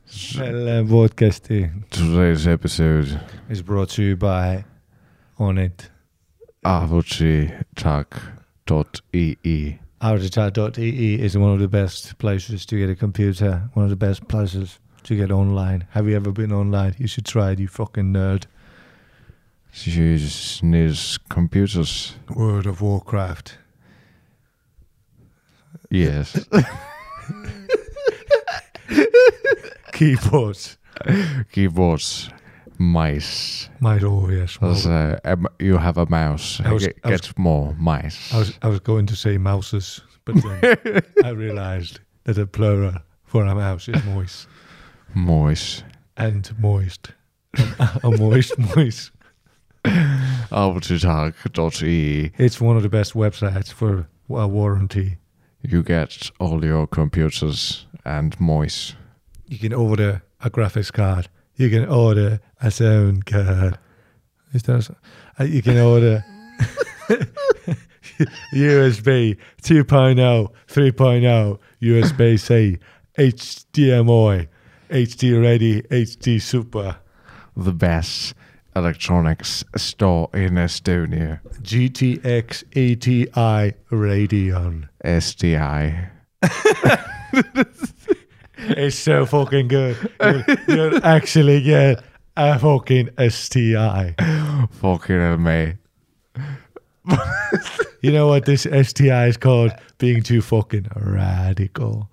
Podcasty. Today's episode is brought to you by Onit. Avochitalk.ee. Avochitalk.ee is one of the best places to get a computer. One of the best places to get online. Have you ever been online? You should try it, you fucking nerd. Jesus needs computers. World of Warcraft. Yes. Keyboards. Keyboards. Mice. Mice, oh yes. You have a mouse. Get more mice. I was going to say mouses, but then I realized that the plural for a mouse is moist. Moist. And moist. A moist. Avochitalk.ee. It's one of the best websites for a warranty. You get all your computers and moist. You can order a graphics card. You can order a sound card. You can order USB 2.0, 3.0, USB-C, HDMI, HD Ready, HD Super. The best electronics store in Estonia. GTX ATI Radeon. STI. It's so fucking good. You'll actually get a fucking STI. Fucking hell, mate. You know what this STI is called? Being too fucking radical.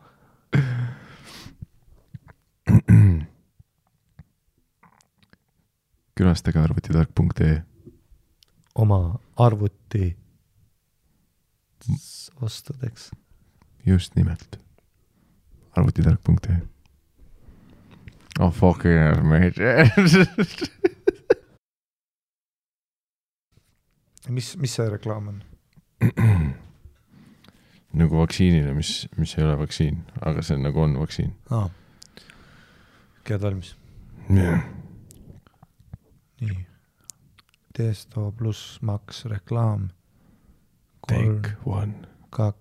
Külastage arvutitark.ee. Oma arvuti ostudeks. Just nimelt. Arvutitark.ee. Oh fucking hell, mate. Mis see reklaam on? Nagu vaktsiinile, mis ei ole vaktsiin, aga see nagu on vaktsiin. Käed valmis? Yeah. Nii. Testo pluss maks reklaam. Take 1. 2,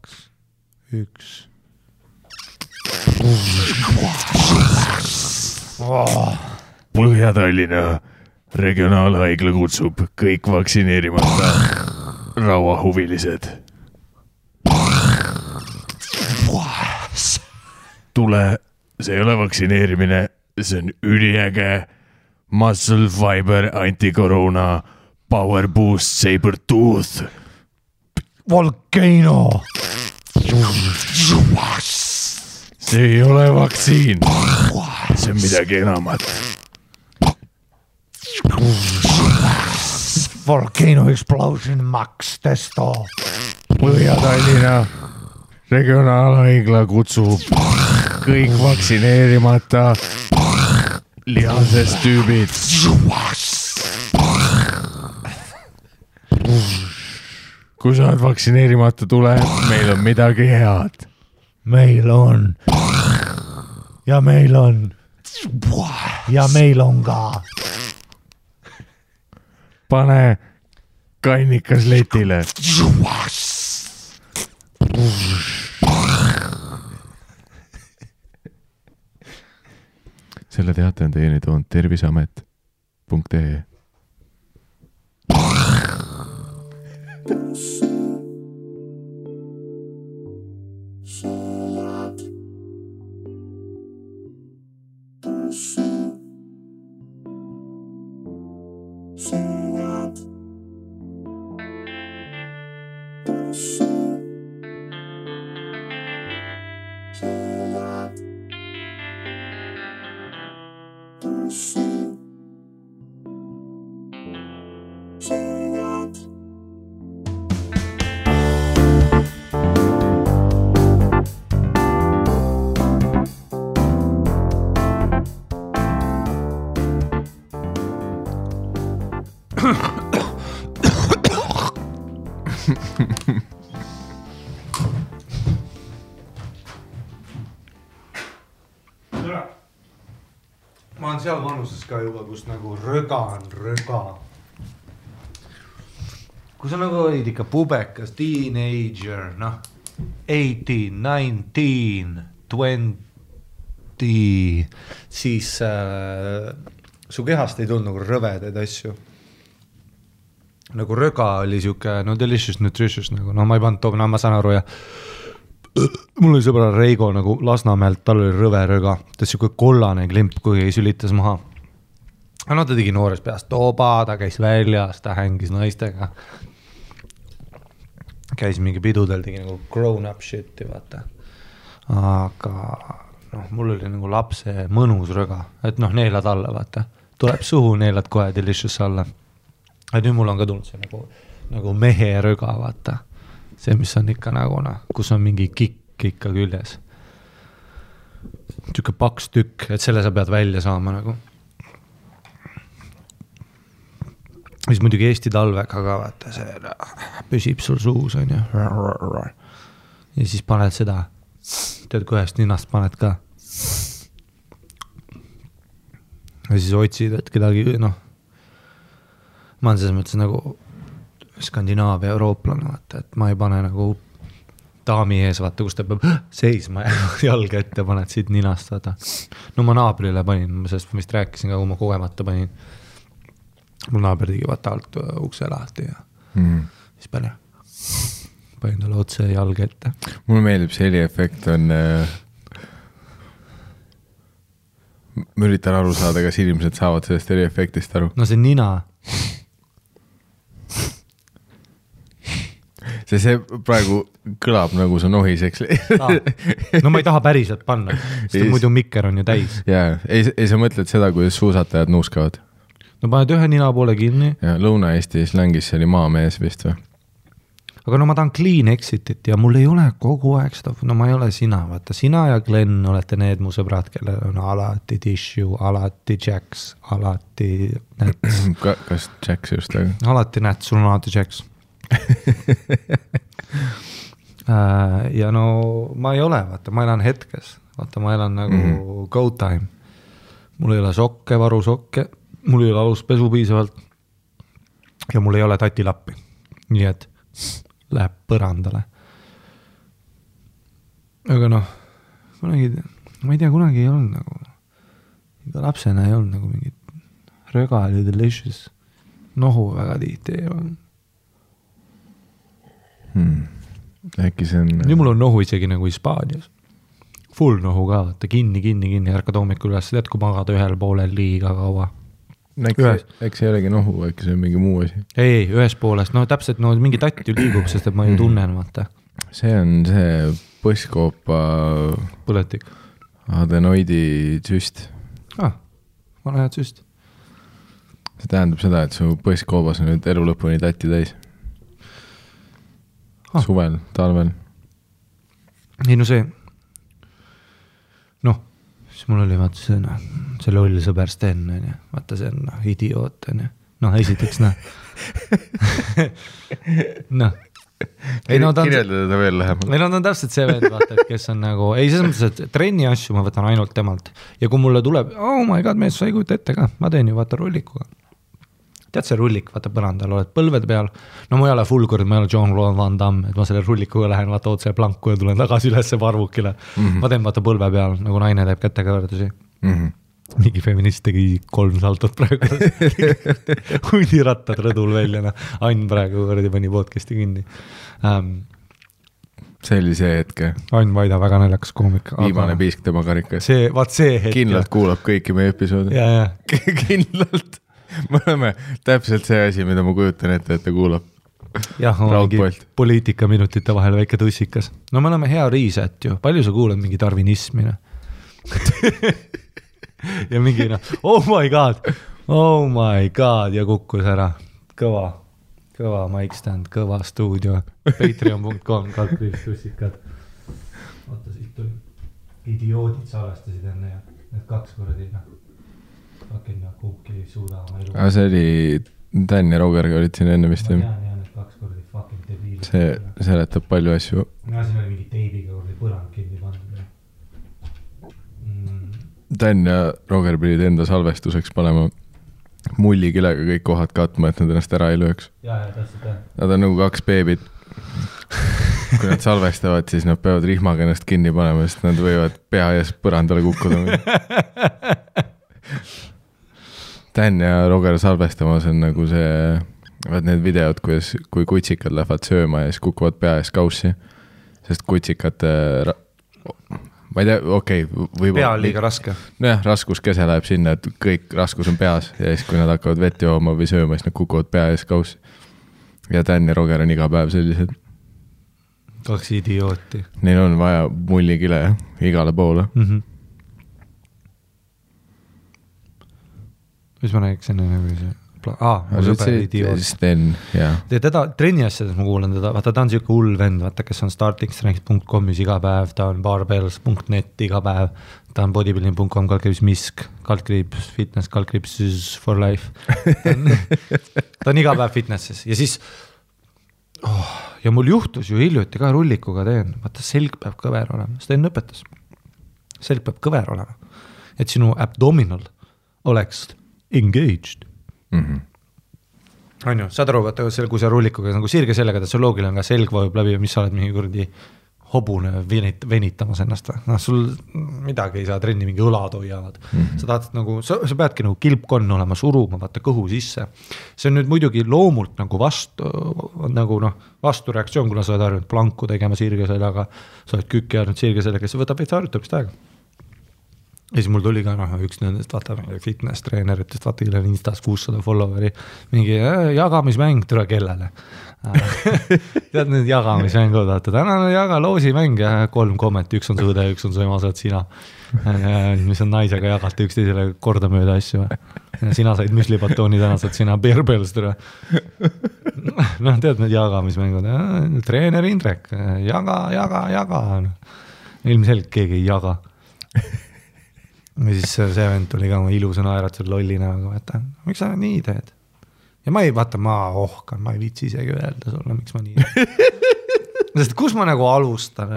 1. Põhja-Tallinna regionaalhaigla kutsub kõik vaktsineerimata rauahuvilised. Tule, see ei ole vaktsineerimine, see on üliäge Muscle Fiber Anti-Corona Power Boost Saber Tooth. Volcano! See ei ole vaktsiin. See on midagi enamat. Volcano Explosion Max Testo. Põhja-Tallinna regionaalhaigla kutsub kõik vaktsineerimata lihasest tüübid. Kui sa oled vaktsineerimata, tule, meil on midagi head. Meil on. Ja meil on. Ja meil on ka. Pane kannikas letile. Selle teate on teieni toonud terviseamet.ee. Ma olen seal vanuses ka juba, kus nagu röga on röga. Kui sa nagu olid ikka pubekas, teenager, noh, 18, 19, 20, siis su kehast ei tulnud nagu rõvedaid asju. Nagu röga oli siuke, no delicious, nutritious nagu, no ma ei pannud tooma, no ma saan aru ja mul oli sõbra Reigo nagu Lasnamäelt, tal oli rõve röga, ta siuke kollane klimp, kui sülitas maha. No ta tegi noores peast toba, ta käis väljas, ta hängis naistega. Käis mingi pidudel, tegi nagu grown up shit'i, vaata. Aga noh, mul oli nagu lapse mõnus röga, et noh, neelad alla, vaata. Tuleb suhu, neelad kohe delicious alla. Et nüüd mul on ka tulnud see nagu mehe röga, vaata. See, mis on ikka nagu, kus on mingi kikk ikka küljes. Tüke paks tükk, et selle sa pead välja saama nagu. Siis muidugi Eesti talvega ka, vaata, see püsib sul suus, on ju. Ja siis paned seda, tead, kui ühest ninast paned ka. Ja siis otsid, et kedagi, noh, ma olen selles mõttes nagu Skandinaavia eurooplane, vaata, et ma ei pane nagu daami ees, vaata, kus ta peab seisma ja jalga ette paned siit ninast, vaata. No ma naabrile panin, sellest ma vist rääkisin ka, kui ma kogemata panin. Mul naaber tegi vaata alt ukse lahti ja siis panin talle otse jalga ette. Mulle meeldib see heliefekt on ma üritan aru saada, kas inimesed saavad sellest heliefektist aru. No see nina. See praegu kõlab nagu sa nohiseks. No ma ei taha päriselt panna, sest muidu mikker on ju täis. Jaa, ei sa mõtled seda, kuidas suusatajad nuuskavad? No paned ühe nina poole kinni. Ja Lõuna-Eesti slängis see oli maamees vist või? Aga no ma tahan clean exitit ja mul ei ole kogu aeg seda, no ma ei ole sina, vaata, sina ja Glenn olete need mu sõbrad, kellel on alati tissue, alati Jacks, alati Nats. Kas Jacks just? Alati Nats, sul on alati Jacks. Ja no ma ei ole, vaata, ma elan hetkes, vaata, ma elan nagu go time. Mul ei ole sokke, varusokke. Mul ei ole aluspesu piisavalt ja mul ei ole tatilappi. Nii et läheb põrandale. Aga noh, kunagi, ma ei tea, kunagi ei olnud nagu, iga lapsena ei olnud nagu mingit röga oli delicious. Nohu väga tihti ei olnud. Äkki see on... Nüüd mul on nohu isegi nagu Hispaanias. Full nohu ka, vaata, kinni, ärkad hommikul üles, tead, kui magada ühel poolel liiga kaua. Eks ei olegi nohu, äkki see on mingi muu asi. Ei, ühes poolest, no täpselt no, mingi tatt ju liigub, sest et ma ju tunnen, vaata. See on see põsskoopa põletik. Adenoidi süst. Vana head süst. See tähendab seda, et su põskkoobas on nüüd elu lõpuni tatti täis. Suvel, talvel. Ei no see noh, siis mul oli vaata see loll sõber Sten, vaata see on idioot, noh esiteks noh kirjeldada ta veel lähemalt. Ei no ta on täpselt see vend, vaata, et kes on nagu, ei selles mõttes, et trenni asju ma võtan ainult temalt ja kui mulle tuleb, oh my god, mees, sa ei kujuta ette ka, ma teen ju vaata rullikuga. Tead see rullik, vaata põrandal, oled põlved peal, no ma ei ole full kord, ma ei ole Jean-Claude Van Damme, et ma selle rullikuga lähen, vaata otse planku ja tulen tagasi ülesse parvukile. Ma teen vaata põlve peal, nagu naine teeb kätega võrdusi. Mingi feminist tegi 3 saltot praegu. Huidi rattad rõdul välja, Ain praegu võrdi pani podcasti kinni. See oli see hetk. Ain Vaida, väga naljakas koomik. Viimane piisk tema karikas. See hetk. Kindlalt kuulab kõiki meie episoodi. Ja. Kindlalt. Me oleme täpselt see asi, mida ma kujutan ette, et ta kuulab. Jah, on mingi poliitikaminutite vahel väike tussikas. No me oleme hea riiset ju. Palju sa kuulad mingi darwinismi? Ja mingi oh my god ja kukkus ära. Kõva mic stand, kõva stuudio. Patreon.com, /tussikad. Oota, siit tuli. Idioodid salvestasid enne ja need 2 kordi kumbki ei suuda oma elu. See oli Dan ja Rogerga olid siin enne vist. Ma tean, need 2 kordi fucking debiilid. See seletab palju asju. Ja siin oli mingi teibiga kordi põrand kinni pandud. Dan ja Roger pidid enda salvestuseks panema mullikilega kõik kohad katma, et nad ennast ära ei lööks. Ja, täpselt. Nad on nagu 2 beebid. kui nad salvestavad, siis nad peavad rihmaga ennast kinni panema, sest nad võivad pea ees põrandale kukkuda. Dan ja Roger salvestamas on nagu see, vaat need videod, kui kutsikad lähevad sööma ja siis kukuvad pea ees kaussi, sest kutsikad, ma ei tea, okei. Pea on liiga raske. Nojah, raskuskese läheb sinna, et kõik raskus on peas ja siis, kui nad hakkavad vett jooma või sööma, siis nad kukuvad pea ees kaussi. Ja Dan ja Roger on iga päev sellised. 2 idiooti. Neil on vaja mullikile igale poole. Mis ma räägiks enne nagu see? Mu sõber idioot. Sten, jah. Teda trenni asjades ma kuulen teda, vaata ta on siuke hull vend, vaata kes on startingstrength.comis iga päev, ta on barbells.net iga päev, ta on bodybuilding.com, /misk, /fitness, /for life. Ta on iga päev fitnesses ja siis ja mul juhtus ju hiljuti ka rullikuga teen, vaata selg peab kõver olema, Sten õpetas. Selg peab kõver olema, et sinu abdominal oleks engaged. On ju, saad aru, vaata, kui sa rullikuga nagu sirge sellega, et see loogil on ka selg vajub läbi ja mis sa oled mingi kurdi hobune venitamas ennast. No, sul midagi ei saa trenni, mingi õlad hoiavad. Sa tahad nagu, sa peadki nagu kilpkonn olema suruma, vaata kõhu sisse. See on nüüd muidugi loomult nagu vastureaktsioon, kuna sa oled harjunud planku tegema sirge sellega, sa oled kükki harjunud sirge sellega, see võtab veits harjutamist aega. Ja siis mul tuli ka üks nendest vaata fitness treeneritest, vaata kellel Instas 600 followeri, mingi jagamismäng tule kellele. Tead need jagamismängud, vaata tänane jaga loosimäng ja 3 komment, üks on sõõde, üks on su ema, saad sina. Mis on naisega jagata üksteisele korda mööda asju. Sina said müslibatooni, täna saad sina bearbells tule. No tead need jagamismängud, treener Indrek, jaga. Ilmselgelt keegi ei jaga. Ja siis see vend tuli ka ilusa naeratud lollina, aga miks sa nii teed? Ja ma ohkan, ma ei viitsi isegi öelda sulle, miks ma nii Sest kus ma nagu alustan?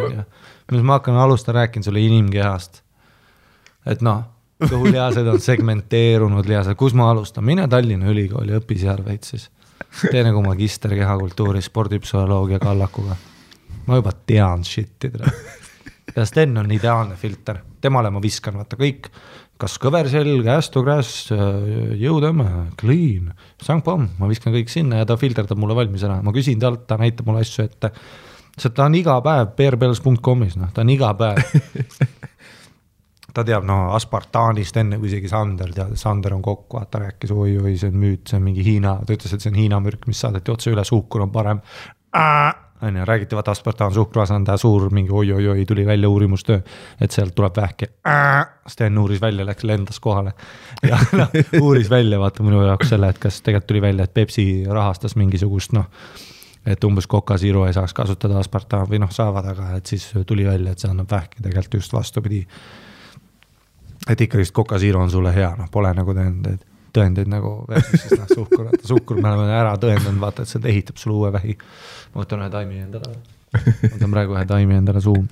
Mis ma hakkan rääkin sulle inimkehast. Et kõhulihased on segmenteerunud lihased. Kus ma alustan? Mine Tallinna Ülikooli, õpi seal veits siis. Tee nagu magister kehakultuuri, spordipsühholoogia kallakuga. Ma juba tean shit'i. Ja Sten on ideaalne filter. Temale ma viskan, vaata kõik, kas kõverselg, ästugräs, jõudõmme, clean, sangpomm, ma viskan kõik sinna ja ta filterdab mulle valmis ära. Ma küsin talt, ta näitab mulle asju ette. Sest ta on iga päev bearbells.comis, ta on iga päev. Ta teab aspartaanist enne kui isegi Sander tead, Sander on kokku, ta rääkis, oi, see on müüt, see on mingi Hiina, ta ütles, et see on Hiina mürk, mis saadeti otse üle, suhkur on parem. Räägiti, vaata aspartaan suhkruvasanda suur mingi oi, tuli välja uurimustöö, et sealt tuleb vähki. Sten uuris välja, läks lendas kohale ja uuris välja, vaata minu jaoks selle, et kas tegelikult tuli välja, et Pepsi rahastas mingisugust, et umbes Coca Zero ei saaks kasutada aspartaan või saavad, aga et siis tuli välja, et see annab vähki tegelikult just vastupidi. Et ikka just Coca Zero on sulle hea, pole nagu tõendeid nagu versus suhkur me oleme ära tõendanud, vaata, et see ehitab sulle uue vähi. Ma võtan ühe taimi endale. Võtan praegu ühe taimi endale suum.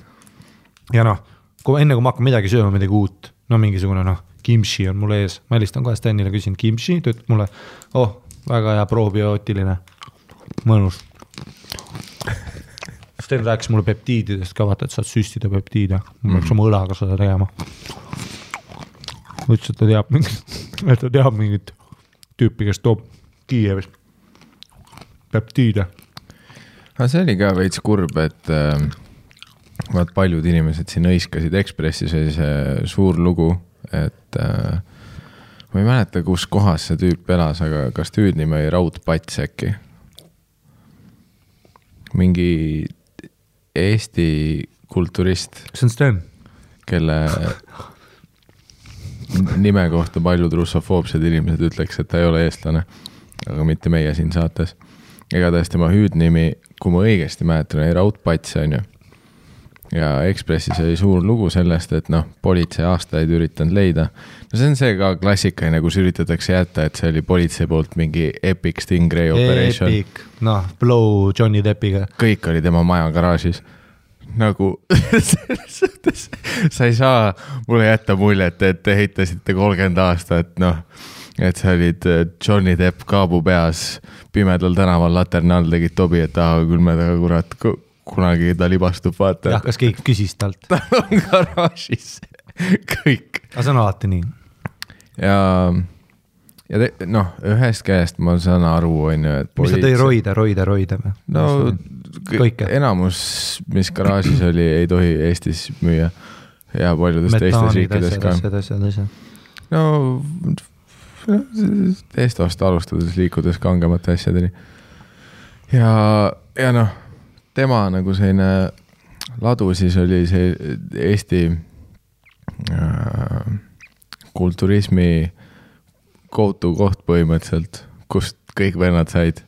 Ja enne kui ma hakkan midagi sööma, midagi uut, mingisugune kimchi on mul ees. Ma helistan kohe Stenile, küsin kimchi, ta ütleb mulle, väga hea probiootiline, mõnus. Sten rääkis mulle peptiididest ka, vaata, et saad süstida peptiide. Ma peaks oma õlaga seda tegema. Ütles, et ta teab mingit tüüpi, kes toob Kiievis peptiide. Aga see oli ka veits kurb, et paljud inimesed siin õiskasid Ekspressis oli see suur lugu, et ma ei mäleta, kus kohas see tüüp elas, aga kas tüüdnimi oli Raudpats äkki? Mingi Eesti kulturist. See on Sten. Kelle nime kohta paljud russofoobsed inimesed ütleks, et ta ei ole eestlane, aga mitte meie siin saates. Ega tõesti tema hüüdnimi, kui ma õigesti mäletan, oli Raudpats, on ju. Ja Ekspressis oli suur lugu sellest, et politsei aastaid üritanud leida. See on see ka klassikaline, kus üritatakse jätta, et see oli politsei poolt mingi epic Stingray operation. Epic, blow Johnny Deppiga. Kõik oli tema maja garaažis. Nagu sa ei saa mulle jätta muljet, et te heitasite 30 aastat, et sa olid Johnny Depp kaabu peas pimedal tänaval laterna all tegid tobi, et küll me taga kurat kunagi ta libastub, vaata. Jah, kas keegi küsis talt? Ta on garaažis kõik. Aga see on alati nii. Ja ühest käest ma saan aru, on ju, et mis sa tõi roida või? No enamus, mis garaažis oli, ei tohi Eestis müüa ja paljudes teistes riikides ka. No Estost alustades liikudes kangemate asjadeni. Ja tema nagu selline ladu siis oli see Eesti kulturismi go-to koht põhimõtteliselt, kust kõik vennad said.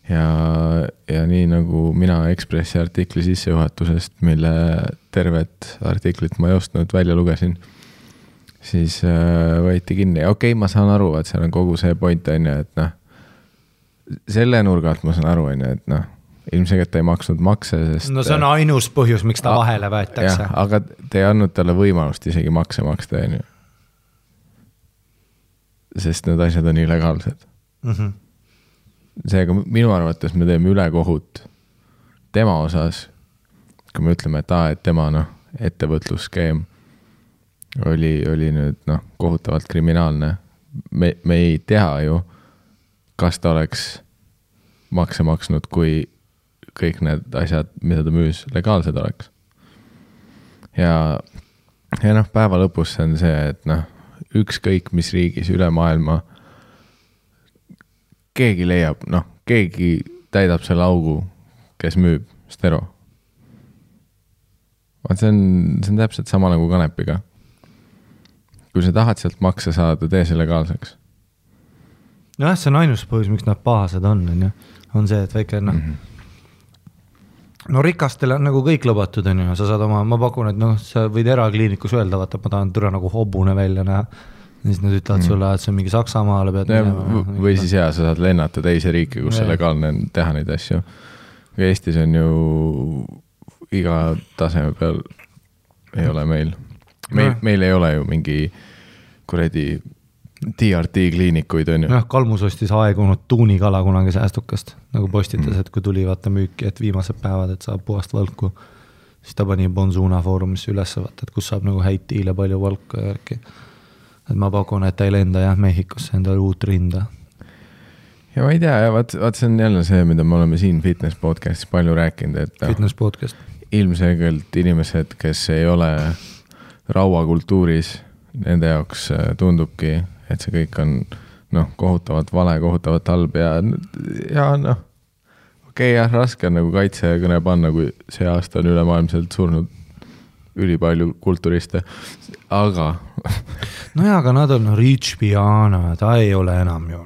Ja nii nagu mina Ekspressi artikli sissejuhatusest, mille tervet artiklit ma ei ostnud, välja lugesin, siis võeti kinni. Okei, ma saan aru, et seal on kogu see point, on ju, et selle nurgalt ma saan aru, on ju, et ilmselt ei maksnud makse, sest... No see on ainus põhjus, miks ta vahele võetakse. Jah, aga te ei andnud talle võimalust isegi makse maksta, on ju. Sest need asjad on illegaalsed. Seega minu arvates me teeme ülekohut tema osas, kui me ütleme, et tema ettevõtlusskeem oli nüüd kohutavalt kriminaalne. Me ei tea ju, kas ta oleks makse maksnud, kui kõik need asjad, mida ta müüs, legaalsed oleks. Ja päeva lõpus see on see, et ükskõik mis riigis üle maailma keegi leiab, keegi täidab selle augu, kes müüb stero. See on täpselt sama nagu kanepiga. Kui sa tahad sealt makse saada, tee see legaalseks. See on ainus põhjus, miks nad pahased on see, et väike rikastele on nagu kõik lubatud, on ju, sa saad ma pakun, et sa võid erakliinikus öelda, vaata, ma tahan türa nagu hobune välja näha, siis nad ütlevad sulle, et see on mingi Saksamaale pead minema. Või siis sa saad lennata teise riiki, kus see legaalne on teha neid asju. Eestis on ju iga taseme peal ei ole meil. Meil ei ole ju mingi kuredi TRT kliinikuid on ju. Kalmus ostis aegunud tuunikala kunagi säästukast, nagu postitas, et kui tuli vaata müüki, et viimased päevad, et saab puhast valku, siis ta pani Bonzuna foorumisse üles vaata, et kus saab nagu häid tiile palju valku ja järgi. Et ma pakun, et ta ei lenda Mehhikosse endale uut rinda. Ja ma ei tea, vaat see on jälle see, mida me oleme siin Fitness podcastis palju rääkinud, et Fitness podcast. Ilmselgelt inimesed, kes ei ole rauakultuuris, nende jaoks tundubki, et see kõik on kohutavalt vale, kohutavalt halb ja okei, raske on nagu kaitsekõne panna, kui see aasta on ülemaailmselt surnud ülipalju kulturiste, aga aga nad on Rich Piana, ta ei ole enam ju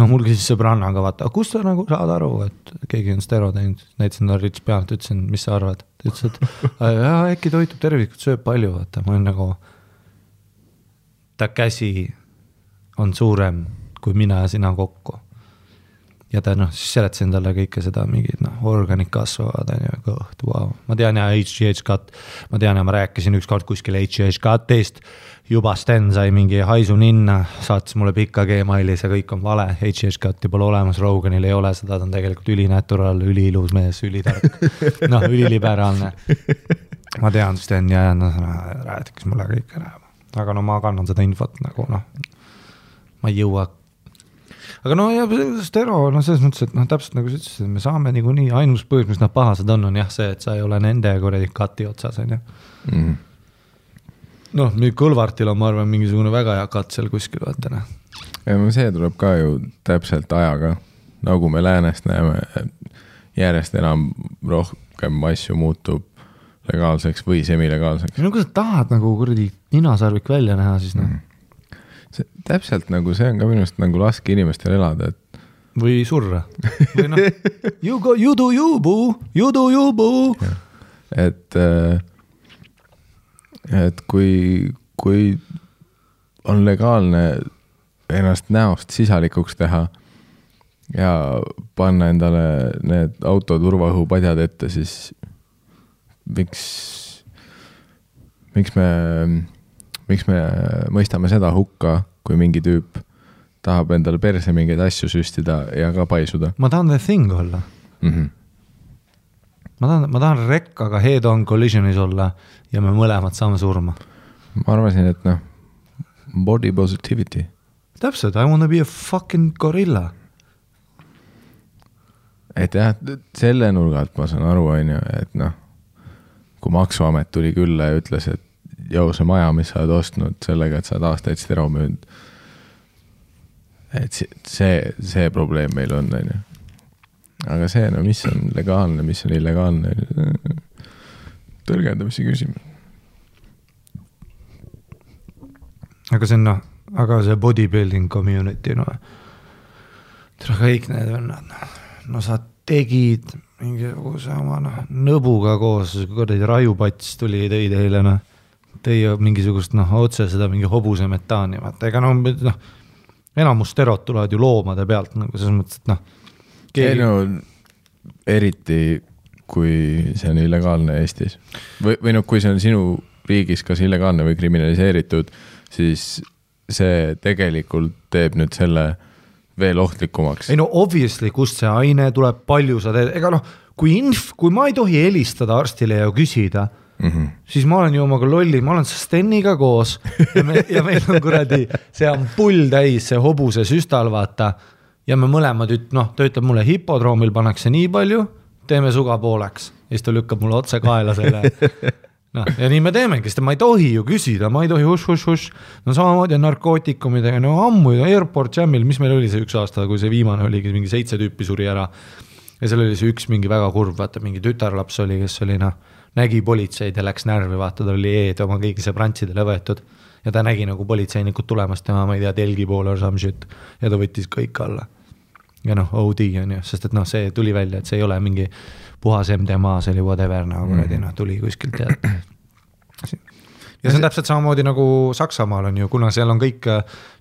mul küsis sõbrannaga, vaata, kus sa nagu saad aru, et keegi on stero teinud, näitasin ta Rich Piana, ütlesin, mis sa arvad? Ta ütles, et äkki toitub tervikut, sööb palju, vaata, ma olen nagu ta käsi on suurem kui mina ja sina kokku. Ja ta siis seletasin talle kõike seda mingid organid kasvavad, kõht, wow. Ma tean ja HGH cut, ma tean ja ma rääkisin ükskord kuskil HGH cutist, juba Sten sai mingi haisu ninna, saatis mulle pika Gmaili, see kõik on vale, HGH cutti pole olemas, Roganil ei ole seda, ta on tegelikult ülinatural, üliilus mees, ülitark, üliliberaalne. Ma tean Sten ja räätikis mulle kõik ära. Aga ma kannan seda infot nagu ma ei jõua. Aga stero, selles mõttes, et täpselt nagu sa ütlesid, me saame nii ainus põhjus, mis nad pahased on jah see, et sa ei ole nende kuradi kati otsas, on ju. Nüüd Kõlvartil on, ma arvan, mingisugune väga hea kat seal kuskil, vaatana. Ja see tuleb ka ju täpselt ajaga, nagu me läänest näeme, järjest enam rohkem asju muutub legaalseks või semilegaalseks. Kui sa tahad nagu kuradi ninasarvik välja näha, siis See, täpselt nagu see on ka minust nagu laske inimestel elada, et või surra. Või you do you, boo. Et kui on legaalne ennast näost sisalikuks teha ja panna endale need autoturvaõhupadjad ette, siis miks me mõistame seda hukka, kui mingi tüüp tahab endale perse mingeid asju süstida ja ka paisuda. Ma tahan the thing olla. Ma tahan rekkaga head-on collisionis olla ja me mõlemad saame surma. Ma arvasin, et body positivity. Täpselt, I wanna be a fucking gorilla. Et jah, selle nurgalt ma saan aru, et kui Maksuamet tuli külla ja ütles, et see maja, mis sa oled ostnud sellega, et sa oled aastaid seda müünud, et see probleem meil on. Aga see, mis on legaalne, mis on illegaalne, tõlgendamise küsimus. Aga see on, aga see bodybuilding community, kõik need vennad, sa tegid mingisuguse oma nõbuga koos, kui rajupats tuli tõi teile, tõi mingisugust otse seda mingi hobuse metaani, vaata, ega enamus sterod tulevad ju loomade pealt, selles mõttes, et eriti kui see on illegaalne Eestis või kui see on sinu riigis kas illegaalne või kriminaliseeritud, siis see tegelikult teeb nüüd selle veel ohtlikumaks. Ei obviously, kust see aine tuleb, palju sa teed, ega kui ma ei tohi helistada arstile ja küsida, siis ma olen ju omaga lolli, ma olen Steniga koos ja meil on kuradi, see on pull täis, see hobuse süstal, vaata, ja me mõlemad, ta ütleb mulle, hipodroomil pannakse nii palju, teeme suga pooleks, ja siis ta lükkab mulle otse kaela selle. Ja nii me teemegi, sest ma ei tohi ju küsida, ma ei tohi huš. Samamoodi narkootikumidega, ammu Airport Jamil, mis meil oli see üks aasta, kui see viimane oligi, mingi 7 tüüpi suri ära. Ja seal oli see üks mingi väga kurv, vaata, mingi tütarlaps oli, kes oli, nägi politseid ja läks närvi, vaata, ta oli oma kõigi sõbrantsidele võetud. Ja ta nägi politseinikud tulemast tema, ma ei tea, telgi poole or some shit. Ja ta võttis kõik alla. Ja OD on ju, sest et see tuli välja, et see ei ole mingi puhas MDMA, see oli whatever, tuli kuskilt ja see on täpselt samamoodi nagu Saksamaal on ju, kuna seal on kõik,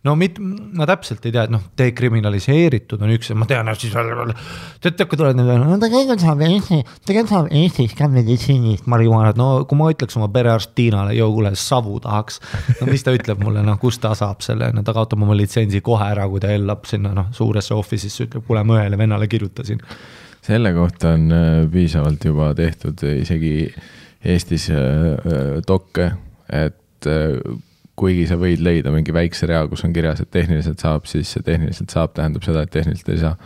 ma täpselt ei tea, et dekriminaliseeritud on üks, ma tean, siis kui tuled tegelikult saab Eestis ka meditsiinist marihuanat, kui ma ütleks oma perearst Tiinale, kuule, savu tahaks, mis ta ütleb mulle, kus ta saab selle, ta kaotab oma litsentsi kohe ära, kui ta ellab sinna suuresse office'isse, ütleb, kuule, ma ühele vennale kirjutasin. Selle kohta on piisavalt juba tehtud isegi Eestis dokke, et kuigi sa võid leida mingi väikse rea, kus on kirjas, et tehniliselt saab, siis see tehniliselt saab, tähendab seda, et tehniliselt ei saa.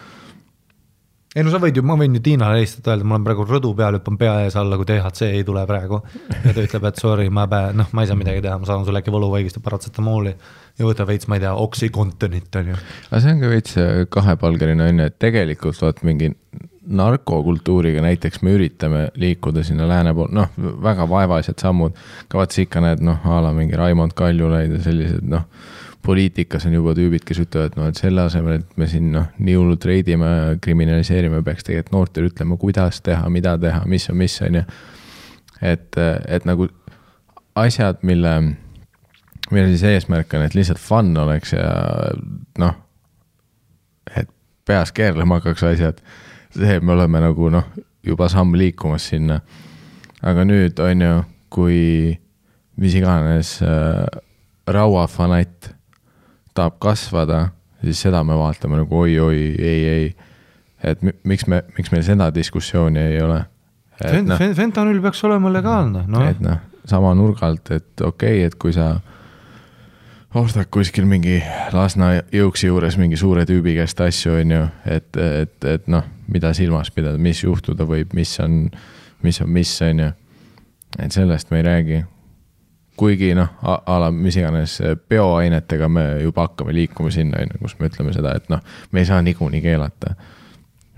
Ei sa võid ju, ma võin ju Tiinale helistada öelda, ma olen praegu rõdu peal, hüppan pea ees alla, kui THC ei tule praegu. Ja ta ütleb, et sorry, ma ei saa midagi teha, ma saan sulle äkki võluvaigist ja paratsetamooli ja võta veits, ma ei tea, oxycontinit on ju. Aga see on ka veits kahepalgeline on, et tegelikult vaat mingi narkokultuuriga näiteks me üritame liikuda sinna lääne pool, väga vaevaised sammud, ka vaat ikka need, ala mingi Raimond Kaljulaid ja sellised, poliitikas on juba tüübid, kes ütlevad, et selle asemel, et me siin nii hullult reidime ja kriminaliseerime, peaks tegelikult noortele ütlema, kuidas teha, mida teha, mis on ja et nagu asjad, mille siis eesmärk on, et lihtsalt fun oleks ja et peas keerlema hakkaks asjad, see me oleme nagu juba samm liikumas sinna. Aga nüüd on ju, kui mis iganes rauafanatt tahab kasvada, siis seda me vaatame nagu oi, ei. Et miks meil seda diskussiooni ei ole? Fentanül peaks olema legaalne. Et sama nurgalt, et okei, et kui sa ostad kuskil mingi Lasna jõuksi juures mingi suure tüübi käest asju, on ju, et mida silmas pidada, mis juhtuda võib, mis on, on ju. Et sellest me ei räägi. Kuigi ala mis iganes bioainetega me juba hakkame liikuma sinna, kus me ütleme seda, et me ei saa niikuinii keelata.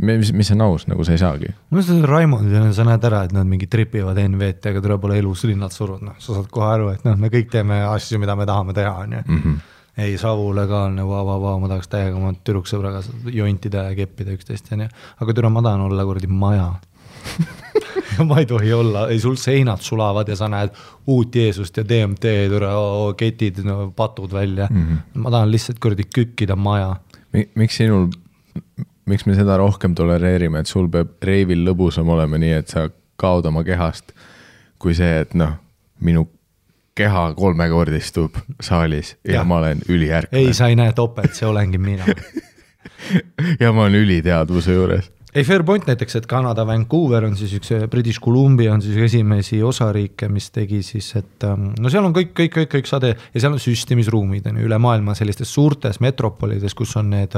Mis on aus, nagu sa ei saagi. Ma mõtlen, et Raimond, sa näed ära, et nad mingi tripivad NVT, aga tuleb ole elus linnad surud. Sa saad kohe aru, et me kõik teeme asju, mida me tahame teha. On ju. Ei, savu legaalne, ma tahaks täiega oma türuksõbraga jointida ja keppida üksteist. Aga türa ma tahan olla kuradi maja. Ma ei tohi olla, ei sul seinad sulavad ja sa näed uut Jeesust ja DMT, ketid, patud välja. Ma tahan lihtsalt kuradi kükkida maja. Miks me seda rohkem tolereerime, et sul peab reivil lõbusam olema nii, et sa kaod oma kehast, kui see, et minu keha 3-kordistub saalis ja ma olen üliärkne. ei, sa ei näe topelt, see olengi mina. ja ma olen üliteadvuse juures. ei, fair point näiteks, et Kanada Vancouver on siis üks British Columbia on siis esimesi osariike, mis tegi siis, et no seal on kõik sade ja seal on süstimisruumid on üle maailma sellistes suurtes metropolides, kus on need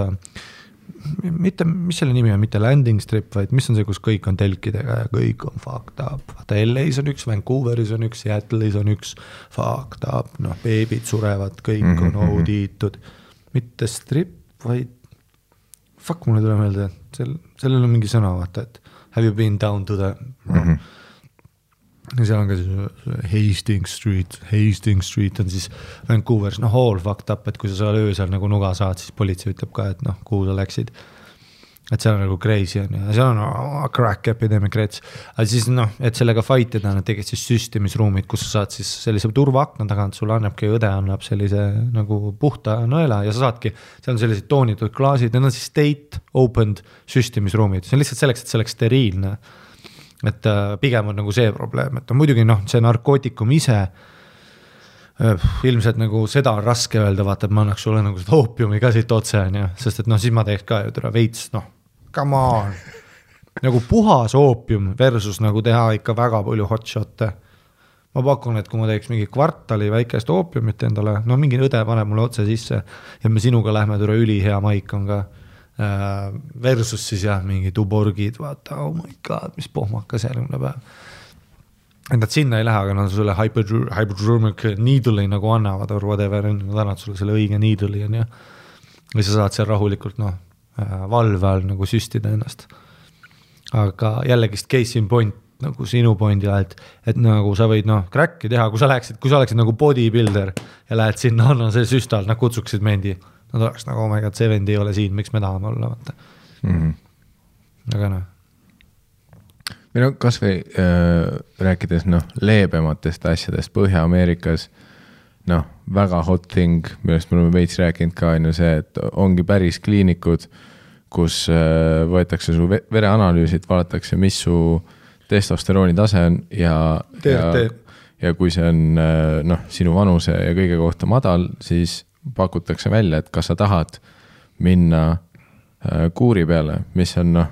mitte, mis selle nimi on, mitte landing strip, vaid mis on see, kus kõik on telkidega ja kõik on fucked up. Vaata, LA's on üks, Vancouveris on üks, Seattle'is on üks fucked up, noh, beebid surevad, kõik on audiitud. Mitte strip, vaid fuck, mulle tule meelde, et sellel on mingi sõna, vaata, et have you been down to the ja seal on ka siis Hastings Street on siis Vancouveris, noh, all fucked up, et kui sa seal öösel nagu nuga saad, siis politsei ütleb ka, et noh, kuhu sa läksid. Et seal on nagu crazy on ja seal on crack epidemic rates. Aga siis noh, et sellega fightida nad tegid siis süstimisruumid, kus sa saad siis sellise turvaakna tagant, sulle annabki õde, annab sellise nagu puhta nõela ja sa saadki, seal on sellised toonitud klaasid, need on siis state opened süstimisruumid. See on lihtsalt selleks, et see oleks steriilne. Et pigem on nagu see probleem, et muidugi noh, see narkootikum ise ilmselt nagu seda on raske öelda, vaata, et ma annaks sulle nagu seda oopiumi ka siit otse, sest et noh, siis ma teeks ka ju tule veits, noh, come on, nagu puhas oopium versus nagu teha ikka väga palju hotshot'e. Ma pakun, et kui ma teeks mingi kvartali väikest oopiumit endale, no mingi õde paneb mulle otse sisse ja me sinuga lähme tule ülihea maik on ka versus siis jah, mingi tuborgid, vaata, oh my god, mis pohmakas järgmine päev. Et nad sinna ei lähe, aga nad sulle hypodermic needle'i nagu annavad or whatever, nad annavad sulle selle õige needle'i ja sa saad seal rahulikult noh, valve all nagu süstida ennast. Aga jällegist case in point nagu sinu pointila, et nagu sa võid noh, cracki teha, kui sa oleksid nagu bodybuilder ja lähed sinna, anna see süstal, nad kutsuksid mendi. Nad oleks nagu, oh my god, 70 ei ole siin, miks me tahame olla, vaata. Aga noh. Või no kas või rääkides noh, leebematest asjadest Põhja-Ameerikas, noh, väga hot thing, millest me oleme veits rääkinud ka, on ju see, et ongi päris kliinikud, kus võetakse su vereanalüüsid, vaadatakse, mis su testosterooni tase on ja kui see on noh, sinu vanuse ja kõige kohta madal, siis pakutakse välja, et kas sa tahad minna kuuri peale, mis on noh,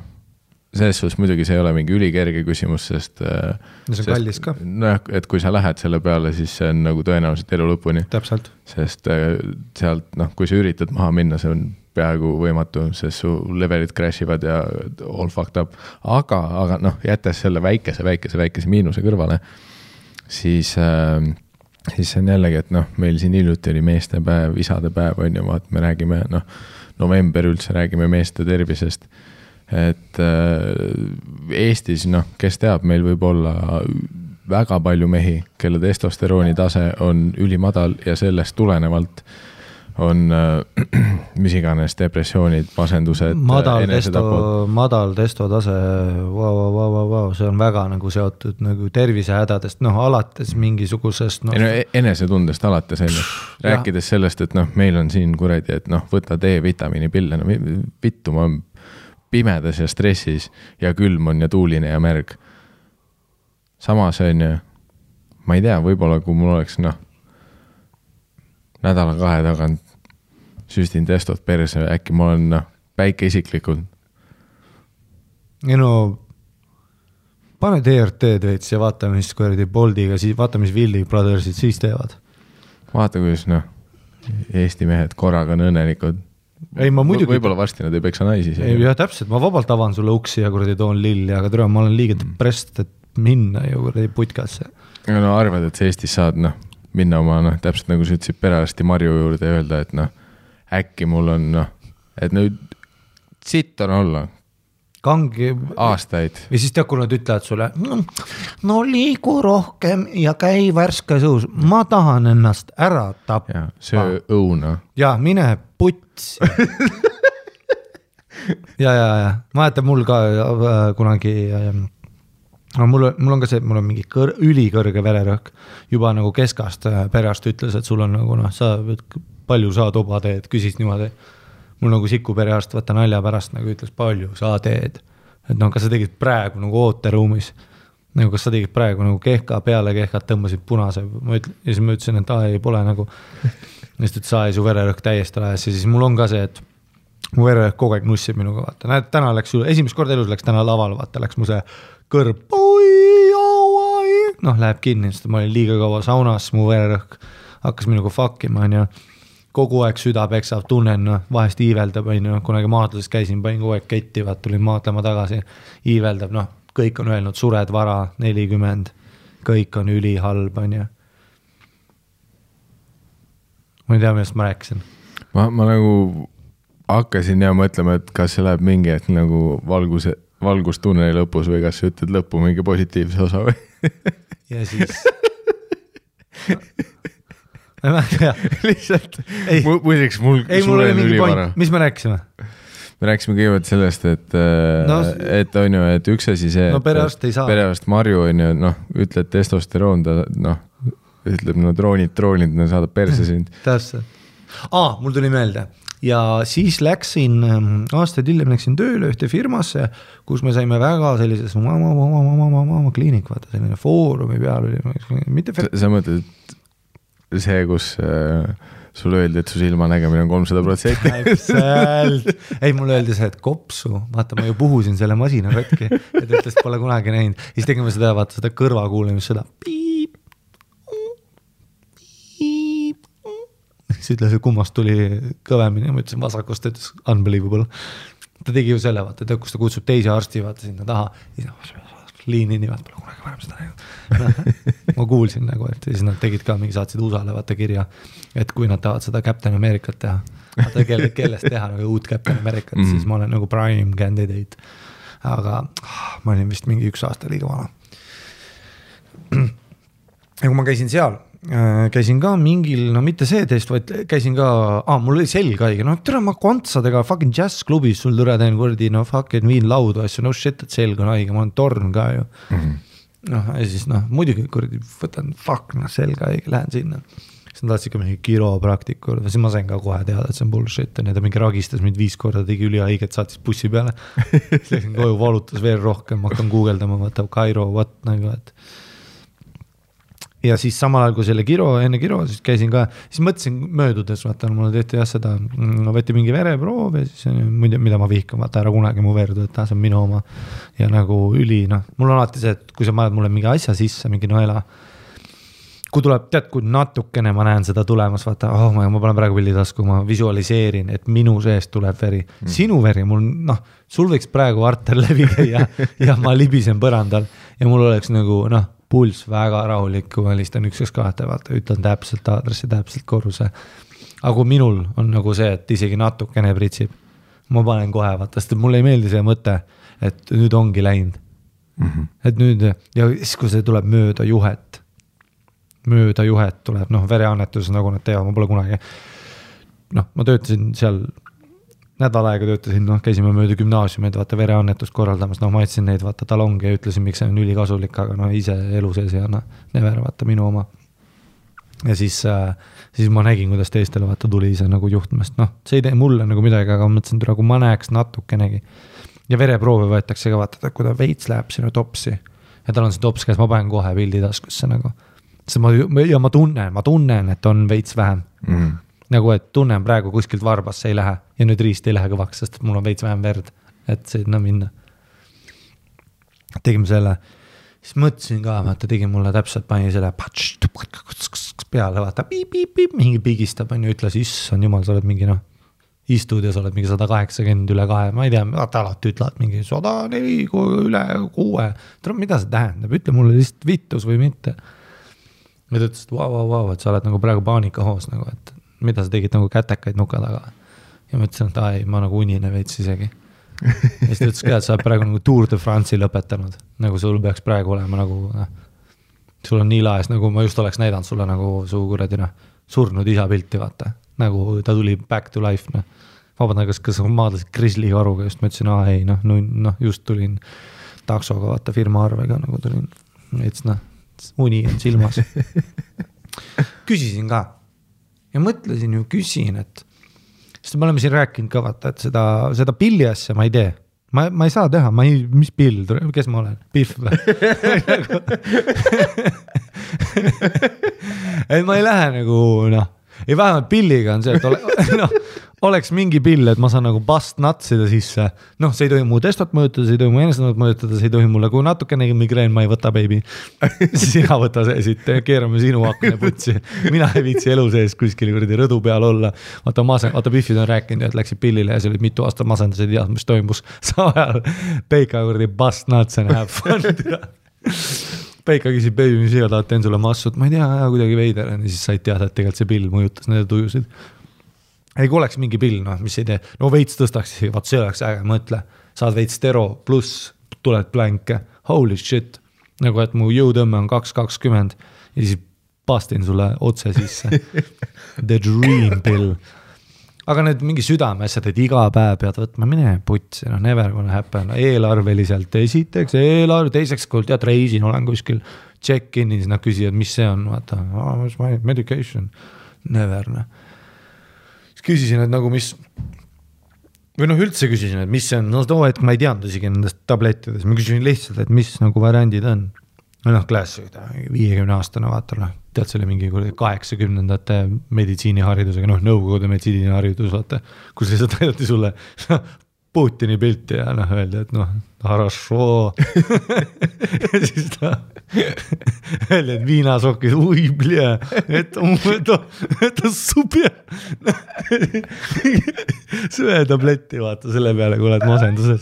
selles suhtes muidugi see ei ole mingi ülikerge küsimus, sest see on kallis ka. Noh, et kui sa lähed selle peale, siis see on nagu tõenäoliselt elu lõpuni. Täpselt. Sest sealt, noh, kui sa üritad maha minna, see on peaaegu võimatu, sest su levelid crashivad ja all fucked up. Aga noh, jättes selle väikese miinuse kõrvale, siis see on jällegi, et noh, meil siin hiljuti oli meestepäev, isadepäev on ju, vaat me räägime, noh, november üldse räägime meeste tervisest, et Eestis, noh, kes teab, meil võib olla väga palju mehi, kelle testosterooni tase on ülimadal ja sellest tulenevalt on mis iganes depressioonid, masendused, madal testotase, see on väga nagu seotud nagu tervisehädadest, noh, alates mingisugusest no, enesetundest alates rääkides sellest, et noh, meil on siin kuradi, et noh, võta D-vitamiini pille, no vittu, ma olen pimedas ja stressis ja külm on ja tuuline ja märg. Samas on ju, ma ei tea, võib-olla kui mul oleks noh, nädala 2 tagant süstin testot perse, äkki ma olen noh, päike isiklikult. Ja no, pane DRT-d veits ja vaata, mis kuradi Boldiga, vaata, mis Willy Brothersid siis teevad. Vaata, kuidas noh, Eesti mehed korraga on õnnelikud. Ei, ma muidugi... Võib-olla varsti nad ei peksa naisi. Ei, jah, täpselt, ma vabalt avan sulle uksi ja kuradi toon lilli, aga tere, ma olen liiga depressed, et minna ju kuradi putkasse. Aga no arvad, et Eestis saad noh, minna oma, noh, täpselt nagu sa ütlesid perearsti Marju juurde ja öelda, et noh, äkki mul on, noh, et nüüd sitt on olla. Kangi... Aastaid. Ja siis tead, kui nad ütlevad sulle, no liigu rohkem ja käi värske suus. Ma tahan ennast ära tappa. Ja, söö õuna. Ja, mine puts. ja. Ma jätan mul ka kunagi... No, mul on ka see, mul on mingi ülikõrge vererõhk. Juba nagu keskast perearst ütles, et sul on nagu, noh, sa palju sa toba teed, küsis niimoodi. Mul nagu siku perearst võtta nalja pärast nagu ütles, palju sa teed. Et noh, kas sa tegid praegu nagu ooteruumis. nagu kas sa tegid praegu nagu kehka peale kehkat tõmbasid punase, ja siis ma ütlesin, et ei pole nagu, ja siis ta ütles, su vererõhk täiesti lajas ja siis mul on ka see, et mu vererõhk kogu aeg nussib minuga, vaata, näed, täna läks, esimest korda elus läks täna laval, vaata, läks mu see kõrb, noh, läheb kinni, sest ma olin liiga kaua saunas, mu vererõhk hakkas minuga fuckima, on ju, kogu aeg süda peksab, tunnen, vahest iiveldab, on ju, kunagi maadluses käisin, panin kogu aeg ketti, vaat tulin maadlema tagasi, iiveldab, noh, kõik on öelnud, sured vara, 40, kõik on ülihalb, on ju. Ma ei tea, millest ma rääkisin. Ma nagu hakkasin ja mõtlema, et kas see läheb mingi hetk nagu valgustunneli lõpus või kas sa ütled lõppu mingi positiivse osa või? Ja siis... lihtsalt, muideks mul suren ülivara. Mis me rääkisime? Me rääkisime kõigepealt sellest, et on ju, et üks asi see, perearst Marju on ju, noh, ütled testosteroon, ta noh, ütleb, no troonid, saadab perse sind. Täpselt. Mul tuli meelde ja siis läksin, aastaid hiljem läksin tööle ühte firmasse, kus me saime väga sellises kliinik, vaata selline foorumi peal oli. Sa mõtled, see, kus sulle öeldi, et su silma nägemine on 300%. Täpselt. Ei, mulle öeldi see, et kopsu, vaata, ma ju puhusin selle masina katki, et ütles, pole kunagi näinud. Siis tegime seda, vaata, seda kõrvakuulemist, seda piip, piip. Siis ütles, et kummast tuli kõvemini, ma ütlesin vasakust, ütles unbelievable. Ta tegi ju selle, vaata, kus ta kutsub teisi arsti, vaata sinna taha. Liini nii, vaata, pole kunagi varem seda näinud. Ma kuulsin nagu, et siis nad tegid ka mingi, saatsid USA-le vaata kirja, et kui nad tahavad seda Captain Americat teha, vaata kellest teha nagu uut Captain Americat, siis ma olen nagu prime candidate. Aga ma olin vist mingi 1 aasta liiga vana. Ja kui ma käisin seal, käisin ka mingil, no mitte see test, vaid käisin ka, mul oli selg haige, no tere ma kontsadega fucking jazzklubis sul türa teen kordi, no fucking viin laudu asju, no shit, et selg on haige, ma olen torn ka ju. Noh, ja siis muidugi kordi võtan, selg haige, lähen sinna. Siis nad tahtsid ka mingi kiropraktikur, siis ma sain ka kohe teada, et see on bullshit, ja ta mingi ragistas mind 5 korda, tegi ülihaiget, saatis bussi peale. Siis läksin koju, valutas veel rohkem, ma hakkan guugeldama, vaata Cairo, nagu, et ja siis samal ajal kui selle enne kiro, siis käisin ka, siis mõtlesin möödudes, vaata, mulle tehti seda, võeti mingi vereproov ja siis mida ma vihkan, vaata, ära kunagi mu verdu, et see on minu oma ja nagu mul on alati see, et kui sa paned mulle mingi asja sisse, mingi noela, kui tuleb, tead, kui natukene ma näen seda tulemas, vaata, ma panen praegu pillitasku, ma visualiseerin, et minu seest tuleb veri, sinu veri, mul, sul võiks praegu arter läbi käia ja ma libisen põrandal ja mul oleks nagu, pulss väga rahulik, kui ma listan 1-2, vaata, ütlen täpselt aadressi, täpselt korruse. Aga kui minul on nagu see, et isegi natukene pritsib, ma panen kohe, vaata, sest mul ei meeldi see mõte, et nüüd ongi läinud. Et nüüd, ja siis kui see tuleb mööda juhet tuleb, vereannetus, nagu nad teevad, ma pole kunagi, ma töötasin seal nädal aega töötasin, käisime mööda gümnaasiumid, vaata vereannetust korraldamas, ma jätsin neid, vaata talongi ja ütlesin, miks see on ülikasulik, aga ise elu sees ja never, vaata minu oma. Ja siis ma nägin, kuidas teistele vaata tuli ise nagu juhtmest, see ei tee mulle nagu midagi, aga mõtlesin, kui ma näeks natukenegi. Ja vereproove võetakse ka vaata, kui ta veits läheb sinu topsi ja tal on see tops käes, ma panen kohe pildi taskusse nagu. Ja ma tunnen, et on veits vähem. Nagu, et tunnen praegu kuskilt varbasse ei lähe ja nüüd riist ei lähe kõvaks, sest mul on veits vähem verd, et sinna minna. Tegime selle, siis mõtlesin ka, vaata, tegin mulle täpselt, pani selle peale, vaata, mingi pigistab, ütles, issand jumal, sa oled mingi, istud ja sa oled mingi 180 üle 2, ma ei tea, vaata alati ütlevad mingi 104 üle 6, mida see tähendab, ütle mulle lihtsalt vittus või mitte. Ja ta ütles, et vau, et sa oled nagu praegu paanikahoos, nagu, et mida sa tegid nagu kätekaid nuka taga. Ja ma ütlesin, et ma nagu unine veits isegi. Ja siis ta ütles ka, et sa oled praegu nagu Tour de France'i lõpetanud. Nagu sul peaks praegu olema nagu, sul on nii laes, nagu ma just oleks näidanud sulle nagu su kuradina surnud isa pilti, vaata. Nagu ta tuli back to life. Vabandan, kas maadlasid Grizzly karuga, just ma ütlesin, just tulin taksoga, vaata firma arvega, nagu tulin. Et uni on silmas. Küsisin ka. Ja mõtlesin ju, küsin, et sest me oleme siin rääkinud ka vaata, et seda pilli asja ma ei tee. ma ei saa teha, mis pill, kes ma olen, Pihv või? et ma ei lähe nagu ei vähemalt pilliga on see, et oleks mingi pill, et ma saan nagu bust natsida sisse, see ei tohi mu testot mõjutada, see ei tohi mu enestenot mõjutada, see ei tohi mulle, kui natukenegi migreen, ma ei võta, baby. Sina võta see siit, keerame sinu akne putsi. Mina ei viitsi elu sees kuskil kuradi rõdu peal olla. Vaata Pihvid on rääkinud, et läksid pillile ja see oli mitu aastat masendas, ei tead, mis toimus. Saajal Peika kuradi bust nuts and have fun. Peika küsib, baby, mis iga tahad, teen sulle massut, ma ei tea, kuidagi veider, ja siis said teada, et tegelikult see pill mõjutas nende tujusid. Ei, kui oleks mingi pill, mis ei tee, veits tõstaks, vaat see oleks äge, mõtle, saad veits stero pluss, tuled plänke, holy shit, nagu et mu jõutõmme on 2.20 ja siis pastin sulle otse sisse. The dream pill. Aga need mingi südameasjad, et iga päev pead võtma, mine putsi, never gonna happen, eelarveliselt esiteks, teiseks, kui tead, reisin, olen kuskil check-in'is, nad küsivad, mis see on, vaata, what's my medication, never, Siis küsisin, et nagu mis, või üldse küsisin, et mis see on, too hetk ma ei teadnud isegi nendest tablettides, ma küsisin lihtsalt, et mis nagu variandid on. Klaas 50 aastane vaata, tead selle mingi 80-ndate meditsiiniharidusega, nõukogude meditsiiniharidus, vaata, kus lihtsalt aidati sulle Putini pilti ja öeldi, et хорошо. Ja siis ta öeldi, et viinasokid, ui, bля, это super. Söö tabletti, vaata, selle peale, kui oled masenduses,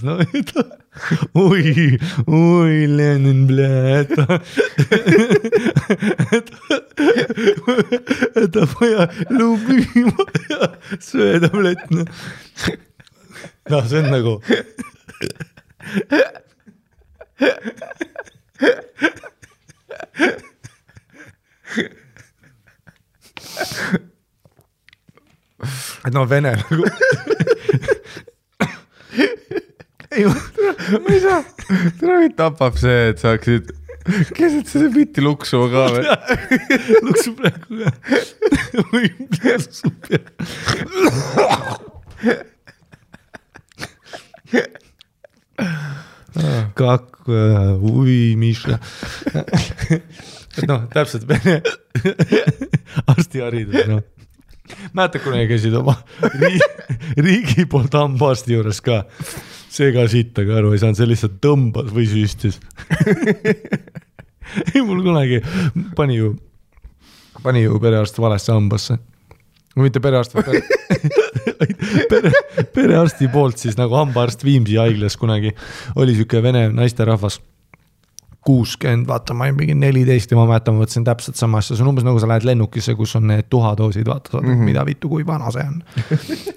ui, Lenin, bля, это моя любимая söö tablett, see on nagu et vene nagu ma ei saa, täna mind tapab see, et saaksid keset seda bitti luksuma ka või? Luksu praegu ka või super Kak, ui, Miša. Täpselt vene arstiharidus. Mäeta, kunagi käisid oma riigi poolt hambaarsti juures ka. See ka sitta ka aru ei saanud, see lihtsalt tõmbas või süstis. Ei, mul kunagi pani ju perearst valesse hambasse. Mitte perearst, perearsti poolt siis nagu hambaarst Viimsi haiglas kunagi oli siuke vene naisterahvas 60, vaata, ma ei mingi 14 ja ma mäletan, ma võtsin täpselt sama asja, see on umbes nagu sa lähed lennukisse, kus on need tuhadoosid, vaata, mida vittu, kui vana see on.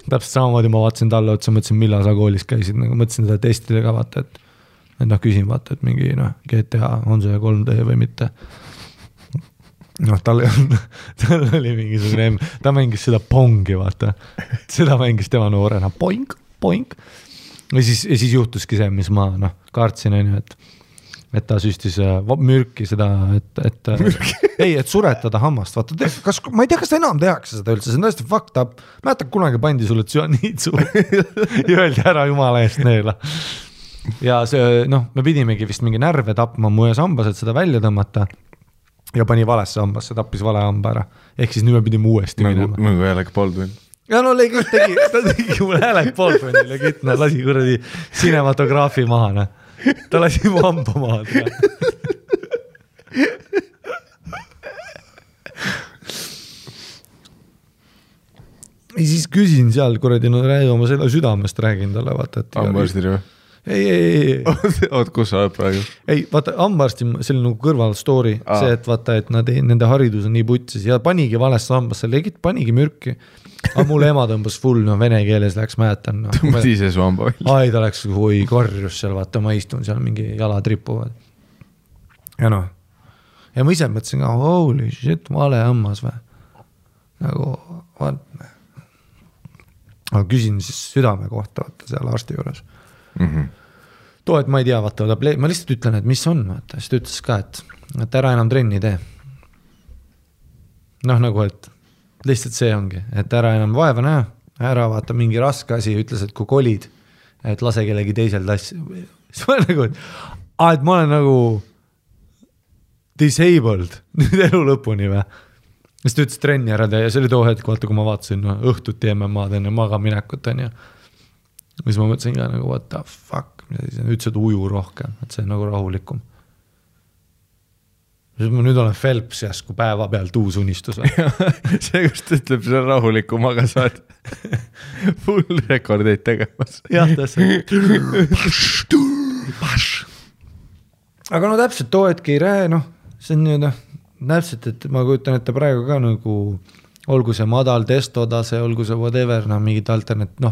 Täpselt samamoodi ma vaatasin talle otsa, mõtlesin, millal sa koolis käisid, nagu mõtlesin seda testidega, vaata, et küsin, vaata, et mingi GTA on see 3D või mitte. Tal oli mingisugune, ta mängis seda pongi, vaata, seda mängis tema noorena, poink. Ja siis juhtuski see, mis ma kaartsin, et ta süstis mürki seda, et suretada hammast, vaata, ma ei tea, kas ta enam tehakse seda üldse, see on tõesti fucked up, mäletab kunagi pandi sulle tsüaniitsu ja öeldi ära jumala eest neela. Ja see, me pidimegi vist mingi närve tapma mu ees hambas, et seda välja tõmmata ja pani valesse hambasse, tappis vale hamba ära. Ehk siis nüüd me pidime uuesti minema. Nagu Alec Baldwin. Ja ta tegi mul Alec Baldwinil ja kitna, lasi kuradi cinematograafi maha, ta lasi mu hamba maha. Ja siis küsin seal kuradi, räägi oma selle südamest, räägin talle, vaata. Hambaarstile või? Ei. Oot, kus sa oled praegu? Ei, vaata, hambaarsti, see oli nagu kõrval story, see, et vaata, et nende haridus on nii putsis ja panigi valesse hambasse, panigi mürki. Aga mul ema tõmbas full, vene keeles läks, mäletan. Tõmbas ise su hamba välja. Ai, ta läks karjus seal, vaata, ma istun seal, mingi jalad ripuvad. Ja ja ma ise mõtlesin ka, holy shit, vale hammas või. Nagu, vaata. Aga küsin siis südame kohta, vaata, seal arsti juures. Too, et ma ei tea, vaata, ma lihtsalt ütlen, et mis on, vaata, siis ta ütles ka, et ära enam trenni tee. Nagu, et lihtsalt see ongi, et ära enam vaeva näha, ära vaata mingi raske asi, ütles, et kui kolid, et lase kellegi teisel tassi. siis ma olen nagu, et ma olen nagu disabled nüüd elu lõpuni või. siis ta ütles trenni ära teha ja see oli too hetk, vaata kui ma vaatasin õhtuti MM-ad enne magaminekut on ju. siis ma mõtlesin ka nagu what the fuck, ütles, et uju rohkem, et see on nagu rahulikum. siis ma nüüd olen Phelps jäsku päeva pealt uus unistus. see just ütleb, see on rahulikum, aga sa oled full rekordeid tegemas. jah, täpselt. aga no täpselt too hetk ei rääe, noh, see on nüüd täpselt, et ma kujutan ette praegu ka nagu olgu see madal testotase, olgu see whatever, noh, mingid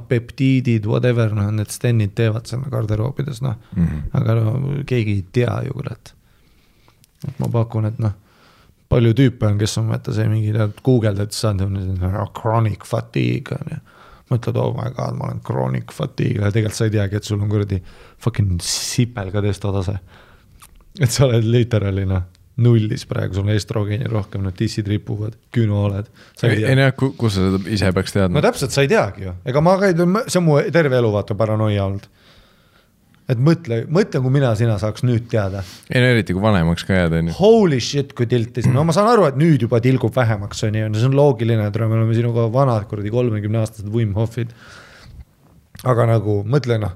peptiidid, whatever, noh, need stennid teevad seal garderoobides, noh, aga no, keegi ei tea ju, kurat. Et ma pakun, et noh, palju tüüpe on, kes on mõtta see mingi Google-d, et saad chronic fatigue on ja mõtled, oh my god, ma olen chronic fatigue ja tegelikult sa ei teagi, et sul on kuradi fucking sipelga testotase. Et sa oled literaalina nullis praegu, sul on estrogeeni rohkem, no tissid ripuvad, küünoled. Ei näe, kus sa seda ise peaks teadma? No täpselt, sa ei teagi ju. Ega ma see on mu terve elu vaata paranoia olnud. Et mõtle, kui sina saaks nüüd teada. Ei no eriti, kui vanemaks ka jääda. Holy shit, kui tiltis. No ma saan aru, et nüüd juba tilgub vähemaks, see on loogiline, et me oleme sinuga vanad kuradi 30-aastased Wim Hofid. Aga nagu, mõtle noh,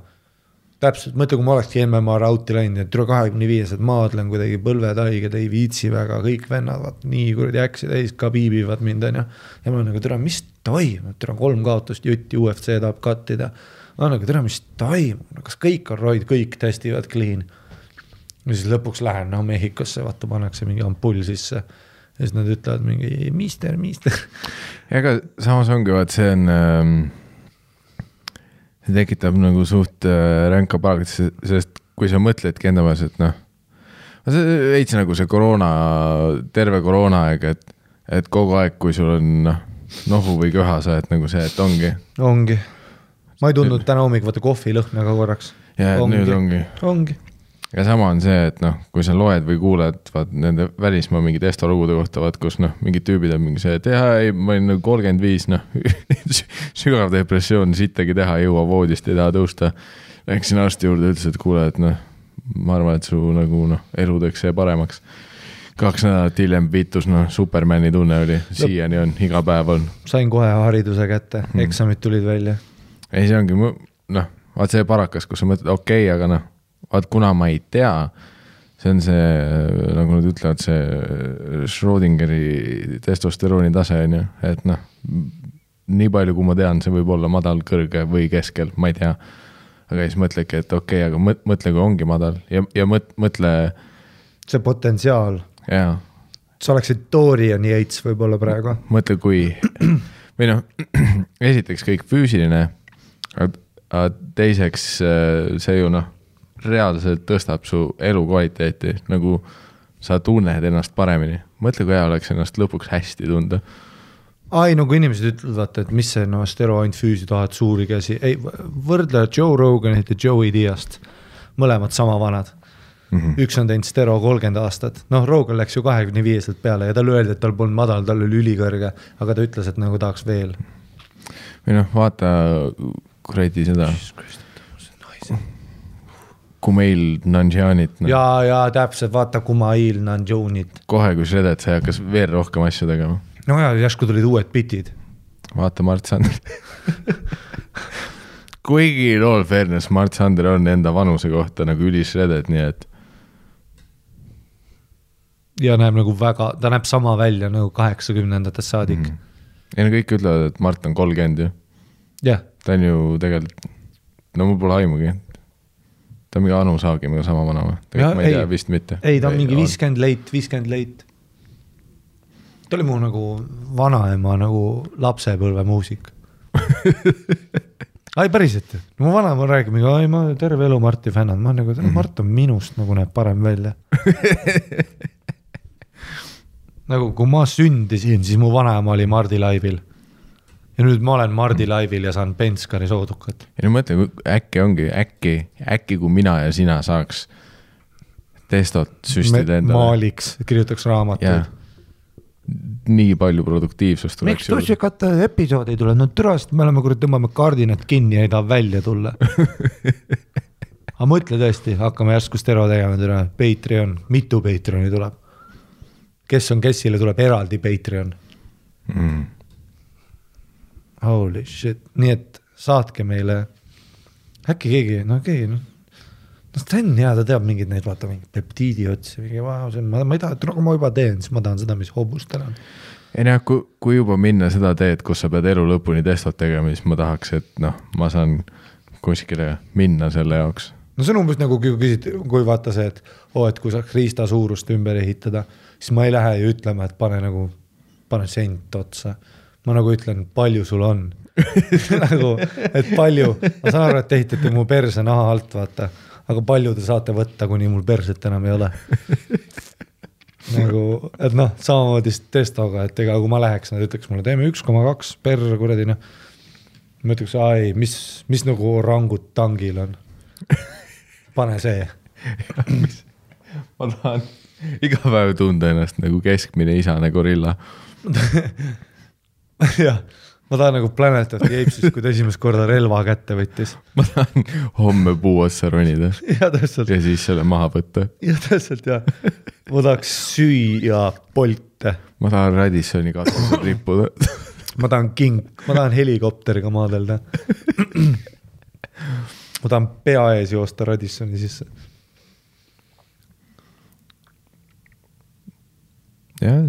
täpselt, mõtle, kui ma olekski MMA rauti läinud, et üle 25, et maadlen kuidagi põlvetaiged, ei viitsi väga, kõik vennad, vaat, nii kuradi äksi täis, ka piibivad mind, on ja ma olen nagu, tere, mis toimub, tere, 3 kaotust jutti, UFC tahab kattida, ma olen nagu, tere, mis toimub, kas kõik on roid, kõik testivad clean, ja siis lõpuks lähen, no Mehhikosse, vaata, pannakse mingi ampull sisse, ja siis nad ütlevad mingi, mister. Ja aga samas ongi, vaat see on see tekitab nagu suht ränka palgat, sest kui sa mõtledki enda maas, et noh, see veits nagu see terve koroona aeg, et kogu aeg, kui sul on nohu või köha, sa et nagu see, et ongi. Ma ei tundnud täna hommik, vaata kohvi lõhna ka korraks. Ja nüüd ongi. Ja sama on see, et noh, kui sa loed või kuuled vaat nende välismaa mingi testolugude kohta, vaat kus noh, mingid tüübid on mingi see, et ei, ma olin nagu 35, noh, sügav depressioon, sittagi teha, ei jõua voodist, ei taha tõusta. Läksin arsti juurde, ütles, et kuule, et noh, ma arvan, et su nagu noh, elu teeks see paremaks. 2 nädalat hiljem viitus, noh, Supermani tunne oli, siiani on, iga päev on. Sain kohe hariduse kätte, eksamid tulid välja. Ei, see ongi, noh, vaat see parakas, kus sa mõtled, okei, aga noh, vaat kuna ma ei tea, see on see, nagu nad ütlevad, see Schrödingeri testosterooni tase on ju, et noh, nii palju kui ma tean, see võib olla madal, kõrge või keskel, ma ei tea. Aga siis mõtlegi, et okei, aga mõtle, kui ongi madal ja mõtle... See potentsiaal. Jaa. Sa oleksid Dorian Yates võib-olla praegu. Mõtle, kui... Või noh, esiteks kõik füüsiline, aga teiseks see ju noh, reaalselt tõstab su elu kvaliteeti, nagu sa tunned ennast paremini. Mõtle, kui hea oleks ennast lõpuks hästi tunda. Ai, no kui inimesed ütlevad, et mis see no, steroid füüsi tahad suuri käsi. Ei, võrdle Joe Roganit ja Joey Diast. Mõlemad sama vanad. Üks on teinud stero 30 aastat. Noh, Rogan läks ju 25 peale ja tal öeldi, et tal polnud madal, tal oli ülikõrge, aga ta ütles, et nagu tahaks veel. Või noh, vaata kuradi seda... Kumail Nanjianit. No. Ja täpselt, vaata Kumail Nanjianit. Kohe, kui shredet, see hakkas veel rohkem asju tegema. No ja, järsku tulid uued bitid. Vaata Mart Sander. Kuigi all fairness, Mart Sander on enda vanuse kohta nagu üli shredet, nii et... Ja näeb nagu väga, ta näeb sama välja nagu 80-ndates saadik. Ja kõik ütlevad, et Mart on 30 ju. Jah. Ta on ju tegelikult, no mul pole aimugi. Ta on mingi Anu Saagimiga sama vana või? Ma ei tea, vist mitte. Ei, ta on mingi 50 late. Ta oli mu nagu vanaema nagu lapsepõlve muusik. Ai, päriselt. Mu vanaema räägib, ai, ma terve elu Marti fännad. Ma nagu, Mart on minust nagu näeb parem välja. Nagu, kui ma sündisin, siis mu vanaema oli Mardi laivil. Ja nüüd ma olen Mardi laivil ja saan Penskari soodukat. Ja nüüd mõtle, äkki ongi, äkki kui mina ja sina saaks testot süstida endale. Maaliks, kirjutaks raamatuid. nii palju produktiivsust miks tussikate episood ei tule? No tõrast me oleme, kui tõmbame kardinat kinni ja ei taha välja tulla. Aga mõtle tõesti, hakkame järsku stero tegema täna. Patreon, mitu Patreoni tuleb? Kes on kessile, tuleb eraldi Patreon. Holy shit. Nii et saatke meile äkki keegi, Sten hea, ta teab mingid neid, vaata mingid peptiidi otsi, ma ei taha, et ma juba teen, siis ma tahan seda, mis hobustel on. Ei näe, kui juba minna seda teed, kus sa pead elu lõpuni testot tegema, siis ma tahaks, et ma saan kuskile minna selle jaoks. No see on umbes nagu kui vaata see, et kui saaks riista suurust ümber ehitada, siis ma ei lähe ju ütlema, et pane sent otsa. Ma nagu ütlen, palju sul on. Nagu, et palju, ma saan aru, et ehitate mu perse naha alt, vaata. Aga palju te saate võtta, kuni mul perset enam ei ole. Nagu, et samamoodi testoga, et ega kui ma läheks, nad ütleks mulle, teeme 1,2 per kuradi, ma ütleks, mis nagu rangut tangil on. Pane see. Ma tahan iga päev tunda ennast nagu keskmine isane gorilla. Jah. Ma tahan nagu Planet of the Apes'is, kui ta esimest korda relva kätte võttis. Ma tahan homme puu otsa ronida. Ja täpselt. Ja siis selle maha võtta. Ja täpselt, jah. Ma tahaks süüa polte. Ma tahan Radissoni katusel rippuda. Ma tahan helikopteriga maadelda. Ma tahan pea ees joosta Radissoni sisse. Jah,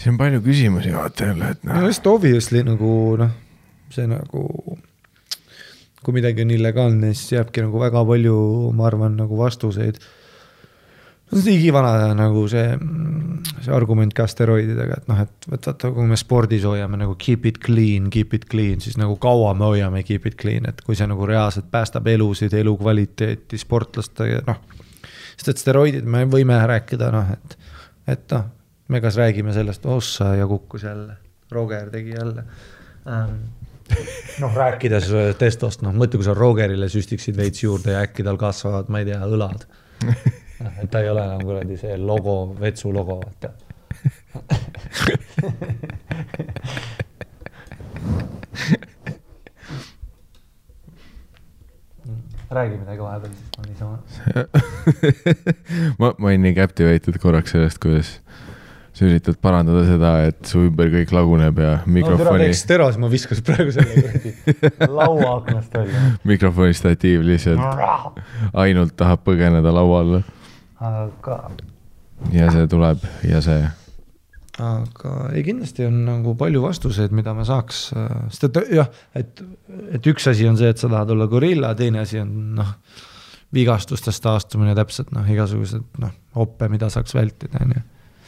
see on palju küsimusi vaata jälle, et just obviously nagu see nagu kui midagi on illegaalne, siis jääbki nagu väga palju, ma arvan, nagu vastuseid. See on igivana nagu see argument ka steroididega, et et vaata, kui me spordis hoiame nagu keep it clean, siis nagu kaua me hoiame keep it clean, et kui see nagu reaalselt päästab elusid, elukvaliteeti, sportlaste, sest et steroidid me võime rääkida, et me kas räägime sellest, ossa ja kukkus jälle, Roger tegi jälle. Rääkides testost, mõtle, kui sa Rogerile süstiksid veits juurde ja äkki tal kasvavad, ma ei tea, õlad. Et ta ei ole enam kuradi see logo, vetsu logo, vaata. Räägi midagi vahepeal, siis ma niisama. Ma olin nii captivated korraks sellest, kuidas sa üritad parandada seda, et su ümber kõik laguneb ja mikrofoni... teeks teras, ma viskas praegu selle laua aknast välja. Mikrofoni statiiv lihtsalt ainult tahab põgeneda laua alla. Aga... Ja see tuleb ja see... Aga ei, kindlasti on nagu palju vastuseid, mida me saaks... Sest et üks asi on see, et sa tahad olla gorilla, teine asi on vigastustest taastumine täpselt, igasugused hoppe, mida saaks vältida.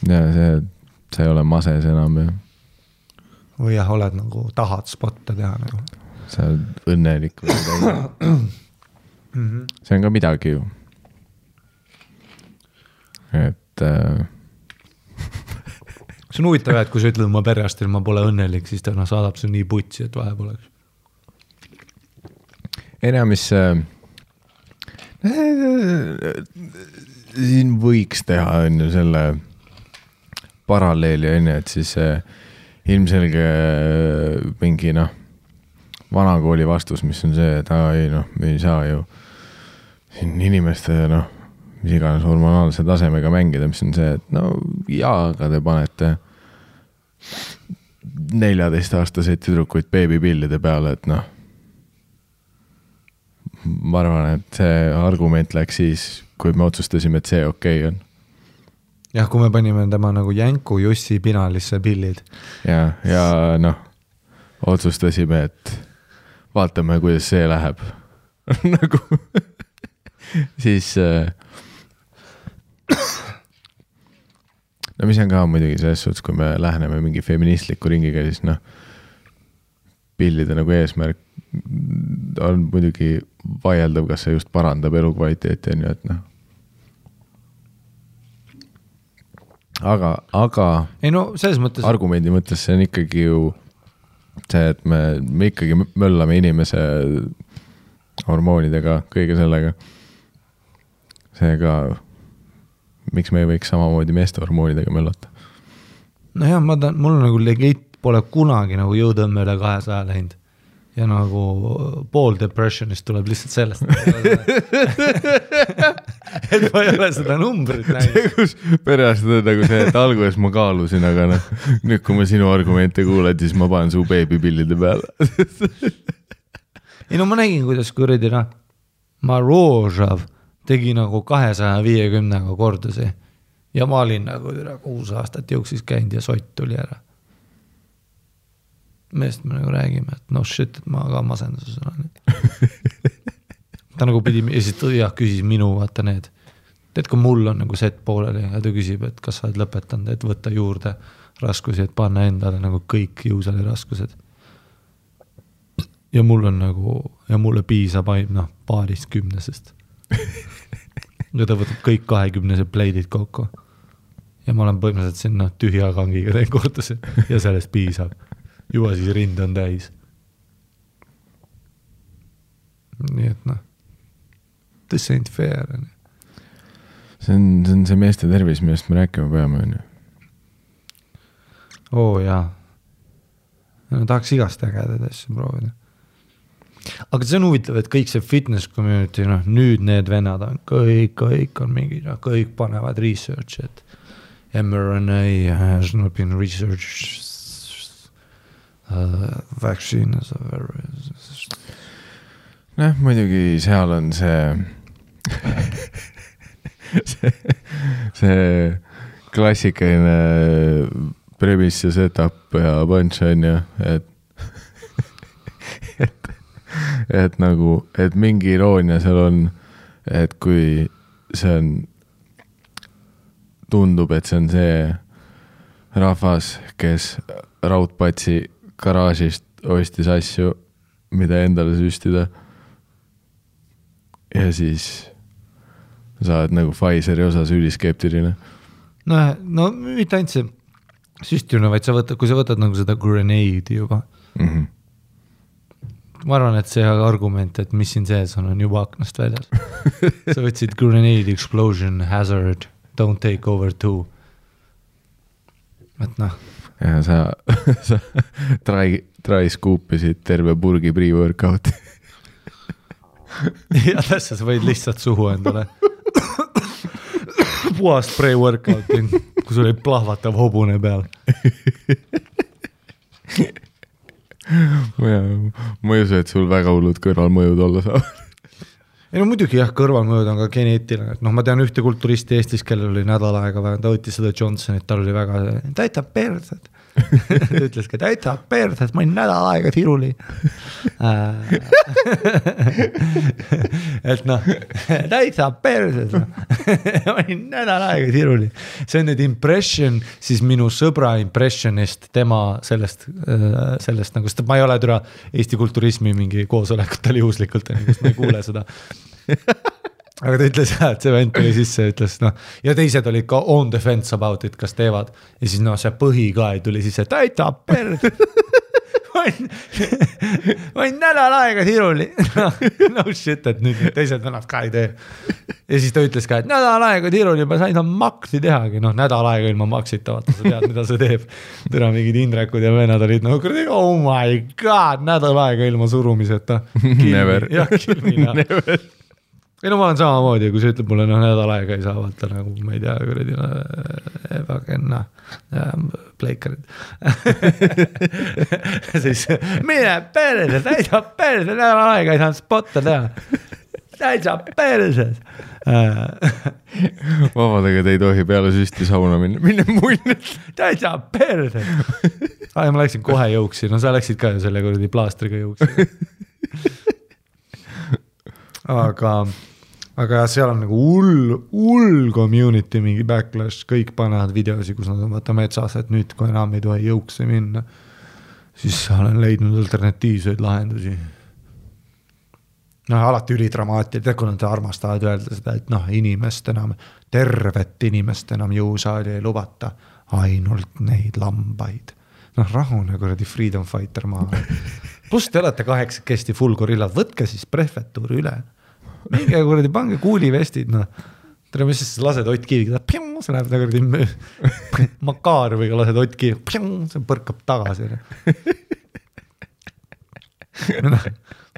Ja see ei ole mases enam. Või oled nagu tahad spotte teha. Nagu. Sa oled õnnelik. See on ka midagi ju. Et... See on huvitav, et kui sa ütled oma perearstil, ma pole õnnelik, siis ta saadab su nii putsi, et vahe poleks. Enam, mis siin võiks teha on ju selle paralleeli on ju, et siis ilmselge mingi vanakooli vastus, mis on see, et me ei saa ju siin inimeste mis iganes hormonaalse tasemega mängida, mis on see, et aga te panete 14-aastaseid tüdrukuid beebipillide peale, et ma arvan, et see argument läks siis, kui me otsustasime, et see okei on. Jah, kui me panime tema nagu Jänku Jussi pinalisse pillid. Ja otsustasime, et vaatame, kuidas see läheb. Nagu siis mis on ka muidugi selles suhtes, kui me läheneme mingi feministliku ringiga, siis pillide nagu eesmärk on muidugi vaieldav, kas see just parandab elukvaliteeti on ju, et aga ei selles mõttes... argumendi mõttes see on ikkagi ju see, et me ikkagi möllame inimese hormoonidega, kõige sellega. Seega miks me ei võiks samamoodi meeste hormoonidega möllata? No jah, mul nagu legit pole kunagi nagu jõutõmme üle 200 läinud ja nagu pool depressionist tuleb lihtsalt sellest. Et ma ei ole seda numbrit näinud. Perearst on nagu see, et alguses ma kaalusin, aga nüüd kui ma sinu argumente kuuled, siis ma panen su beebipillide peale. Ei no ma nägin, kuidas kuradi Marožav tegi nagu 250 kordusi ja ma olin nagu 6 aastat jooksis käinud ja sott tuli ära. Meest me nagu räägime, et no shit, et ma ka masenduses olen. Ta nagu pidi, ja siis küsis minu, vaata need. Tead, kui mul on nagu set pooleli ja ta küsib, et kas sa oled lõpetanud, et võtta juurde raskusi, et panna endale nagu kõik jõusali raskused. Ja mul on nagu, ja mulle piisab ainult paarist 10-sest. Ja ta võtab kõik 20-se pleidid kokku. Ja ma olen põhimõtteliselt sinna tühja kangiga teen kordusi ja sellest piisab. Juba siis rind on täis. Nii et this ain't fair. See on see meeste tervis, millest me rääkima peame. Jaa. No, tahaks igast ägedad asju proovida. Aga see on huvitav, et kõik see fitness community, nüüd need vennad on, kõik on mingi, kõik panevad research, et mRNA has not been researched. Vaccine is a very... muidugi seal on see klassikaline premise ja setup ja punch on ju, et nagu, et mingi iroonia seal on, et kui see on, tundub, et see on see rahvas, kes Raudpatsi garaažist ostis asju, mida endale süstida. Ja siis sa oled nagu Pfizeri osas üliskeptiline. No mitte ainult see süstimine, vaid kui sa võtad nagu seda grenade'i juba. Mm-hmm. Ma arvan, et see argument, et mis siin sees on juba aknast väljas. Sa võtsid grenade explosion hazard, don't take over 2. Et ja sa try scoopisid terve burgi pre-workout. Ja tässä sa võid lihtsalt suhu endale. Puhast pre-workouti, kui sul oli plahvatav hobune peal. Ma ei usu, et sul väga hullud kõrvalmõjud olla saab. Ei no muidugi jah, kõrvalmõjud on ka geneetiline. Ma tean ühte kulturisti Eestis, kellel oli nädal aega, ta võttis seda Johnsonit, tal oli väga, täita persed. Ta ütles ka, täita persed, ma olin nädal aega tiruli. Et täita persed. Ma olin nädal aega tiruli. See on nüüd impression, siis minu sõbra impressionist, tema sellest nagu, sest ma ei ole türa Eesti kulturismi mingi koosolekutel juhuslikult, kus ma ei kuule seda. Aga ta ütles, et see vend tuli sisse ja ütles, ja teised olid ka on the fence about it, kas teevad. Ja siis see põhi ka tuli sisse, täita perd. Ma olin nädal aega tiruli. No shit, et nüüd teised vennad ka ei tee. Ja siis ta ütles ka, et nädal aega tiruli, ma sain maksi tehagi. Nädal aega ilma maksita, vaata, sa tead, mida see teeb. Tõra mingid Indrekud ja vennad olid, oh my god, nädal aega ilma surumiseta. Never. Jah, kilmina. Never. Ei no ma olen samamoodi, kui sa ütleb mulle, nädal aega ei saa vaata nagu, ma ei tea, pleikarid. Siis mine perse, täitsa perse, nädal aega ei saanud spotta teha. Täitsa perse. Vabadega te ei tohi peale süsti sauna minna mulle. Täitsa perse. Ma läksin kohe jõuksi, no sa läksid ka ju selle kuradi plaastriga jõuksi. Aga seal on nagu hull community, mingi backlash, kõik panevad videosi, kus nad on vaata metsas, et nüüd kui enam ei tohi jõuksi minna, siis olen leidnud alternatiivseid lahendusi. Alati ülidramaatiline, kui nad armastavad öelda seda, et inimest enam, tervet inimest enam jõusaali ei lubata, ainult neid lambaid. Rahune kuradi freedom fighter maha. Plus te olete 8 full gorillad, võtke siis prefektuuri üle. Minge kuradi, pange kuulivestid, tere, mis siis lased Ott Kiiviga, see läheb nagu Makaroviga lased Ott Kiiviga, see põrkab tagasi.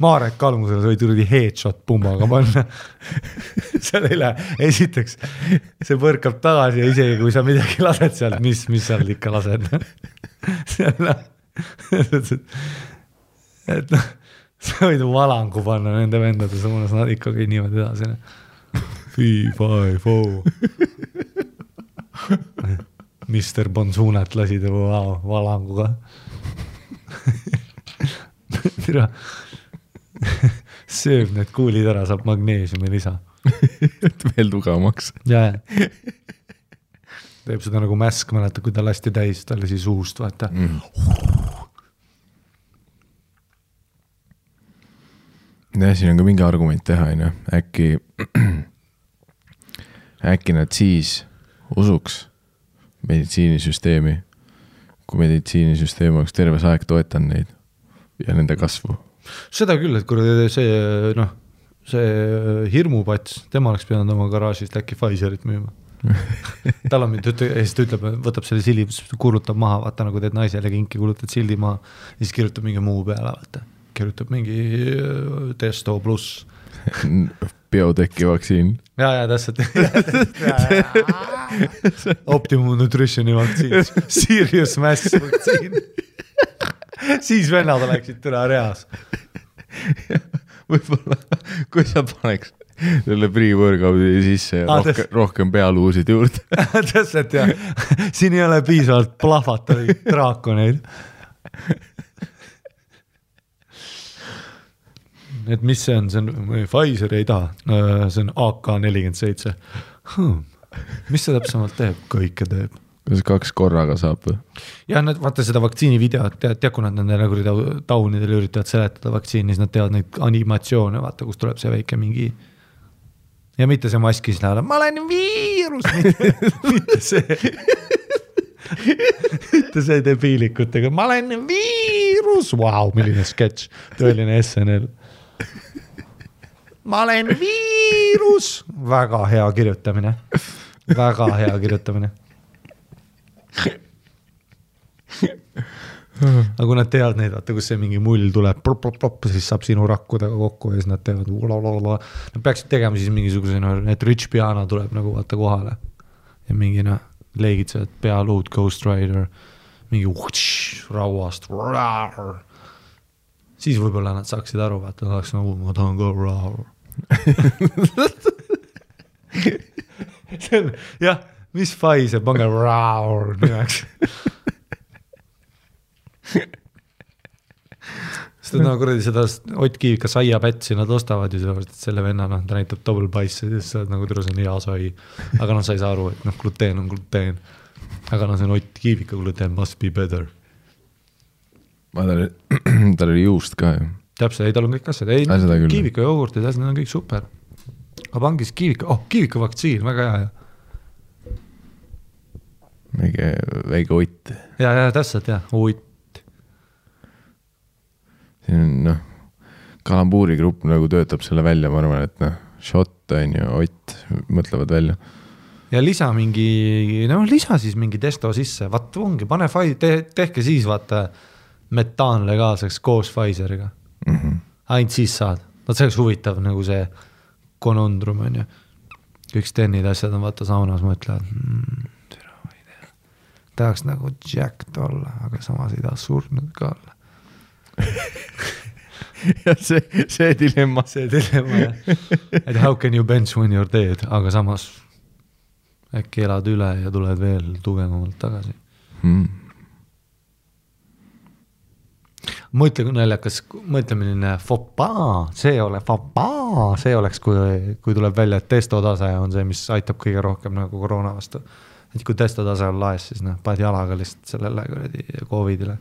Marek Kalmusele sai turdi headshot pummaga panna. Seal ei lähe, esiteks see põrkab tagasi ja isegi kui sa midagi lased sealt, mis seal ikka lased. Et noh, sa võid valangu panna nende vendade suunas, nad ikkagi niimoodi edasi. 3, 5, 4 Mr. Bonsunet lasi tema valanguga. Tira sööb need kuulid ära, saab magneesiumi lisa. Et veel tugevamaks. Ja. Teeb seda nagu mäsk, mäleta, kui ta lasti täis, ta lasi suust, vaata. Ja siin on ka mingi argument teha, äkki nad siis usuks meditsiinisüsteemi, kui meditsiinisüsteem oleks terves aeg toetan neid ja nende kasvu. Seda küll, et kui see hirmupats, tema oleks pidanud oma garaažist äkki Pfizerit müüma. Tal on mind, ja siis ta ütleb, võtab selle sildi, kuulutab maha, vaata nagu teed naisele kinki, kuulutad sildi maha, ja siis kirjutab mingi muu peale, vaata. Kirjutab mingi Testo pluss. Bioteki vaktsiin. Ja, täpselt. Optimum Nutritioni vaktsiin. Serious Mass vaktsiin. Siis vennad oleksid türa reas. Võibolla, kui sa paneks selle pre-workout'i sisse rohkem pealuusid juurde. Täpselt, jah. Siin ei ole piisavalt plahvatavi draakoneid. Et mis see on? See on Pfizer ei taha. See on AK-47. Mis see täpsemalt teeb? Kõike teeb. Kas 2 korraga saab või? Ja nad vaata seda vaktsiini videot, tead, kui nad nende taunidel üritavad seletada vaktsiini, siis nad teevad neid animatsioone, vaata, kus tuleb see väike mingi ja mitte see maskis läheb, ma olen viirus, mitte see mitte see debiilikutega, ma olen viirus, wow, milline sketš, tõeline SNL. Ma olen viirus, väga hea kirjutamine, aga kui nad teevad neid, vaata, kus see mingi mull tuleb, siis saab sinu rakkudega kokku ja siis nad teevad nad peaksid tegema siis mingisuguse, et Rich Piana tuleb nagu vaata kohale ja mingi leegitsevad pealuud Ghost Rider mingi rauast siis võib-olla nad saaksid aru, vaata, nad oleks nagu, ma tahan ka jah, mis Pfizer, pange nimeks. Seda nagu kuradi seda Ott Kiivika saiapätsi nad ostavad ju sellepärast, et selle venna, ta näitab double bice'i, siis sa oled nagu terus on hea sai. Aga sa ei saa aru, et gluteen on gluteen. Aga see on Ott Kiivika gluteen must be better. Tal oli juust ka ju. Täpselt, ei tal on kõik asjad. Ei, Kiivika jogurtid, need on kõik super. Aga pangis Kiivika vaktsiin, väga hea. Väike Ott. Ja, täpselt, jah, Ott. Siin on, kalambuuri grupp nagu töötab selle välja, ma arvan, et shot on ju, Ott mõtlevad välja. Ja lisa siis mingi testo sisse, vaat ongi, pane tehke siis vaata metaan legaalseks koos Pfizeriga. Ainult siis saad. Vaat see oleks huvitav nagu see konondrum on ju. Kõik stennid asjad on vaata saunas mõtlevad, tahaks nagu jacked olla, aga samas ei taha surnud ka olla. Ja see dilemma. Et how can you bench when you're dead, aga samas äkki elad üle ja tuled veel tugevamalt tagasi. Mõtle, kui naljakas, mõtlemine see oleks, kui tuleb välja, et testotase on see, mis aitab kõige rohkem nagu koroona vastu. Et kui testotase on laes, siis paned jalaga lihtsalt sellele COVIDile.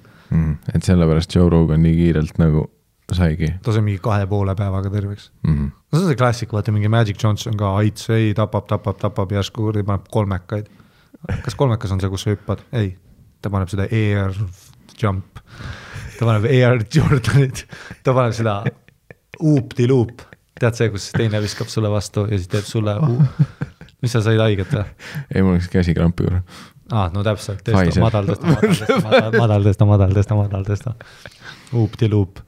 Et sellepärast Joe Rogan nii kiirelt nagu saigi. Ta sai mingi 2,5 päevaga terveks. See on see klassik, vaata mingi Magic Johnson ka aits, ei, tapab järsku, paneb 3-kaid. Kas 3-kas on see, kus sa hüppad? Ei, ta paneb seda air jump, ta paneb air Jordanit, ta paneb seda oop-di-loop, tead see, kus teine viskab sulle vastu ja siis teeb sulle mis sa said haiget või? Ei, mul oleks käsikrampi juurde. No täpselt, madal tõsta. Uupti-luup.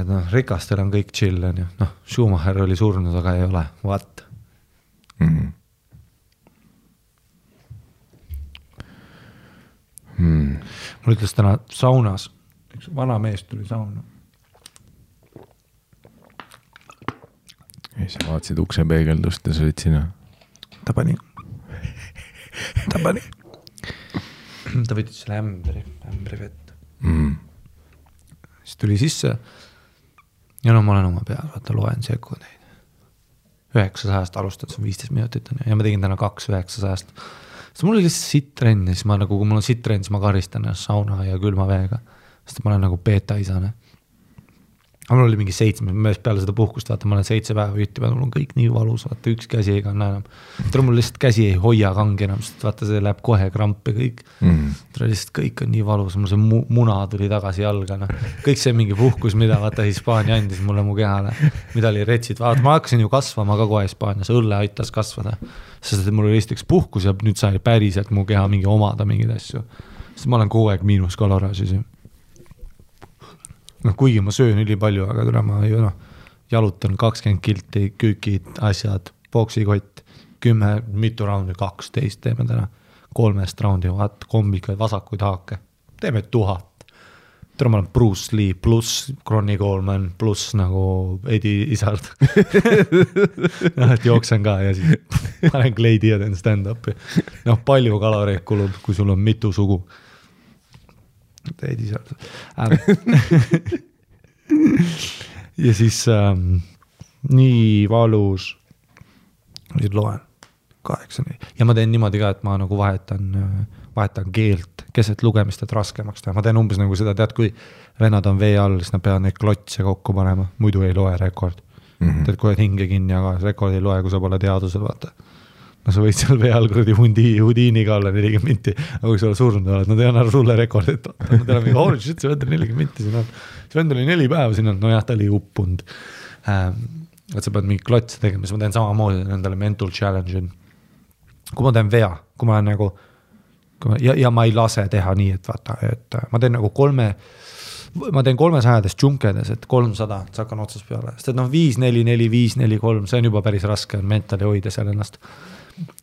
Et rikastel on kõik chill, on ju. Schumacher oli surnud, aga ei ole. What? Mul ütles täna saunas, üks vana mees tuli sauna. Ja sa vaatasid ukse peegeldust ja sa olid sina. Ta pani. Ta võttis selle ämbri vett. Siis tuli sisse ja ma olen oma peal, vaata loen sekundeid. 900 alustada, see on 15 minutit ja ma tegin täna 2-900. Siis mul oli lihtsalt sittrenn ja siis ma nagu, kui mul on sittrenn, siis ma karistan sauna ja külma veega, sest ma olen nagu beta-isane. Aga mul oli mingi 7, peale seda puhkust, vaata, ma olen 7 päeva üttinud, mul on kõik nii valus, vaata, üks käsi ei kanna enam. Mul lihtsalt käsi ei hoia kangi enam, sest vaata, see läheb kohe krampi kõik. Lihtsalt kõik on nii valus, mul see muna tuli tagasi jalga. Kõik see mingi puhkus, mida vaata Hispaania andis mulle mu kehale, mida oli retsid. Vaata, ma hakkasin ju kasvama ka kohe Hispaanias, õlle aitas kasvada. Sest mul oli lihtsalt üks puhkus ja nüüd sai päriselt mu keha mingi omada mingid asju. Sest ma olen kogu aeg miinus kaloraasis. Kuigi ma söön üli palju, aga tule ma jalutan 20 kilti, küükid, asjad, boksikott, 10, mitu raundi, 12 teeme täna, 3 raundi, vaat, kombikaid, vasakuid haake, teeme 1000. Tule ma olen Bruce Lee pluss Ronnie Coleman pluss nagu Eddie Izzard. Et jooksen ka ja siis panen kleidi ja teen stand-upi. Palju kaloreid kulub, kui sul on mitu sugu. Eddie Izzard. Ja siis nii valus nüüd loen 8. Ja ma teen niimoodi ka, et ma nagu vahetan keelt keset lugemist, et raskemaks teha. Ma teen umbes nagu seda, tead, kui vennad on vee all, siis nad peavad neid klotse kokku panema, muidu ei loe rekord. Tead, kui oled hinge kinni, aga rekord ei loe, kui sa pole teadusel, vaata. Sa võid seal vee all kuradi hudiiniga olla 40 minti, aga kui sa oled surnud oled, nad ei anna sulle rekordit. Nad ei ole mingi, holy shit, see vend oli 40 minti siin on. See vend oli 4 päeva siin on, ta oli uppund. Et sa pead mingi klotse tegema, siis ma teen samamoodi nendele mental challenge. Kui ma teen vea, kui ma olen nagu, ja ma ei lase teha nii, et vaata, et ma teen nagu 300 džunkedes, et 300, sa hakkan otsas peale. Sest et 5, 4, 4, 5, 4, 3, see on juba päris raske, on mentali hoida seal ennast.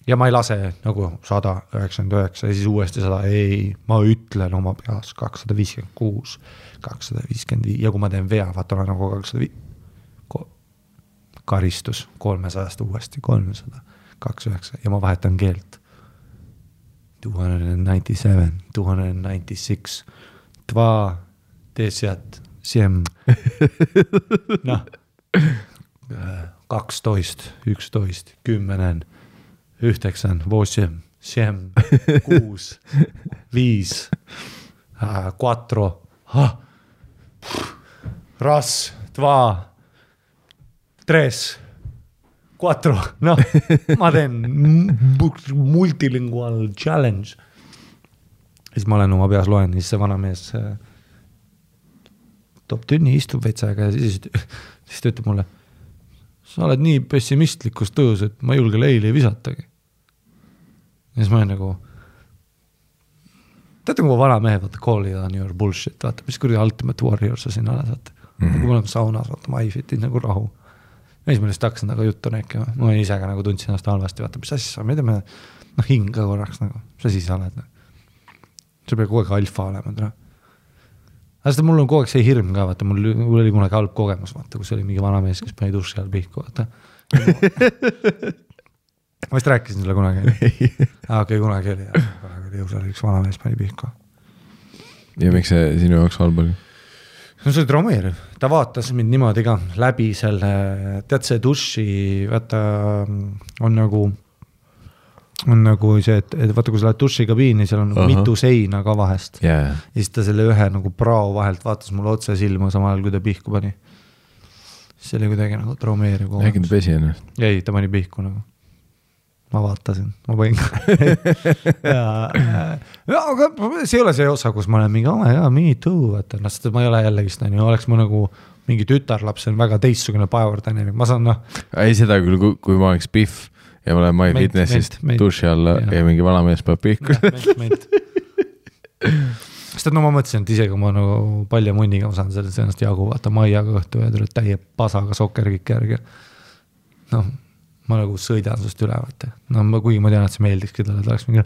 Ja ma ei lase nagu 199 ja siis uuesti 100, ei, ma ütlen oma peas 256, 255 ja kui ma teen vea, vaata olen nagu 205, karistus 300 uuesti 300, 29 ja ma vahetan keelt 297, 296, 10, 7, 12, 11, 10, 9, 8, 7, 6, 5, 4, ras, 2, 3, 4, ma teen multilingual challenge. Siis ma olen oma peas loen, siis see vana mees toob tünni, istub vetsaga ja siis ta ütleb mulle, sa oled nii pessimistlikus tõus, et ma julge leili visatagi. Ja siis ma olen nagu, teate, kui vana mehed, vaata, call it on your bullshit, vaata, mis kuradi Ultimate Warrior sa siin oled, vaata. Kui ma olen saunas, vaata, ma ei fitin nagu rahu. Ja siis ma lihtsalt hakkasin nagu juttu rääkima. Ma ise ka nagu tundsin ennast halvasti, vaata, mis asja sa, me teeme hinga korraks nagu, mis asi sa oled. See peab kogu aeg alfa olema. Aga mul on kogu aeg see hirm ka, vaata, mul oli kunagi halb kogemus, vaata, kus oli mingi vana mees, kes pani duši all pihku, vaata. Ma vist rääkisin selle kunagi. Okei, kunagi oli jõusal üks vana mees pani pihku. Ja miks see sinu jaoks halb oli? No see oli traumeeriv. Ta vaatas mind niimoodi ka läbi selle, tead see duši, vaata, on nagu see, et vaata, kui sa lähed dušikabiini, seal on nagu mitu seina ka vahest. Yeah. Ja siis ta selle ühe nagu prao vahelt vaatas mulle otse silma samal ajal, kui ta pihku pani. See oli kuidagi nagu traumeeriv kogemus. Äkki ta pesi ennast? Ei, ta pani pihku nagu. Ma vaatasin, ma panin aga see ei ole see osa, kus ma olen mingi, me too, vaata, sest ma ei ole jällegist, oleks ma nagu mingi tütarlaps on väga teistsugune power dynamic, ma saan ei seda küll, kui ma oleks Pihv ja ma olen MyFitnessist duši alla ja mingi vanamees peab pihku. Sest ma mõtlesin, et isegi ma nagu palja munniga ma saan sellest ennast jagu, vaata maiaga õhtu ja tuled täie pasaga sokkerkikki järgi. Ma nagu sõidan sust üle, vaata. Kuigi ma tean, et see meeldikski talle, et oleks mingi,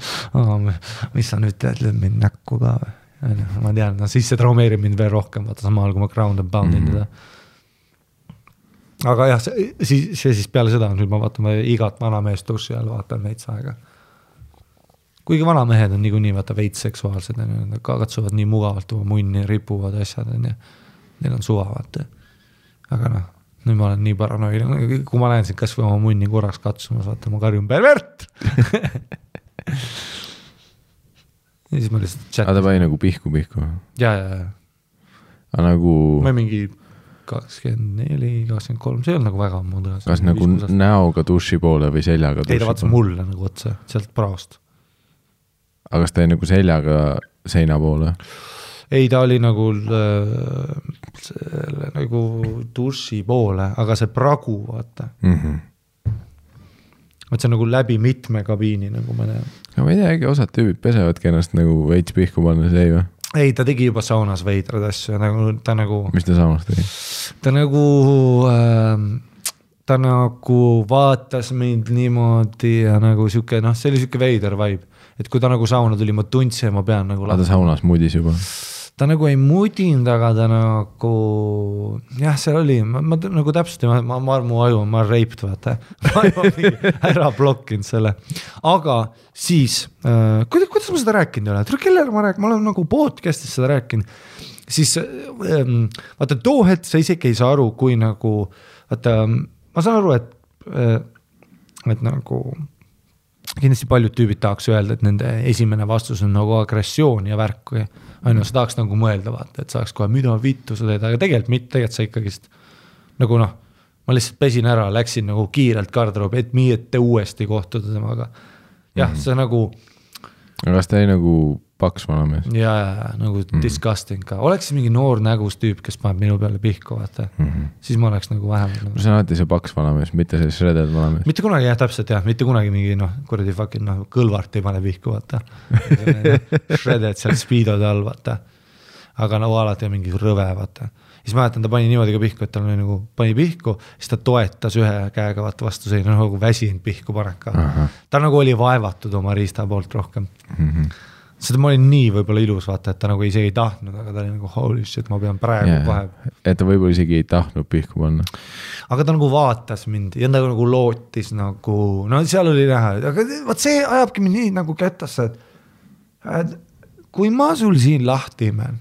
mis sa nüüd tead, lööd mind näkku ka või? Ma tean, siis see traumeerib mind veel rohkem, vaata samal kui ma ground and poundin teda. Aga jah, see siis peale seda, nüüd ma vaatan igat vanameest duši all, vaatan veits aega. Kuigi vanamehed on niikuinii vaata veits seksuaalsed, nad katsuvad nii mugavalt oma munni, ripuvad asjad, neil on suva, vaata. Aga nüüd ma olen nii paranoiline, kui ma näen siin kas või oma munni korraks katsumas, vaata, ma karjun pervert! Ja siis ma lihtsalt chat. Ta pani nagu pihku. Ja. Aga nagu... Ma mingi 24, 23, see on nagu väga ammu. Kas nagu näoga duši poole või seljaga duši poole? Ei, ta vaatas mulle nagu otse, sealt praost. Aga kas ta oli nagu seljaga seina poole? Ei, ta oli nagu duši poole, aga see pragu, vaata. Vaat see on nagu läbi mitme kabiini, nagu ma näen. Ja ma ei tea, osad tüübid pesevadki ennast nagu veits pihku panna, see ei või? Ei, ta tegi juba saunas veidrad asju. Ta nagu... Mis ta saunas tegi? Ta nagu vaatas mind niimoodi ja nagu siuke, see oli siuke veider vibe. Et kui ta nagu sauna tuli, ma tundsin ja ma pean nagu... Ta saunas mudis juba? Ta nagu ei mudinud, aga ta nagu... Jah, seal oli, ma nagu täpselt, ma armu aju, ma reipt, vaata. Ma ära blokkinud selle. Aga siis, kuidas ma seda rääkinud ei ole? Kellele ma rääkinud? Ma olen nagu podcastis seda rääkinud. Siis, vaata, too hetk sa isegi ei saa aru, kui nagu... Vaata, ma saan aru, et nagu... Kindlasti paljud tüübid tahaks öelda, et nende esimene vastus on nagu agressioon ja värk või sa tahaks nagu mõelda, vaata, et saaks kohe mida vittu sa teed, aga tegelikult sa ikkagist nagu ma lihtsalt pesin ära, läksin nagu kiirelt garderoobi, et uuesti kohtuda temaga. Jah, see nagu... Kas ta ei nagu paks vanamees? Ja, nagu disgusting ka. Oleks mingi noor nägus tüüp, kes paneb minu peale pihku, vaata. Siis ma oleks nagu vähem. See on alati see paks vanamees, mitte see shredded vanamees. Mitte kunagi, jah, täpselt, jah. Mitte kunagi mingi, kuradi fucking kõlvart ei pane pihku, vaata. Shredded seal speedode all, vaata. Aga nagu alati on mingi rõve, vaata. Siis mäletan, ta pani niimoodi ka pihku, et ta nagu pani pihku, siis ta toetas ühe käega vaata vastu selline nagu väsinud pihku paneka. Ta nagu oli vaevatud oma riista poolt rohkem. Seda ma olin nii võib-olla ilus, vaata, et ta nagu isegi ei tahtnud, aga ta oli nagu holy shit, ma pean praegu vahe. Et ta võib-olla isegi ei tahtnud pihku panna. Aga ta nagu vaatas mind ja ta nagu lootis nagu, seal oli näha, aga vaat see ajabki mind nii nagu kättasse, et kui ma sul siin lahti imen,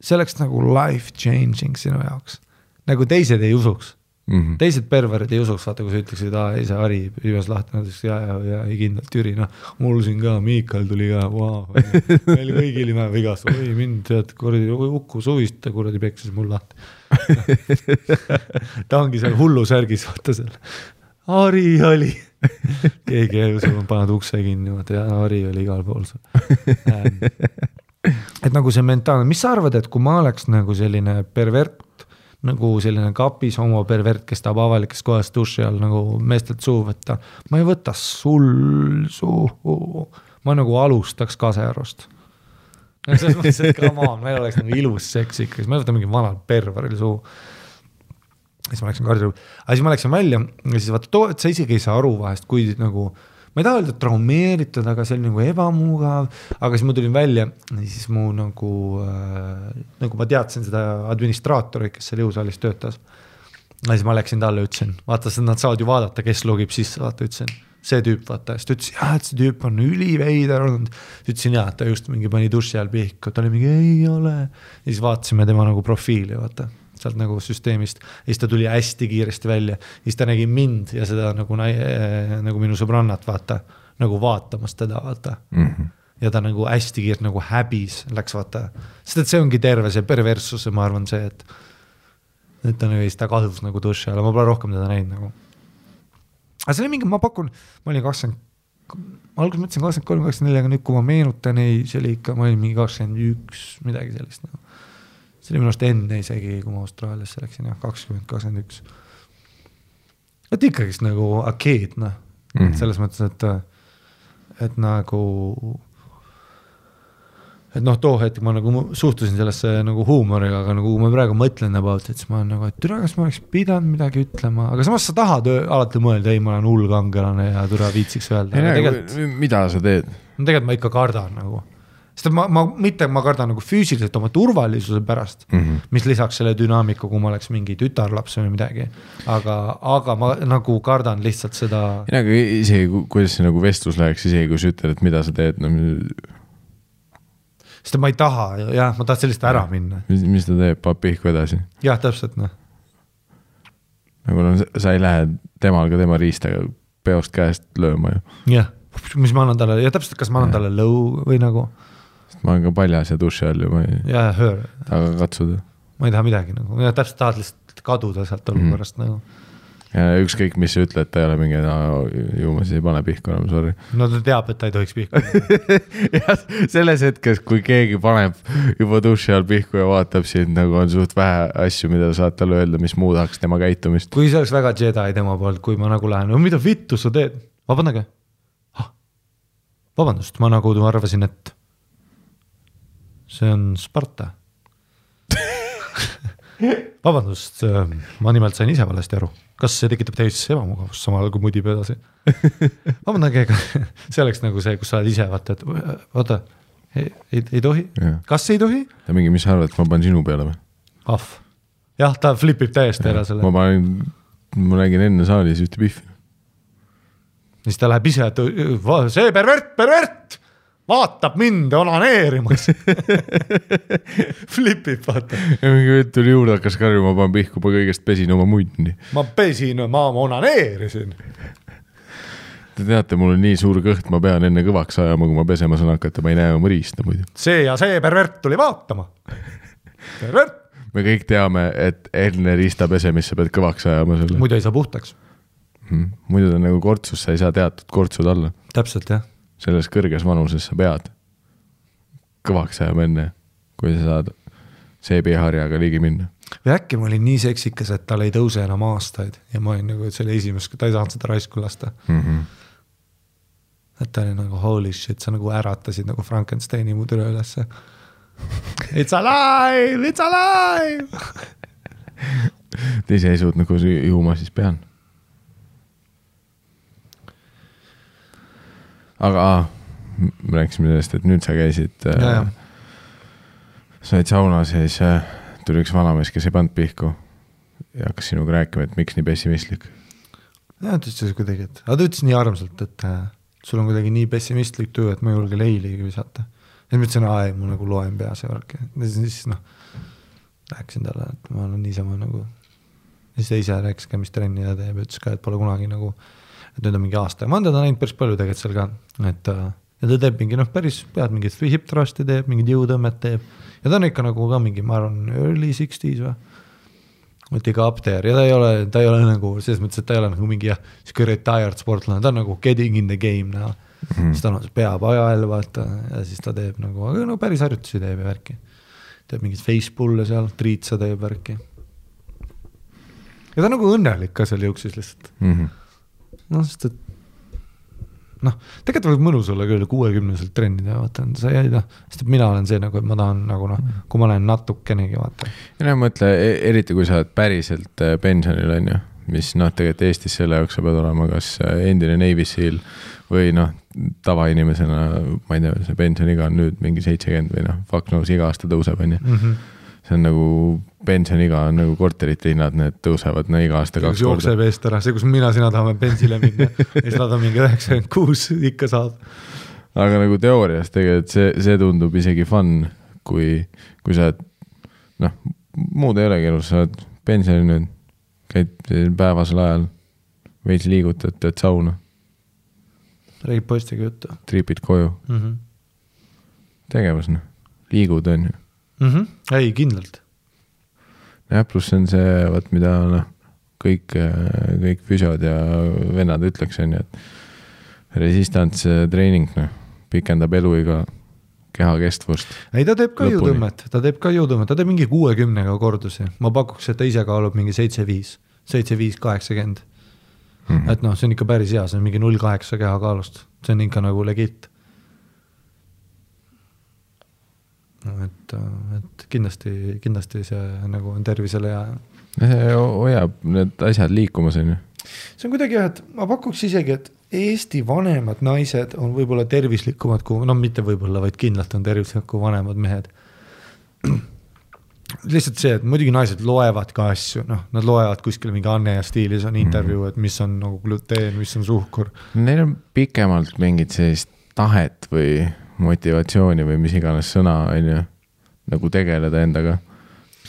see oleks nagu life changing sinu jaoks. Nagu teised ei usuks. Teised perverid ei usuks, vaata, kui sa ütleksid, ei see Ari hüves lahti, ja ei kindlalt Jüri, mul siin ka, Miikal tuli ka, meil kõigil ime vigast, oi mind, tead, ukku suvist, kuradi peksis mul lahti. Ta ongi seal hullu särgis, vaata seal. Ari oli. Keegi ei usu, paned ukse kinni, vaata, ja Ari oli igal pool. Et nagu see mentaalne, mis sa arvad, et kui ma oleks nagu selline pervert, nagu selline kapis homo pervert, kes tahab avalikes kohas duši all nagu meestelt suu võtta, ma ei võta sul suu, ma nagu alustaks kasearust. Selles mõttes, et come on, meil oleks nagu ilus seks ikka, siis ma ei võta mingi vanal perveril suu. Siis ma läksin garderoobi, aga siis ma läksin välja ja siis vaata, et sa isegi ei saa aru vahest, kui nagu ma ei taha öelda traumeeritud, aga see oli nagu ebamugav, aga siis ma tulin välja ja siis mu nagu ma teadsin seda administraatori, kes seal jõusaalis töötas. Ja siis ma läksin talle, ütlesin, vaata, nad saavad ju vaadata, kes logib sisse, vaata, ütlesin, see tüüp, vaata, siis ta ütles, et see tüüp on üliveider olnud. Ütlesin, et ta just mingi pani duši all pihku, ta oli mingi, ei ole. Ja siis vaatasime tema nagu profiili, vaata. Sealt nagu süsteemist, ja siis ta tuli hästi kiiresti välja, siis ta nägi mind ja seda nagu minu sõbrannat vaata, nagu vaatamas teda vaata. Ja ta nagu hästi kiirelt nagu häbis läks vaata, sest et see ongi terve see perversus, ma arvan see, et ta nagu ta kadus nagu duši alla, ma pole rohkem teda näinud nagu. Aga see oli mingi, ma pakun, ma olin 20, alguses mõtlesin 23-24, aga nüüd kui ma meenutan, ei, see oli ikka, ma olin mingi 21, midagi sellist nagu. see oli minu arust enne isegi, kui ma Austraaliasse läksin, 2021. Et ikkagist nagu arcade, noh. Selles mõttes, et nagu too hetk ma nagu suhtusin sellesse nagu huumoriga, aga nagu ma praegu mõtlen about, et siis ma olen nagu, et türa, kas ma oleks pidanud midagi ütlema, aga samas sa tahad alati mõelda, ei, ma olen hull kangelane ja türa viitsiks öelda. Mida sa teed? Tegelikult ma ikka kardan nagu. Sest ma kardan nagu füüsiliselt oma turvalisuse pärast, mis lisaks selle dünaamiku, kui ma oleks mingi tütarlaps või midagi. Aga ma nagu kardan lihtsalt seda. Aga isegi, kuidas see nagu vestlus läheks, isegi kui sa ütled, et mida sa teed, Sest ma ei taha, jah, ma tahan sellist ära minna. Mis ta teeb, paab pihku edasi? Jah, täpselt, noh. Nagu sa ei lähe temal ka tema riistaga peost käest lööma ju. Jah, mis ma annan talle, ja täpselt, kas ma annan talle lõu või nagu. Sest ma olen ka paljas ja duši all ju, ma ei taha katsuda. Ma ei taha midagi nagu, ja täpselt tahad lihtsalt kaduda sealt olukorrast nagu. Ja ükskõik, mis sa ütled, ta ei ole mingi, ju ma siis ei pane pihku enam, sorry. No ta teab, et ta ei tohiks pihku. Jah, selles hetkes, kui keegi paneb juba duši all pihku ja vaatab siin, nagu on suht vähe asju, mida saad talle öelda, mis muudaks tema käitumist. Kui see oleks väga Jedi tema poolt, kui ma nagu lähen, mida vittu sa teed? Vabandage. Vabandust, ma nagu arvasin, et see on Sparta. Vabandust, ma nimelt sain ise valesti aru. Kas see tekitab täiesti ebamugavust samal kui mudib edasi? Vabandage, see oleks nagu see, kus sa oled ise, vaata, ei tohi? Kas ei tohi? Ta mingi, mis sa arvad, et ma panen sinu peale või? Jah, ta flipib täiesti ära selle. Ma nägin enne saalis ühte pihvi. Siis ta läheb ise, et see pervert! Vaatab mind onaneerimas. Flipib, vaata. Ja mingi võtt tuli juurde, hakkas karju, ma panen pihku, ma kõigest pesin oma muidni. Ma onaneerisin. Te teate, mul on nii suur kõht, ma pean enne kõvaks ajama, kui ma pesema saan hakata, ma ei näe oma riista muidu. See ja see pervert tuli vaatama. Pervert. Me kõik teame, et enne riista pesemisse pead kõvaks ajama selle. Muidu ei saa puhtaks. Muidu ta nagu kortsus, sa ei saa teatud kortsud alla. Täpselt, jah. Selles kõrges vanuses sa pead kõvaks ajama enne, kui sa saad seebiharjaga ligi minna. Või äkki ma olin nii seksikas, et tal ei tõuse enam aastaid ja ma olin nagu, et see oli esimest, ta ei saanud seda raisku lasta. Et ta oli nagu holy shit, sa nagu äratasid nagu Frankensteini mu türe ülesse. It's alive! It's alive! Te ise ei suut nagu juuma siis pean. Aga me rääkisime sellest, et nüüd sa käisid, sa olid saunas ja siis tuli üks vanamees, kes ei pannud pihku ja hakkas sinuga rääkima, et miks nii pessimistlik. Ja, ta ütles kuidagi, aga ta ütles nii armsalt, et sul on kuidagi nii pessimistlik töö, et ma ei julge leiligi visata. Ja ma ütlesin, ma nagu loen peas ja värk. Ja siis rääkisin talle, et ma olen niisama nagu, siis ta ise rääkis ka, mis trenni ta teeb, ütles ka, et pole kunagi nagu et nüüd on mingi aasta ja ma olen teda näinud päris palju tegelikult seal ka, et ja ta teeb mingi päris pead mingit hip thrusti teeb, mingid jõutõmmet teeb ja ta on ikka nagu ka mingi, ma arvan, early 60s või, et ikka up there ja ta ei ole nagu, selles mõttes, et ta ei ole nagu mingi siuke retired sportlane, ta on nagu getting in the game näha, siis ta on peab ajal vaata ja siis ta teeb nagu, aga no päris harjutusi teeb ja värki, teeb mingid facepulle seal, triitsa teeb värki ja ta on nagu õnnelik ka seal jõuksis lihtsalt sest et tegelikult võib mõnus olla küll 60-selt trennida, vaata, sa ei tea, sest et mina olen see nagu, et ma tahan nagu kui ma olen natukenegi, vaata. Ja mõtle, eriti kui sa oled päriselt pensionil on ju, mis tegelikult Eestis selle jaoks sa pead olema kas endine Navy Seal või tavainimesena, ma ei tea, see pensioniga on nüüd mingi 70 või fuck knows, iga aasta tõuseb on ju. See on nagu pensioniga on nagu korterite hinnad, need tõusevad iga aasta 2 korda. Jookseb eest ära, see kus mina sina tahame bensile minna ja siis nad on mingi 96 ikka saab. Aga nagu teoorias tegelikult see tundub isegi fun, kui sa muud ei olegi elus, sa oled pensioni nüüd, käid päevasel ajal, veits liigutad, teed sauna. Räägib poistiga juttu. Tripid koju. Tegevus, liigud on ju. Ei, kindlalt. Ja pluss on see, mida kõik füsiod ja vennad ütleks on ju, et resistance treening pikendab eluiga kehakestvust. Ei, ta teeb ka jõutõmmet, ta teeb mingi 60-ga kordusi. Ma pakuks, et ta ise kaalub mingi 75-80. Et noh, see on ikka päris hea, see on mingi 0,8 kehakaalust. See on ikka nagu legit. No, et kindlasti see nagu on tervisele hea. See hoiab need asjad liikumas, on ju. See on kuidagi, et ma pakuks isegi, et Eesti vanemad naised on võib-olla tervislikumad kui, no mitte võib-olla, vaid kindlalt on tervislikumad kui vanemad mehed. Lihtsalt see, et muidugi naised loevad ka asju, noh, nad loevad kuskil mingi Anne ja stiilis on intervjuu, et mis on nagu gluteen, mis on suhkur. Neil on pikemalt mingid sellist tahet või motivatsiooni või mis iganes sõna, on ju, nagu tegeleda endaga.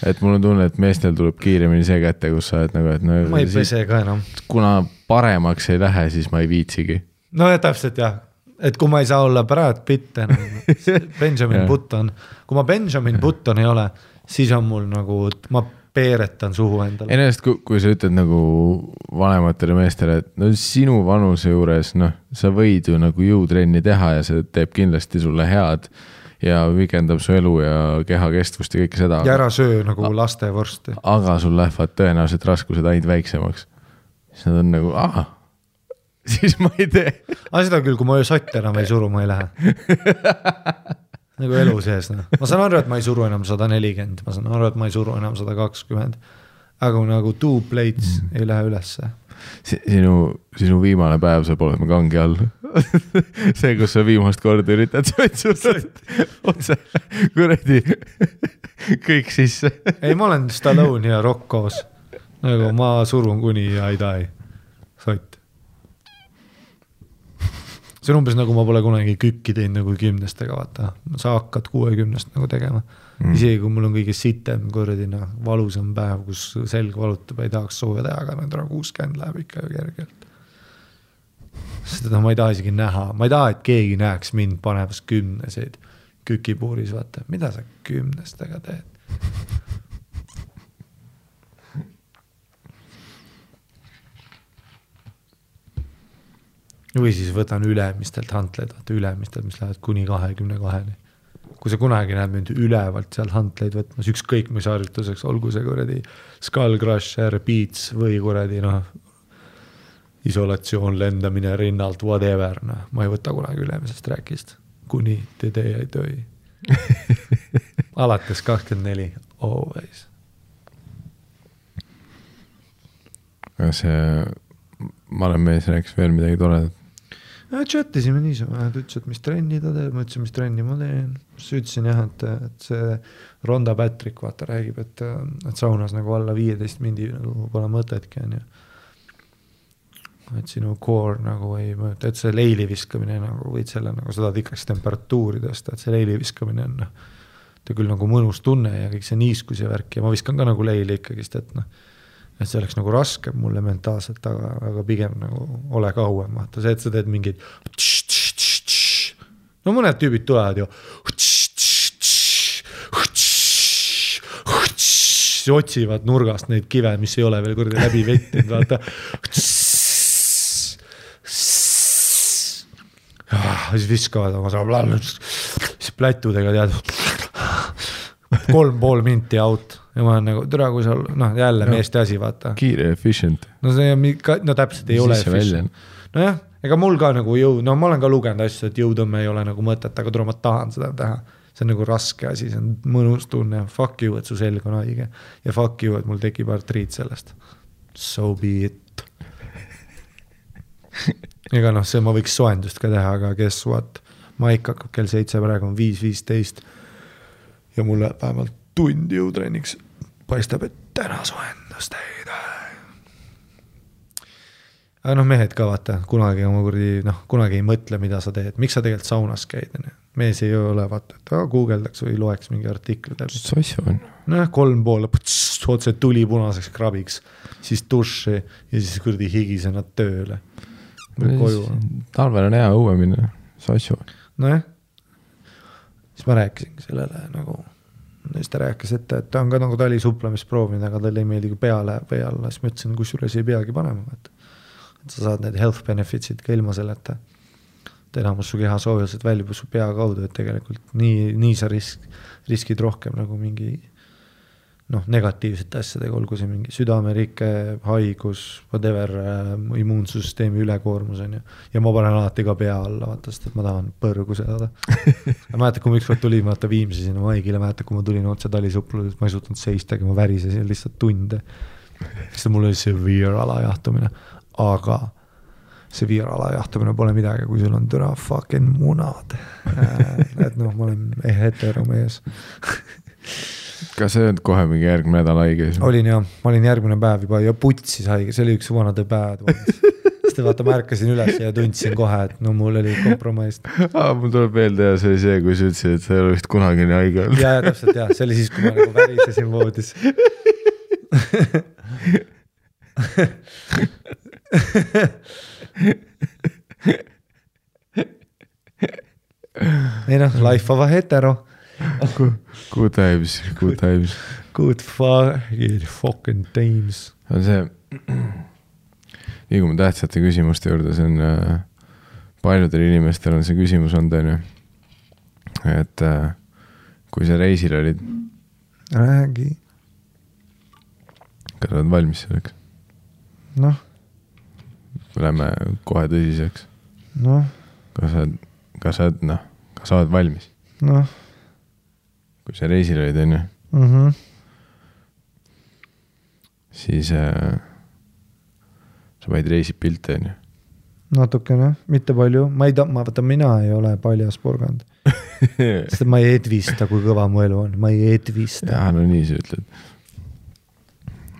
Et mul on tunne, et meestel tuleb kiiremini see kätte, kus sa et nagu, et no, ma ei pese ka enam. Kuna paremaks ei lähe, siis ma ei viitsigi. No ja täpselt jah, et kui ma ei saa olla Brad Pitt enam, Benjamin Button, kui ma Benjamin Button ei ole, siis on mul nagu, ma peeretan suhu endale. Ennast, kui sa ütled nagu vanematele meestele, et no sinu vanuse juures, noh, sa võid ju nagu jõutrenni teha ja see teeb kindlasti sulle head ja vikendab su elu ja kehakestvust ja kõike seda. Ja ära söö nagu laste vorsti. Aga sul lähevad tõenäoliselt raskused ainult väiksemaks. Siis nad on nagu, siis ma ei tee. Seda küll, kui ma sotte enam ei suru, ma ei lähe. Nagu elu sees. No. Ma saan aru, et ma ei suru enam 140, ma saan aru, et ma ei suru enam 120. Aga nagu 2 plates ei lähe ülesse. Sinu viimane päev saab olema kangi all. See, kus sa viimast korda üritad otse kuredi kõik sisse. Ei, ma olen Stallone ja Rock koos. Nagu ma surun kuni ja ei tai. Sott. See on umbes nagu ma pole kunagi kükki teinud nagu 10-stega, vaata. Sa hakkad 60-st nagu tegema. Isegi kui mul on kõige sitem korradina valusam päev, kus selg valutab, ei tahaks sooja teha, aga nüüd 60 läheb ikka kergelt. Seda ma ei taha isegi näha. Ma ei taha, et keegi näeks mind panevas 10-seid kükipuuris, vaata. Mida sa 10-stega teed? Või siis võtan ülemistelt hantleid, vaata ülemistelt, mis lähevad kuni 22-ni. Kui sa kunagi näed mind ülevalt seal hantleid võtmas, ükskõik mis harjutuseks, olgu see kuradi skull crusher, beats või kuradi isolatsioon, lendamine rinnalt, whatever. Ma ei võta kunagi ülemisest rääkist, kuni te ei töi. Alates 24, always. Ma olen mees rääkis veel midagi toledat. Chatisime niisama, et ütles, et mis trenni ta teeb, ma ütlesin, mis trenni ma teen. Siis ütlesin jah, et see Ronda Patrick vaata räägib, et saunas nagu alla 15 mindi nagu pole mõtetki on ju. Et sinu core nagu ei mõõta, et see leili viskamine nagu võid selle nagu seda tikraks temperatuuri tõsta, et see leili viskamine on ta küll nagu mõnus tunne ja kõik see niiskus ja värk ja ma viskan ka nagu leili ikkagist, et et see oleks nagu raske mulle mentaalselt, aga pigem nagu ole kauem. Vaata see, et sa teed mingid no mõned tüübid tulevad ju otsivad nurgast neid kive, mis ei ole veel kurdi läbi vettinud, vaata siis viskavad oma siis plätudega tead 3,5 minti out ja ma olen nagu, türa kui seal, jälle meeste asi, vaata. Kiire, efficient. No täpselt ei ole efficient. No jah, ega mul ka nagu ma olen ka lugenud asju, et jõudõmme ei ole nagu mõtet, aga türa ma tahan seda teha. See on nagu raske asi, see on mõnus tunne. Fuck you, et su selg on haige. Ja fuck you, et mul tekib artriit sellest. So be it. Ega see ma võiks soendust ka teha, aga guess what? Maik hakkab kell 7, praegu on 5:15 ja mulle vähemalt tundi jõutrenniks paistab, et täna soendust ei tee. Aga mehed ka vaata, kunagi ei mõtle, mida sa teed. Miks sa tegelikult saunas käid? Mees ei ole vaata, et guugeldaks või loeks mingi artikli. Sassu on. 3,5, otse tuli punaseks krabiks, siis duši ja siis kurdi higisena tööle. Talvel on hea õue minna, sassu. Nojah. Siis ma rääkisin sellele nagu siis ta rääkis, et ta on ka nagu talisupplemist proovinud, aga tal ei meeldi, kui pea läheb või alla. Siis ma ütlesin, kusjuures ei peagi panema. Et sa saad need health benefitsid ka ilma selleta. et enamus su keha soojused väljub su pea kaudu, et tegelikult nii sa riskid rohkem nagu mingi negatiivsete asjadega, olgu see mingi südamerike, haigus, whatever, immuunsussüsteemi ülekoormus on ju. Ja ma panen alati ka pea alla, vaata, sest et ma tahan põrgu saada. Ma mäletad, kui ma ükskord tulin, vaata Viimsi sinna Maigile, mäletad, kui ma tulin otse Talisuplus, ma ei suutnud seistagi, ma värisesin lihtsalt tunde. Sest mul oli severe alajahtumine, aga severe alajahtumine pole midagi, kui sul on türa fucking munad. Et ma olen heteromees. Kas see on kohe mingi järgmine nädal haige? Olin jah, ma olin järgmine päev juba ja putsis haige, see oli üks vanade päevad. Sest vaata, ma ärkasin üles ja tundsin kohe, et mul oli kompromaist. Mul tuleb meelde ja see oli see, kui sa ütlesid, et sa ei ole vist kunagi nii haige olnud. Ja, täpselt jah, see oli siis, kui ma nagu värisesin voodis. Ei life of a hetero. Good times. Good fucking times. On see, liigume tähtsate küsimuste juurde, see on paljudel inimestel on see küsimus on tõenju, et kui sa reisil olid, räägi. Kas oled valmis selleks? Lähme kohe tõsiseks. Kas sa oled valmis? Kui sa reisil olid, on ju? Siis sa võid reisid pilte, on ju? Natukene, mitte palju. Mina ei ole paljas porgand. Sest ma ei edvista, kui kõva mu elu on. Ma ei edvista. Jaa, nii sa ütled.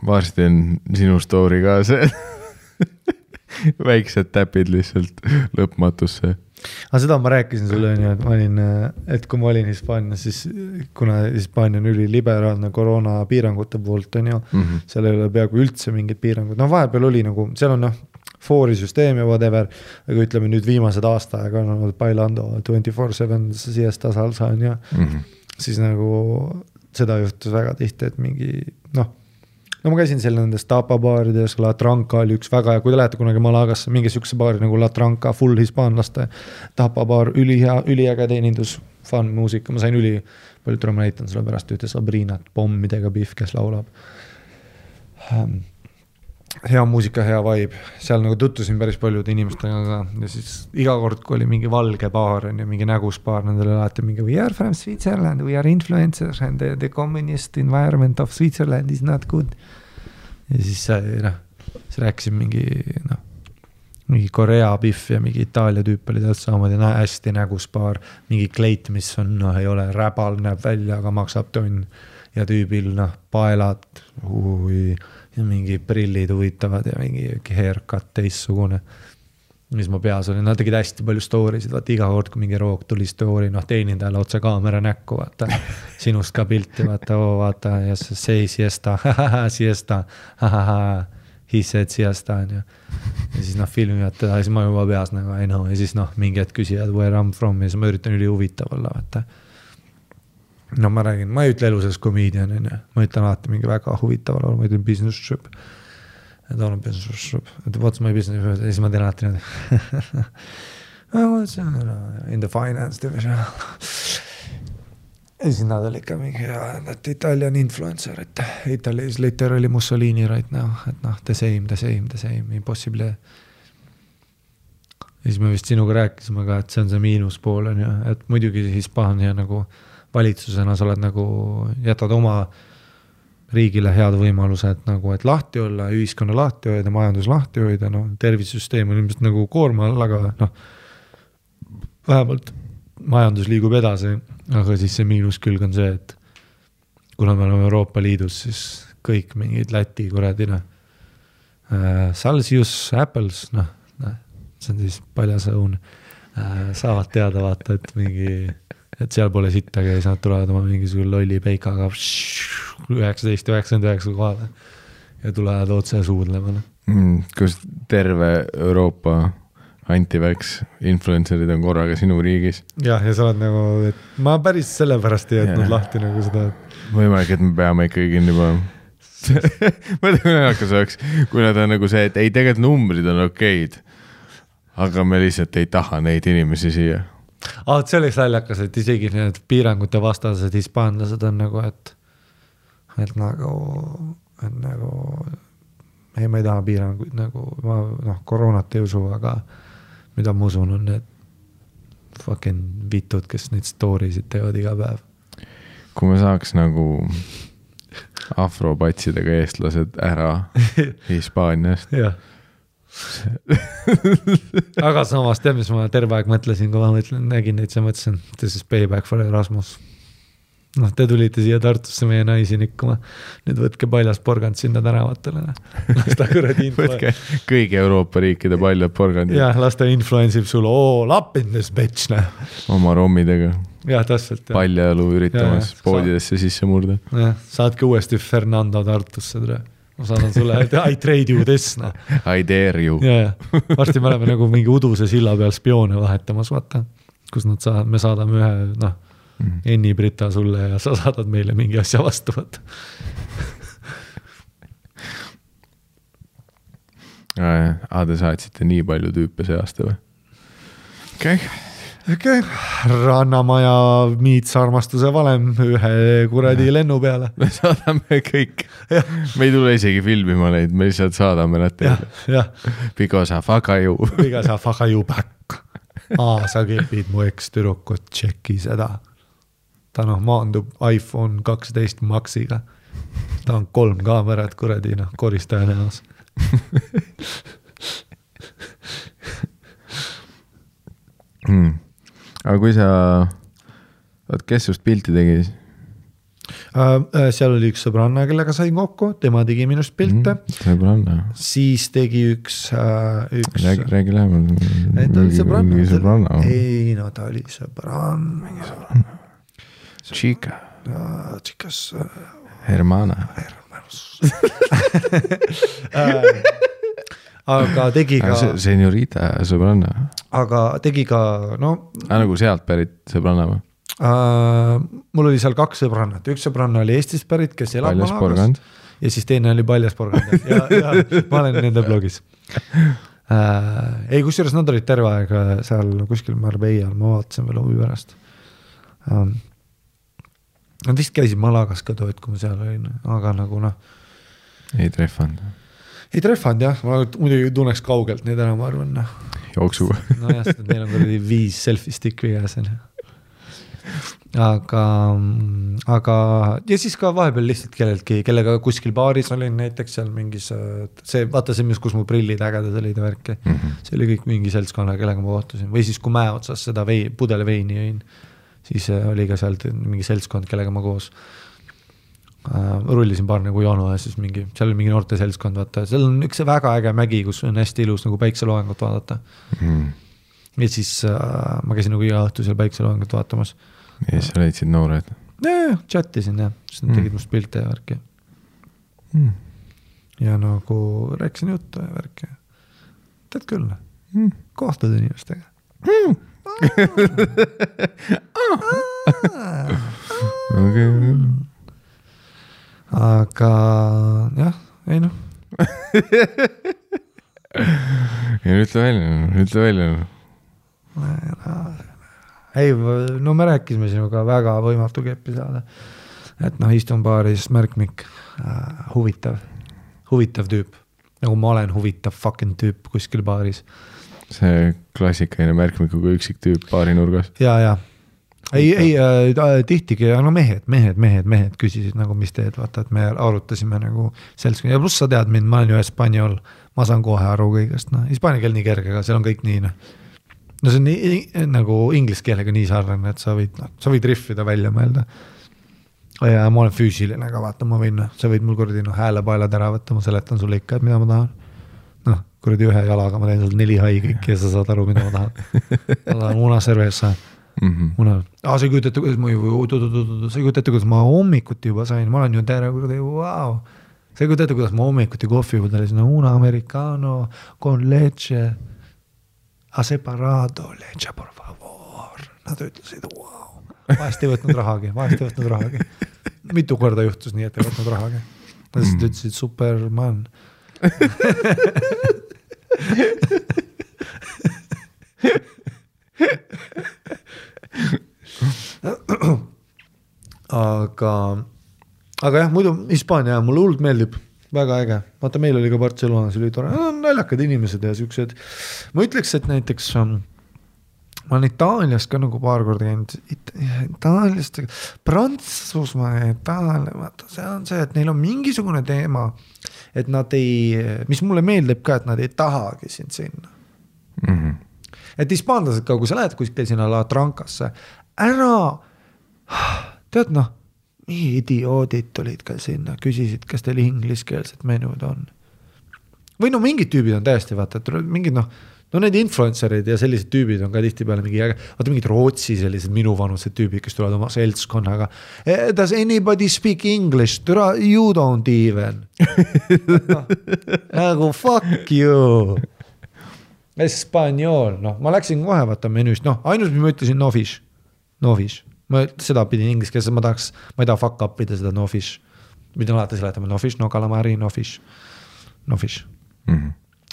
Varsti on sinu story ka see. Väiksed täpid lihtsalt lõpmatusse. Aga seda ma rääkisin sulle, et kui ma olin Hispaanias, siis kuna Hispaania on üliliberaalne koroona piirangute poolt, on ju, seal ei ole peaaegu üldse mingid piirangud. Vahepeal oli nagu, seal on foorisüsteem ja whatever, aga ütleme nüüd viimased aastaaega on olnud bailando 24/7 siesta salsa on ju, siis nagu seda juhtus väga tihti, et mingi, ma käisin seal nendes tapabaarides, La Tranca oli üks väga, ja kui te lähete kunagi Malagasse, mingi sükse baari nagu La Tranca, full hispaanlaste tapabaar, üliäge teenindus, fun muusika, ma sain palju türa, ma näitan sulle pärast ühte Sabrinat, pommidega Biff, kes laulab. Hea muusika, hea vibe, seal nagu tuttusin päris paljude inimestega ka ja siis iga kord, kui oli mingi valge baar ja mingi nägusbaar, nendele alati mingi we are from Switzerland, we are influencers and the communist environment of Switzerland is not good. Ja siis siis rääkisin mingi Korea Biff ja mingi Itaalia tüüp oli täht saamad ja hästi nägusbaar, mingi kleit, mis on, ei ole räbal, näeb välja, aga maksab tonn ja tüübil, paelad, ja mingi prillid huvitavad ja mingi haircut teissugune, mis ma peas olin. Nad tegid hästi palju storysid, vaata iga kord, kui mingi roog tuli story, teenindajale otse kaamera näkku, vaata, sinust ka pilti, vaata, ja see siesta, siesta, he said siesta, ja siis filmivad teda, ja siis ma juba peas nagu, I know, ja siis mingi hetk küsivad where I'm from, ja siis ma üritan üli huvitav olla, vaata. Ma räägin, ma ei ütle elu selles komedian, ma ütlen alati mingi väga huvitaval olla, ma ütlen business trip. Et olen business trip. Et what's my business trip? Ja siis ma teen alati in the finance division. Ja siis nad oli ikka mingi Italian influencer, et Italy is literally Mussolini right now. Et the same, impossible. Ja siis me vist sinuga rääkisime ka, et see on see miinuspool, et muidugi Hispaania nagu valitsusena sa oled nagu, jätad oma riigile head võimalused nagu, et lahti olla, ühiskonna lahti hoida, majandus lahti hoida, tervisesüsteem on ilmselt nagu koorma all, aga vähemalt majandus liigub edasi, aga siis see miinuskülg on see, et kuna me oleme Euroopa Liidus, siis kõik mingid Läti kuradina Celsius, Apples, see on siis paljas õun, saavad teada vaata, et mingi et seal pole sittagi ja siis nad tulevad oma mingisugune lolli peikaga 1999 kohale ja tulevad otse suudlema. Kus terve Euroopa anti-vax influencerid on korraga sinu riigis. Ja sa oled nagu, et ma päris sellepärast ei jätnud lahti nagu seda. Võimalik, et me peame ikkagi kinni panema. Ma ei tea, kui naljakas oleks, kui nad on nagu see, et ei tegelikult numbrid on okeid. aga me lihtsalt ei taha neid inimesi siia. See oleks naljakas, et isegi need piirangute vastased hispaanlased on nagu, et nagu ei, ma ei taha piiranguid nagu, ma koroonat ei usu, aga mida ma usun on need fucking vitud, kes neid story'sid teevad iga päev. Kui me saaks nagu afropatsidega eestlased ära Hispaaniast. Jah. Aga samas tead, mis ma terve aeg mõtlesin, kui ma nägin neid, siis mõtlesin, this is payback for Erasmus. Te tulite siia Tartusse meie naisi nikkuma. Nüüd võtke paljas porgand sinna tänavatele. Lasta kuradi võtke kõigi Euroopa riikide paljad porgandid. Jah, lasta influensib sul, up in this bitch. Oma rommidega. Jah, täpselt. Paljajalu üritamas poodidesse sisse murda. Jah, saadke uuesti Fernando Tartusse. Ma saadan sulle, I trade you this. I dare you. Varsti me oleme nagu mingi uduse silla peal spioone vahetamas, vaata. Kus me saadame ühe, Enni Brita sulle ja sa saadad meile mingi asja vastu. Te saatsite nii palju tüüpe see aasta või? Okay. Rannamaja miits armastuse valem ühe kuradi lennu peale. Me saadame kõik. Me ei tule isegi filmima neid, me lihtsalt saadame nad teile. Because I fuck you. Because I fuck you back. Sa kepid mu eks-tüdrukut, tšeki seda. Ta maandub iPhone 12 Maxiga. Ta on 3 kaamerat kuradi, koristaja näos. Aga kui sa, kes just pilti tegi? Seal oli üks sõbranna, kellega sain kokku, tema tegi minust pilte. Sõbranna. Siis tegi üks Räägi lähemal. Ta oli sõbranna. Ei, ta oli sõbranna. Mingi sõbranna. Chica. Chicas. Hermana. Aga tegi ka Señorita sõbranna. Aga tegi ka nagu sealt pärit sõbranna või? Mul oli seal 2 sõbrannat. Üks sõbranna oli Eestist pärit, kes elab Malagas. Ja siis teine oli Paljas porgand. Ja ma olen nende blogis. Ei, kusjuures nad olid terve aeg seal kuskil Marbeial, ma vaatasin veel huvi pärast. Nad vist käisid Malagas ka tood, kui ma seal olin, aga nagu Ei treffanud. Ei treffanud, jah. Ma muidugi tunneks kaugelt neid ära, ma arvan. Jooksuga. Jah, sest neil on kuradi 5 selfie stick vigas. Aga ja siis ka vahepeal lihtsalt kelleltki, kellega kuskil baaris olin näiteks seal mingis, vaata see, kus mu prillid ägedad olid ja värki. See oli kõik mingi seltskonna, kellega ma kohtusin. Või siis, kui mäe otsas seda pudele veini jõin, siis oli ka sealt mingi seltskond, kellega ma koos rullisin paar nagu joonu ja siis seal oli mingi noorte seltskond, vaata. Seal on üks väga äge mägi, kus on hästi ilus nagu päikseloojangut vaadata. Ja siis ma käisin nagu iga õhtu seal päikseloojangut vaatamas. Ja siis sa leidsid noored? Chattisin, jah. Siis nad tegid must pilte ja värki. Ja nagu rääkisin juttu ja värki. Tead küll, kohtud inimestega. Aga jah, ei ütle välja. Ei, me rääkisime sinuga väga võimatu keppi saada. Et istun baaris märkmik, huvitav tüüp. Nagu ma olen huvitav fucking tüüp kuskil baaris. See klassikaline märkmikuga üksik tüüp baari nurgas. Ja. Ei, tihtigi, mehed küsisid nagu, mis teed, vaata, et me arutasime nagu seltskond. Ja pluss sa tead mind, ma olen ju Hispaaniol, ma saan kohe aru kõigest. Hispaania keel nii kerge, aga seal on kõik nii. See on nii, nagu inglise keelega nii sarnane, et sa võid riffida välja mõelda. Ja ma olen füüsiline, aga vaata, ma võin, sa võid mul kuradi häälepaelad ära võtta, ma seletan sulle ikka, et mida ma tahan. Kuradi ühe jalaga, ma teen sul 4 hai kõik ja sa saad aru, mida ma tahan. Ma tahan una cerveza. Sa ei kujutate, kuidas ma hommikuti juba sain, ma olen ju terve kuradi, wow. Sa ei kujutate, kuidas ma hommikuti kohvi juba talisin, una americano con leche a separado, leche por favor. Nad ütlesid, wow. Vahest ei võtnud rahagi. Mitu korda juhtus nii, et ei võtnud rahagi. Nad ütlesid, superman. aga jah, muidu Hispaania mulle hullult meeldib, väga äge. Vaata, meil oli ka Barcelonas, oli tore, naljakad inimesed ja siuksed. Ma ütleks, et näiteks ma olen Itaalias ka nagu paar korda käinud, Itaaliast, Prantsusmaa ja Itaalia, vaata, see on see, et neil on mingisugune teema, et nad mis mulle meeldib ka, et nad ei tahagi sind sinna. Mhm. Et hispaanlased ka, kui sa lähed kuskil sinna La Trancasse, tead nii idioodid tulid ka sinna, küsisid, kas teil ingliskeelset menud on. Või mingid tüübid on täiesti, vaata, et mingid need influencerid ja sellised tüübid on ka tihti peale vaata mingid Rootsi sellised minuvanused tüübid, kes tulevad oma seltskonnaga. Does anybody speak English? You don't even. Nagu fuck you. Espanjol, ma läksin kohe vaata menüüst, ainult mis ma ütlesin no fish. Ma seda pidin ingliskeelse, ma ei taha fuck up ida seda no fish. Pidin alati seletama no fish, no calamari, no fish.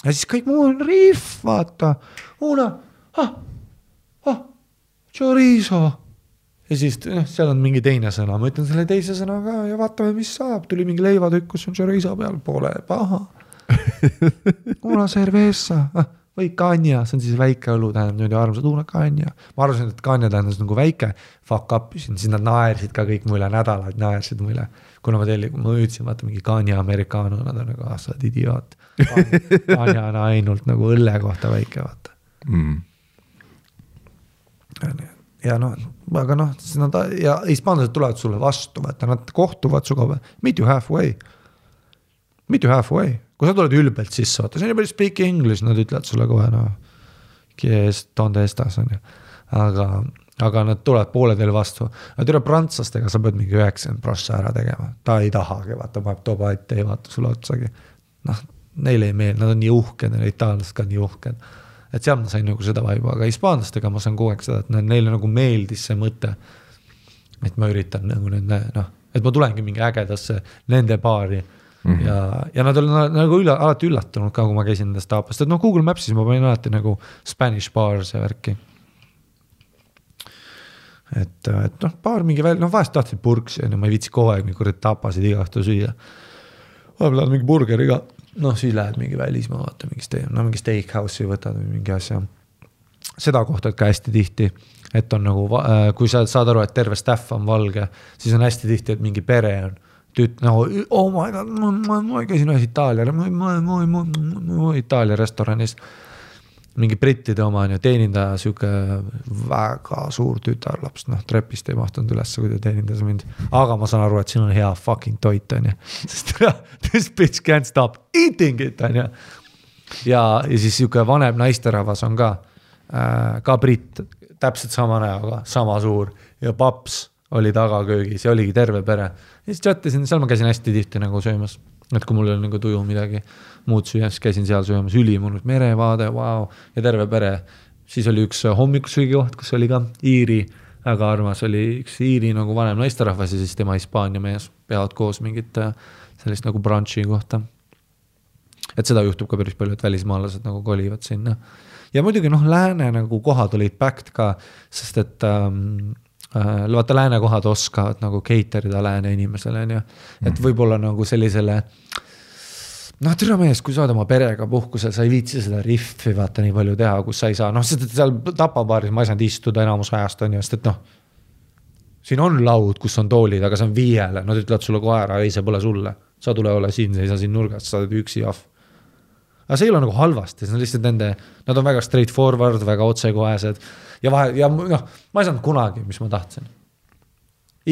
Ja siis kõik muu on riff, vaata. Chorizo. Ja siis seal on mingi teine sõna. Ma ütlen selle teise sõna ka ja vaatame, mis saab. Tuli mingi leivatükk, kus on chorizo peal, pole paha. Una cerveza. Või kanja, see on siis väike õlu, tähendab nüüd armsad, una kanja. Ma arvasin, et kanja tähendas nagu väike fuck up, siis nad naersid ka kõik mulle nädalad, naersid mulle. Kuna ma ütlesin, vaata mingi kanja amerikaano, nad on nagu, sa oled idioot. Kanja on ainult nagu õlle kohta väike, vaata. Ja aga ja hispaanlased tulevad sulle vastu, vaata, nad kohtuvad suga, meet you halfway. Kui sa tuled ülbelt sisse, vaata, see on juba speak English, nad ütlevad sulle kohe, donde estas on ju. Aga nad tulevad poole teil vastu. Nad üle prantslastega sa pead mingi 90% ära tegema. Ta ei tahagi, vaata, ma tooba ette, ei vaata sulle otsagi. Neile ei meel, nad on nii uhked, itaallased ka nii uhked. Et seal ma sain nagu seda vaiba, aga hispaanlastega ma saan kogu aeg seda, et neile nagu meeldis see mõte, et ma üritan nagu et ma tulengi mingi ägedasse nende baari. Ja nad olid nagu alati üllatunud ka, kui ma käisin nendest taapast, et Google Mapsis ma panin alati nagu Spanish bars ja värki. Et paar mingi vahest tahtsid purksi, ma ei viitsi kogu aeg mingi tapasid iga õhtu süüa. Vahepeal mingi burgeriga, siis lähed mingi välismaa, vaata mingi steakhouse'i võtad või mingi asja. Seda kohtad ka hästi tihti, et on nagu, kui sa saad aru, et terve staff on valge, siis on hästi tihti, et mingi pere on. Oh my god, ma käisin ühes Itaalia restoranis, mingi brittide oma on ja teenindaja siuke väga suur tütarlaps, trepist ei mahtunud üles, kui ta teenindas mind, aga ma saan aru, et siin on hea fucking toit on ja, sest this bitch can't stop eating it on ja. Ja siis siuke vanem naisterahvas on ka britt, täpselt sama näoga, sama suur ja paps oli tagaköögis ja oligi terve pere. Ja siis chattasin, seal ma käisin hästi tihti nagu söömas, et kui mul oli nagu tuju midagi muud süüa, siis käisin seal söömas, ülimunud merevaade, wow, ja terve pere. Siis oli üks hommikusöögi koht, kus oli ka Iiri, väga armas oli üks Iiri nagu vanem naisterahvas ja siis tema Hispaania mees peavad koos mingit sellist nagu brunchi kohta. Et seda juhtub ka päris palju, et välismaalased nagu kolivad sinna. Ja muidugi lääne nagu kohad olid packed ka, sest et vaata lääne kohad oskavad nagu caterida lääne inimesele, et võib-olla nagu sellisele türa mees, kui sa oled oma perega puhkusel, sa ei viitsi seda riffi vaata nii palju teha, kus sa ei saa, sest et seal tapabaaris ma ei saanud istuda enamus ajast on ju, sest et siin on laud, kus on toolid, aga see on 5, nad ütlevad sulle kohe ära, ei see pole sulle, sa tule ole siin, sa ei saa siin nurgast, sa oled üksi jahv. Aga see ei ole nagu halvasti, see on lihtsalt nad on väga straightforward, väga otsekohesed ja ma ei saanud kunagi, mis ma tahtsin.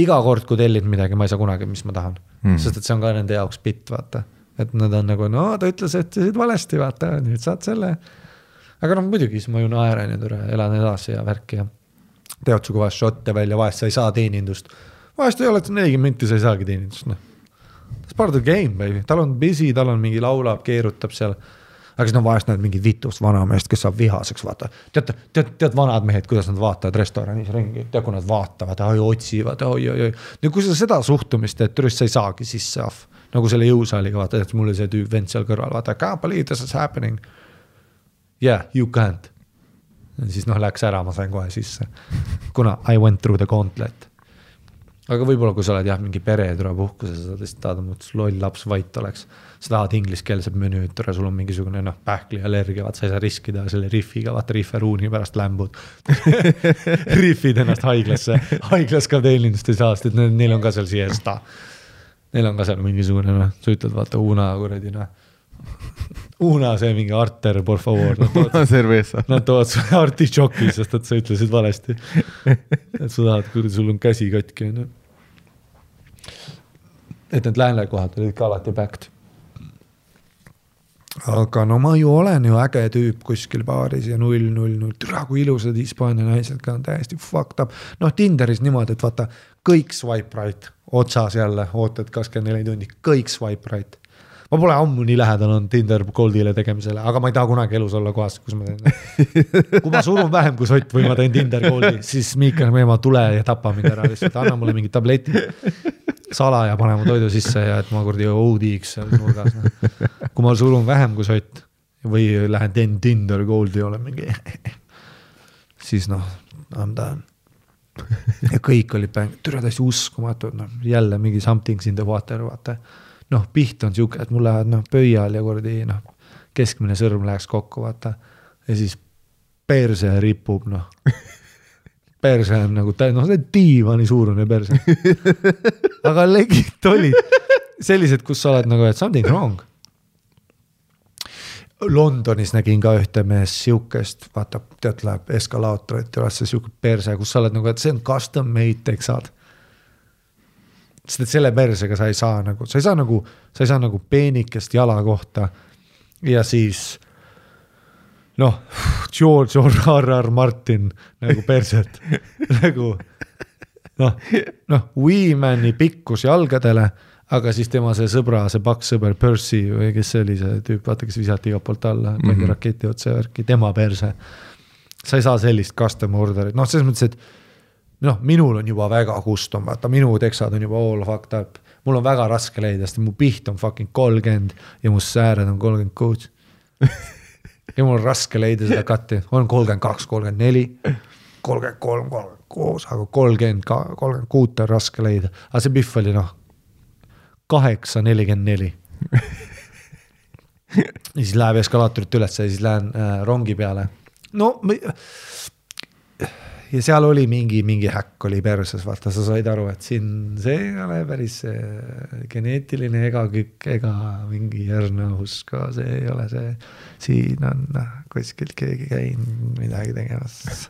Iga kord, kui tellid midagi, ma ei saa kunagi, mis ma tahan. Sest et see on ka nende jaoks bitt, vaata. Et nad on nagu, ta ütles, et see valesti, vaata, nüüd saad selle. Aga muidugi, siis ma ju naeran ja elan edasi ja värki ja teod sugu vahest šotte välja, vahest sa ei saa teenindust. Vahest ei ole 40 minti, sa ei saagi teenindust. That's part of the game, baby. Tal on busy, tal on mingi laulab, keerutab seal. Aga siis vahest näed mingi vitust vanameest, kes saab vihaseks, vaata. Tead vanad mehed, kuidas nad vaatavad restoranis ringi, tead, kui nad vaatavad, otsivad, oi. Ja kui sa seda suhtumist, et türist sa ei saagi sisse ahv, nagu selle jõusaaliga, vaata, et mul oli see tüüp vend seal kõrval, vaata, I can't believe this is happening. Yeah, you can't. Ja siis läks ära, ma sain kohe sisse. Kuna I went through the gauntlet. aga võib-olla kui sa oled jah, mingi pere tule puhkuse, sa tõesti tahad, et loll laps vait oleks. Sa tahad ingliskeelsed menüüd, sul on mingisugune pähkli allergia, vaat sa ei saa riskida selle riffiga, vaata rifferuuni pärast lämbud. Riffid ennast haiglas ka teenindust ei saa, sest neil on ka seal siesta. Neil on ka seal mingisugune, sa ütled, vaata Una kuradi, Una see mingi arter, por favor. Nad toovad sulle artišoki, sest et sa ütlesid valesti. Et sa tahad, kuradi, sul on käsi katki. Et need läänlekohad olid ka alati backed. Aga ma ju olen ju äge tüüp kuskil baaris ja 0-0-0. Türa, kui ilusad Hispaania naised ka on täiesti fucked up. Tinderis niimoodi, et vaata, kõik swipe right, otsas jälle, ootad 24 tundi, kõik swipe right. Ma pole ammu nii lähedal on Tinder Goldile tegemisele, aga ma ei taha kunagi elus olla kohas, kus ma teen. Kui ma surun vähem kui sott või ma teen Tinder Goldi, siis Miikal Meema tule ja tapa mind ära, lihtsalt anna mulle mingi tableti sala ja pane mu toidu sisse ja et ma kurdi OD-iks seal nurgas. Kui ma surun vähem kui sott või lähen teen Tinder Goldi, olen mingi siis I'm done. Ja kõik oli türa täiesti uskumatud, jälle mingi something's in the water, vaata. Piht on siuke, et mul lähevad pöial ja kurdi keskmine sõrm läheks kokku, vaata. Ja siis perse ripub, perse on nagu, see diivani suurune perse. Aga legit olid sellised, kus sa oled nagu, et something wrong. Londonis nägin ka ühte mees siukest, vaata, tead läheb eskalaatorit ja see siuke perse, kus sa oled nagu, et see on custom made teksad. Sest et selle persega sa ei saa nagu peenikest jala kohta ja siis George R.R. Martin nagu perset nagu Weemani pikkus jalgadele, aga siis tema see sõbra, see paks sõber Percy või kes see oli see tüüp, vaata, kes visati iga poolt alla, pandi raketi otse värki, tema perse. Sa ei saa sellist custom orderit, selles mõttes, et minul on juba väga custom, vaata, minu teksad on juba all fucked up. Mul on väga raske leida, sest mu piht on fucking 30 ja mu sääred on 36. Ja mul on raske leida seda katti. On 32, 34, 33, 36, aga 36 on raske leida. Aga see pihv oli 8, 44. Ja siis läheb eskalaatorit üles ja siis lähen rongi peale. Ja seal oli mingi häkk oli perses, vaata, sa said aru, et siin see ei ole päris geneetiline ega kükk ega mingi järnahus ka, see ei ole see, siin on kuskilt keegi käinud midagi tegemas.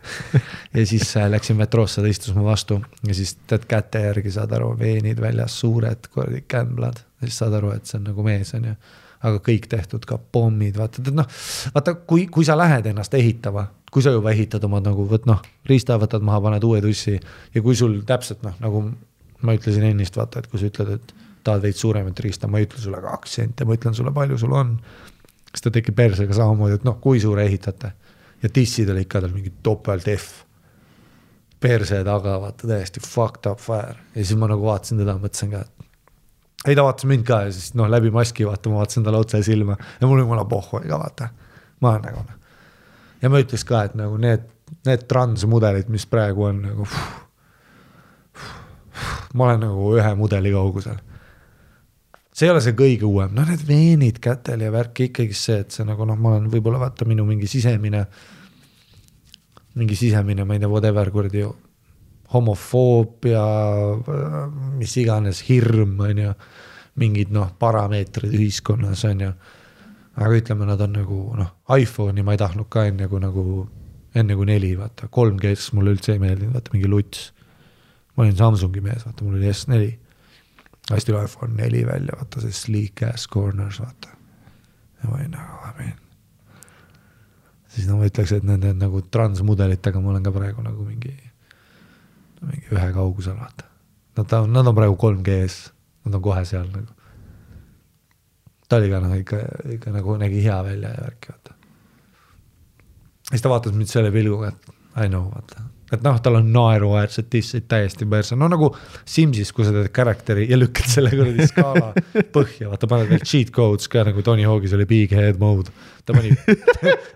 Ja siis läksin metroosse, ta istus mu vastu ja siis tead käte järgi saad aru, veenid väljas, suured kämblad, ja siis saad aru, et see on nagu mees on ju, aga kõik tehtud ka pommid, vaata, kui sa lähed ennast ehitama, kui sa juba ehitad oma nagu, riista võtad maha, paned uue tussi ja kui sul täpselt, nagu ma ütlesin ennist, vaata, et kui sa ütled, et tahad veid suuremat riista, ma ei ütle sulle 2 senti, ma ütlen sulle, palju sul on, siis ta tekib persega samamoodi, et kui suure ehitate ja tissid oli ikka tal mingi topelt F perse taga, vaata, täiesti fucked up fire ja siis ma nagu vaatasin teda, mõtlesin ka, et ei ta vaatas mind ka ja siis läbi maski, vaata, ma vaatasin talle otse silma ja mul oli mulle pohhu ka, vaata, ma olen nagu ja ma ütleks ka, et nagu need transmudelid, mis praegu on nagu ma olen nagu ühe mudeli kaugusel. See ei ole see kõige uuem. Need veenid kätel ja värk ikkagi see, et see nagu ma olen võib-olla vaata minu mingi sisemine, ma ei tea, whatever kurdi homofoobia, mis iganes hirm on ju, mingid parameetrid ühiskonnas on ju. Aga ütleme, nad on nagu, iPhone'i ma ei tahtnud ka enne kui 4, vaata, 3G mulle üldse ei meeldinud, vaata, mingi luts. Ma olin Samsungi mees, vaata, mul oli S4. Hästi oli iPhone 4 välja, vaata, see sleek ass corners, vaata. Ja ma olin nagu, siis ma ütleks, et nende nagu transmudelitega ma olen ka praegu nagu mingi ühe kaugusel, vaata. Nad on praegu 3G-s, nad on kohe seal nagu. Ta oli ka ikka nagu nägi hea välja ja värki, vaata. Siis ta vaatas mind selle pilguga, et I know, vaata. Et tal on naeruäärsed tissid täiesti perse. Nagu Simsis, kui sa teed karakteri ja lükkad selle kuradi skaala põhja, vaata, paned veel cheat codes ka, nagu Tony Hawk'is oli big head mode. Ta pani,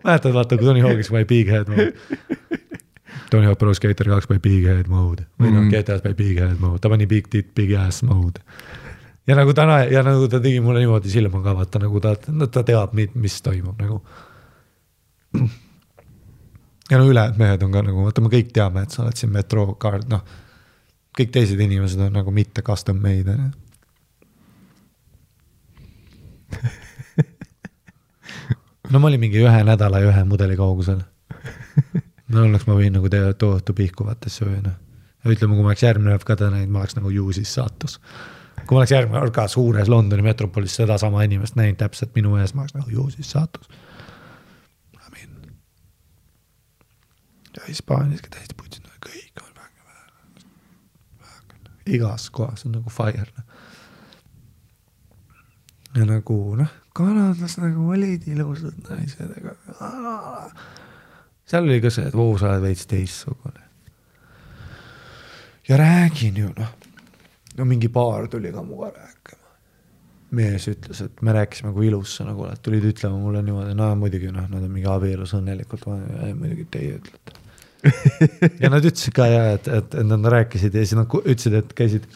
mäletad, vaata, kui Tony Hawk'is pani big head mode. Tony Hawk Pro Skater 2 by Big Head Mode või noh, GTS by Big Head Mode, ta pani Big Tit, Big Ass Mode. Ja nagu ta tegi mulle niimoodi silma ka, vaata nagu ta teab, mis toimub nagu. Ja no ülejäänud mehed on ka nagu, vaata me kõik teame, et sa oled siin Metro Card, noh, kõik teised inimesed on nagu mitte custom made. No ma olin mingi 1 nädala ja 1 mudeli kaugusel. No õnneks ma võin nagu teha tohutu pihku vaatesse või noh. Ja ütleme, kui ma oleks järgmine ka näinud, ma oleks nagu juusis saatus. Kui ma oleks järgmine ka suures Londoni metropolis seda sama inimest näinud täpselt minu ees, ma oleks nagu juusis saatus. Ja Hispaaniaski täiesti putsid, kõik on väga. Igas kohas on nagu fire. Ja nagu, kanadlas nagu olid ilusad naised. Seal oli ka see, et sa oled veits teissugune. Ja räägin ju, no mingi paar tuli ka muga rääkima. Mees ütles, et me rääkisime kui ilus sa nagu oled, tulid ütlema mulle niimoodi, muidugi, nad on mingi abielus õnnelikult, muidugi teie ütlete. Ja nad ütlesid ka, et nad rääkisid ja siis nad ütlesid,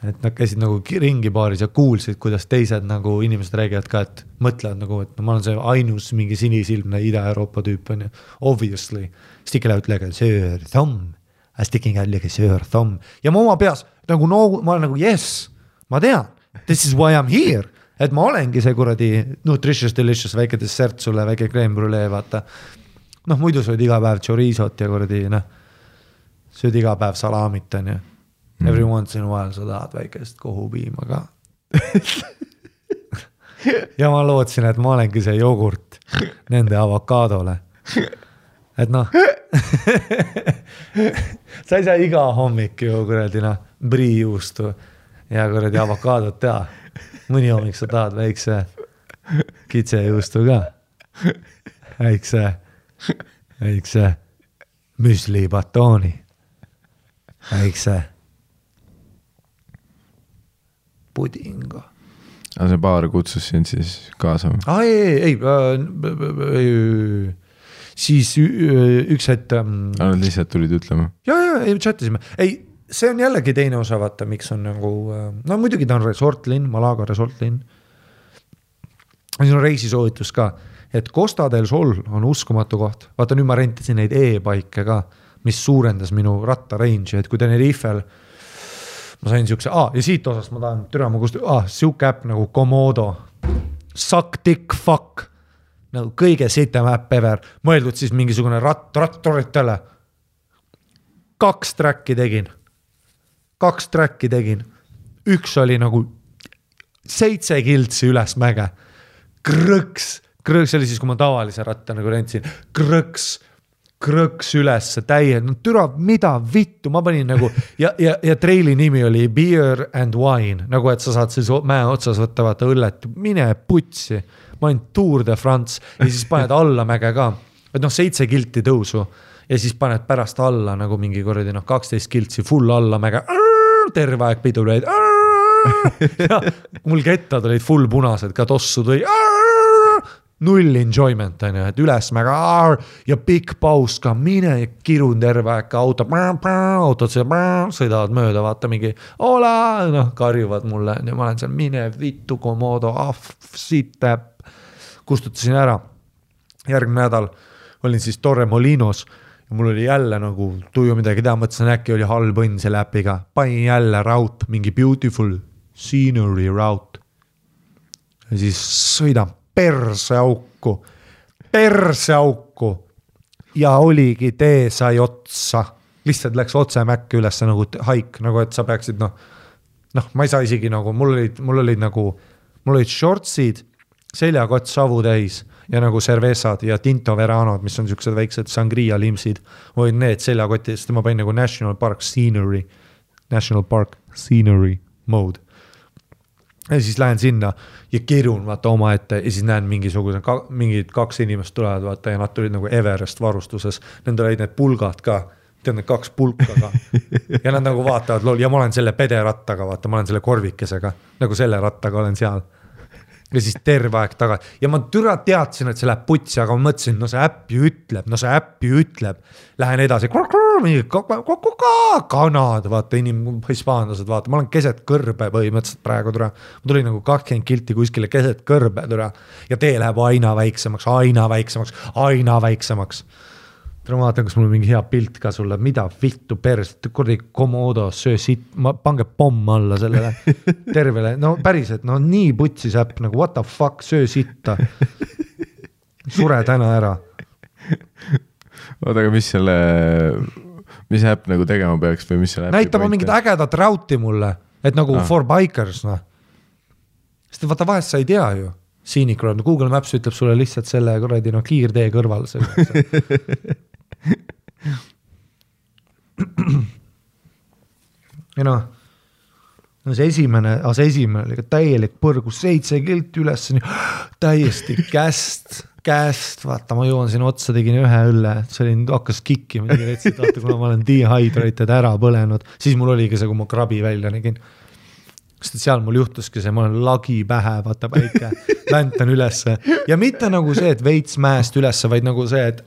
et nad käisid nagu ringi baaris ja kuulsid, kuidas teised nagu inimesed räägivad ka, et mõtlevad nagu, et ma olen see ainus mingi sinisilmne Ida-Euroopa tüüp on ja obviously sticking out like a sir thumb, sticking out like a sir thumb ja ma oma peas nagu ma olen nagu yes, ma tean, this is why I'm here, et ma olengi see kuradi nutritious delicious väike dessert sulle, väike crème brûlée, vaata. Noh, muidu sööd iga päev chorizot ja kuradi, sööd iga päev salamit on ja every once in a while sa tahad väikest kohupiima ka. Ja ma lootsin, et ma olengi see jogurt nende avokaadole. Et noh, sa ei saa iga hommik ju kuradi priijuustu ja kuradi avokaadot teha. Mõni hommik sa tahad väikse kitsejuustu ka. Väikse müsli batooni. Väikse pudinga. Aga see baar kutsus sind siis kaasa? Ei. Siis üks hetk... lihtsalt tulid ütlema? Ja, chatisime. Ei, see on jällegi teine osa, vaata, miks on nagu... No muidugi ta on resortlinn, Malaga resortlinn. Siin on reisisoovitus ka, et Costa del Sol on uskumatu koht. Vaata, nüüd ma rentisin neid e-paike ka, mis suurendas minu ratta range, et kui Tenerifel ma sain siukse, ja siit osast ma tahan türama kust, siuke äpp nagu Komodo, suck dick fuck, nagu kõige sitem äpp ever, mõeldud siis mingisugune rattoritele. 2 tracki tegin. Üks oli nagu 7 kiltsi üles mäge. Krõks oli siis, kui ma tavalise ratta nagu rentsin. Krõks üles täie, türa, mida vittu, ma panin nagu, ja treili nimi oli Beer and Wine, nagu et sa saad siis mäe otsas võtta, vaata õllet, mine putsi, ma olin Tour de France ja siis paned alla mäge ka, et 7 kilti tõusu ja siis paned pärast alla nagu mingi korradi 12 kiltsi full alla mäge, terve aeg pidu lõid, ja mul kettad olid full punased, ka tossu tõi, null enjoyment on ju, et ülesmäga ja pikk paus ka, mine kirun terve aeg ka autod sõidavad mööda, vaata mingi karjuvad mulle ja ma olen seal mine vittu Komodo, siit täpp, kustutasin ära. Järgmine nädal olin siis Torremolinos ja mul oli jälle nagu tuju midagi teha, mõtlesin äkki oli halb õnn selle äpiga, panin jälle route, mingi beautiful scenery route ja siis sõidan perse auku ja oligi tee sai otsa, lihtsalt läks otse mäkke üles nagu haik, nagu et sa peaksid ma ei saa isegi nagu, mul olid shortsid, seljakott savu täis ja nagu cervezad ja Tinto Veranod, mis on siuksed väiksed sangria limsid, olid need seljakotti, sest ma panin nagu National Park Scenery mode. Ja siis lähen sinna ja kirun vaata oma ette ja siis näen mingid 2 inimest tulevad vaata ja nad tulid nagu Everest varustuses. Nende olid need pulgad ka, tead need 2 pulka ka. Ja nad nagu vaatavad ja ma olen selle pederattaga, vaata, ma olen selle korvikesega, nagu selle rattaga olen seal. ja siis terve aeg tagasi ja ma türa teadsin, et see läheb putsi, aga ma mõtlesin, no see äpp ju ütleb, lähen edasi, kanad, vaata hispaanlased, vaata, ma olen keset kõrbe põhimõtteliselt praegu türa, ma tulin nagu 20 kilti kuskile keset kõrbe türa ja tee läheb aina väiksemaks. Ma vaatan, kas mul on mingi hea pilt ka sulle, mida vittu perst, kurdi Komodo, söö siit, pange pomm alla sellele tervele, no päriselt, no nii putsis äpp, nagu what the fuck, söö sitta, sure täna ära. Oota, aga mis äpp nagu tegema peaks või mis selle äppi näitama mingit ägedat rauti mulle, et nagu for bikers, noh. Sest vaata vahest sa ei tea ju, Scenic Road, Google Maps ütleb sulle lihtsalt selle kuradi, no kiirtee kõrval selle. ja noh, see esimene oli täielik põrgus, 7 kilti üles, täiesti käest, vaata, ma jõuan sinna otsa, tegin ühe õlle, see oli, hakkas kikkima, vaata, kuna ma olen dehydrated ära põlenud, siis mul oligi see, kui ma krabi välja nägin. Sest seal mul juhtuski see, ma olen lagi pähe, vaata päike, väntan ülesse ja mitte nagu see, et veits mäest ülesse, vaid nagu see, et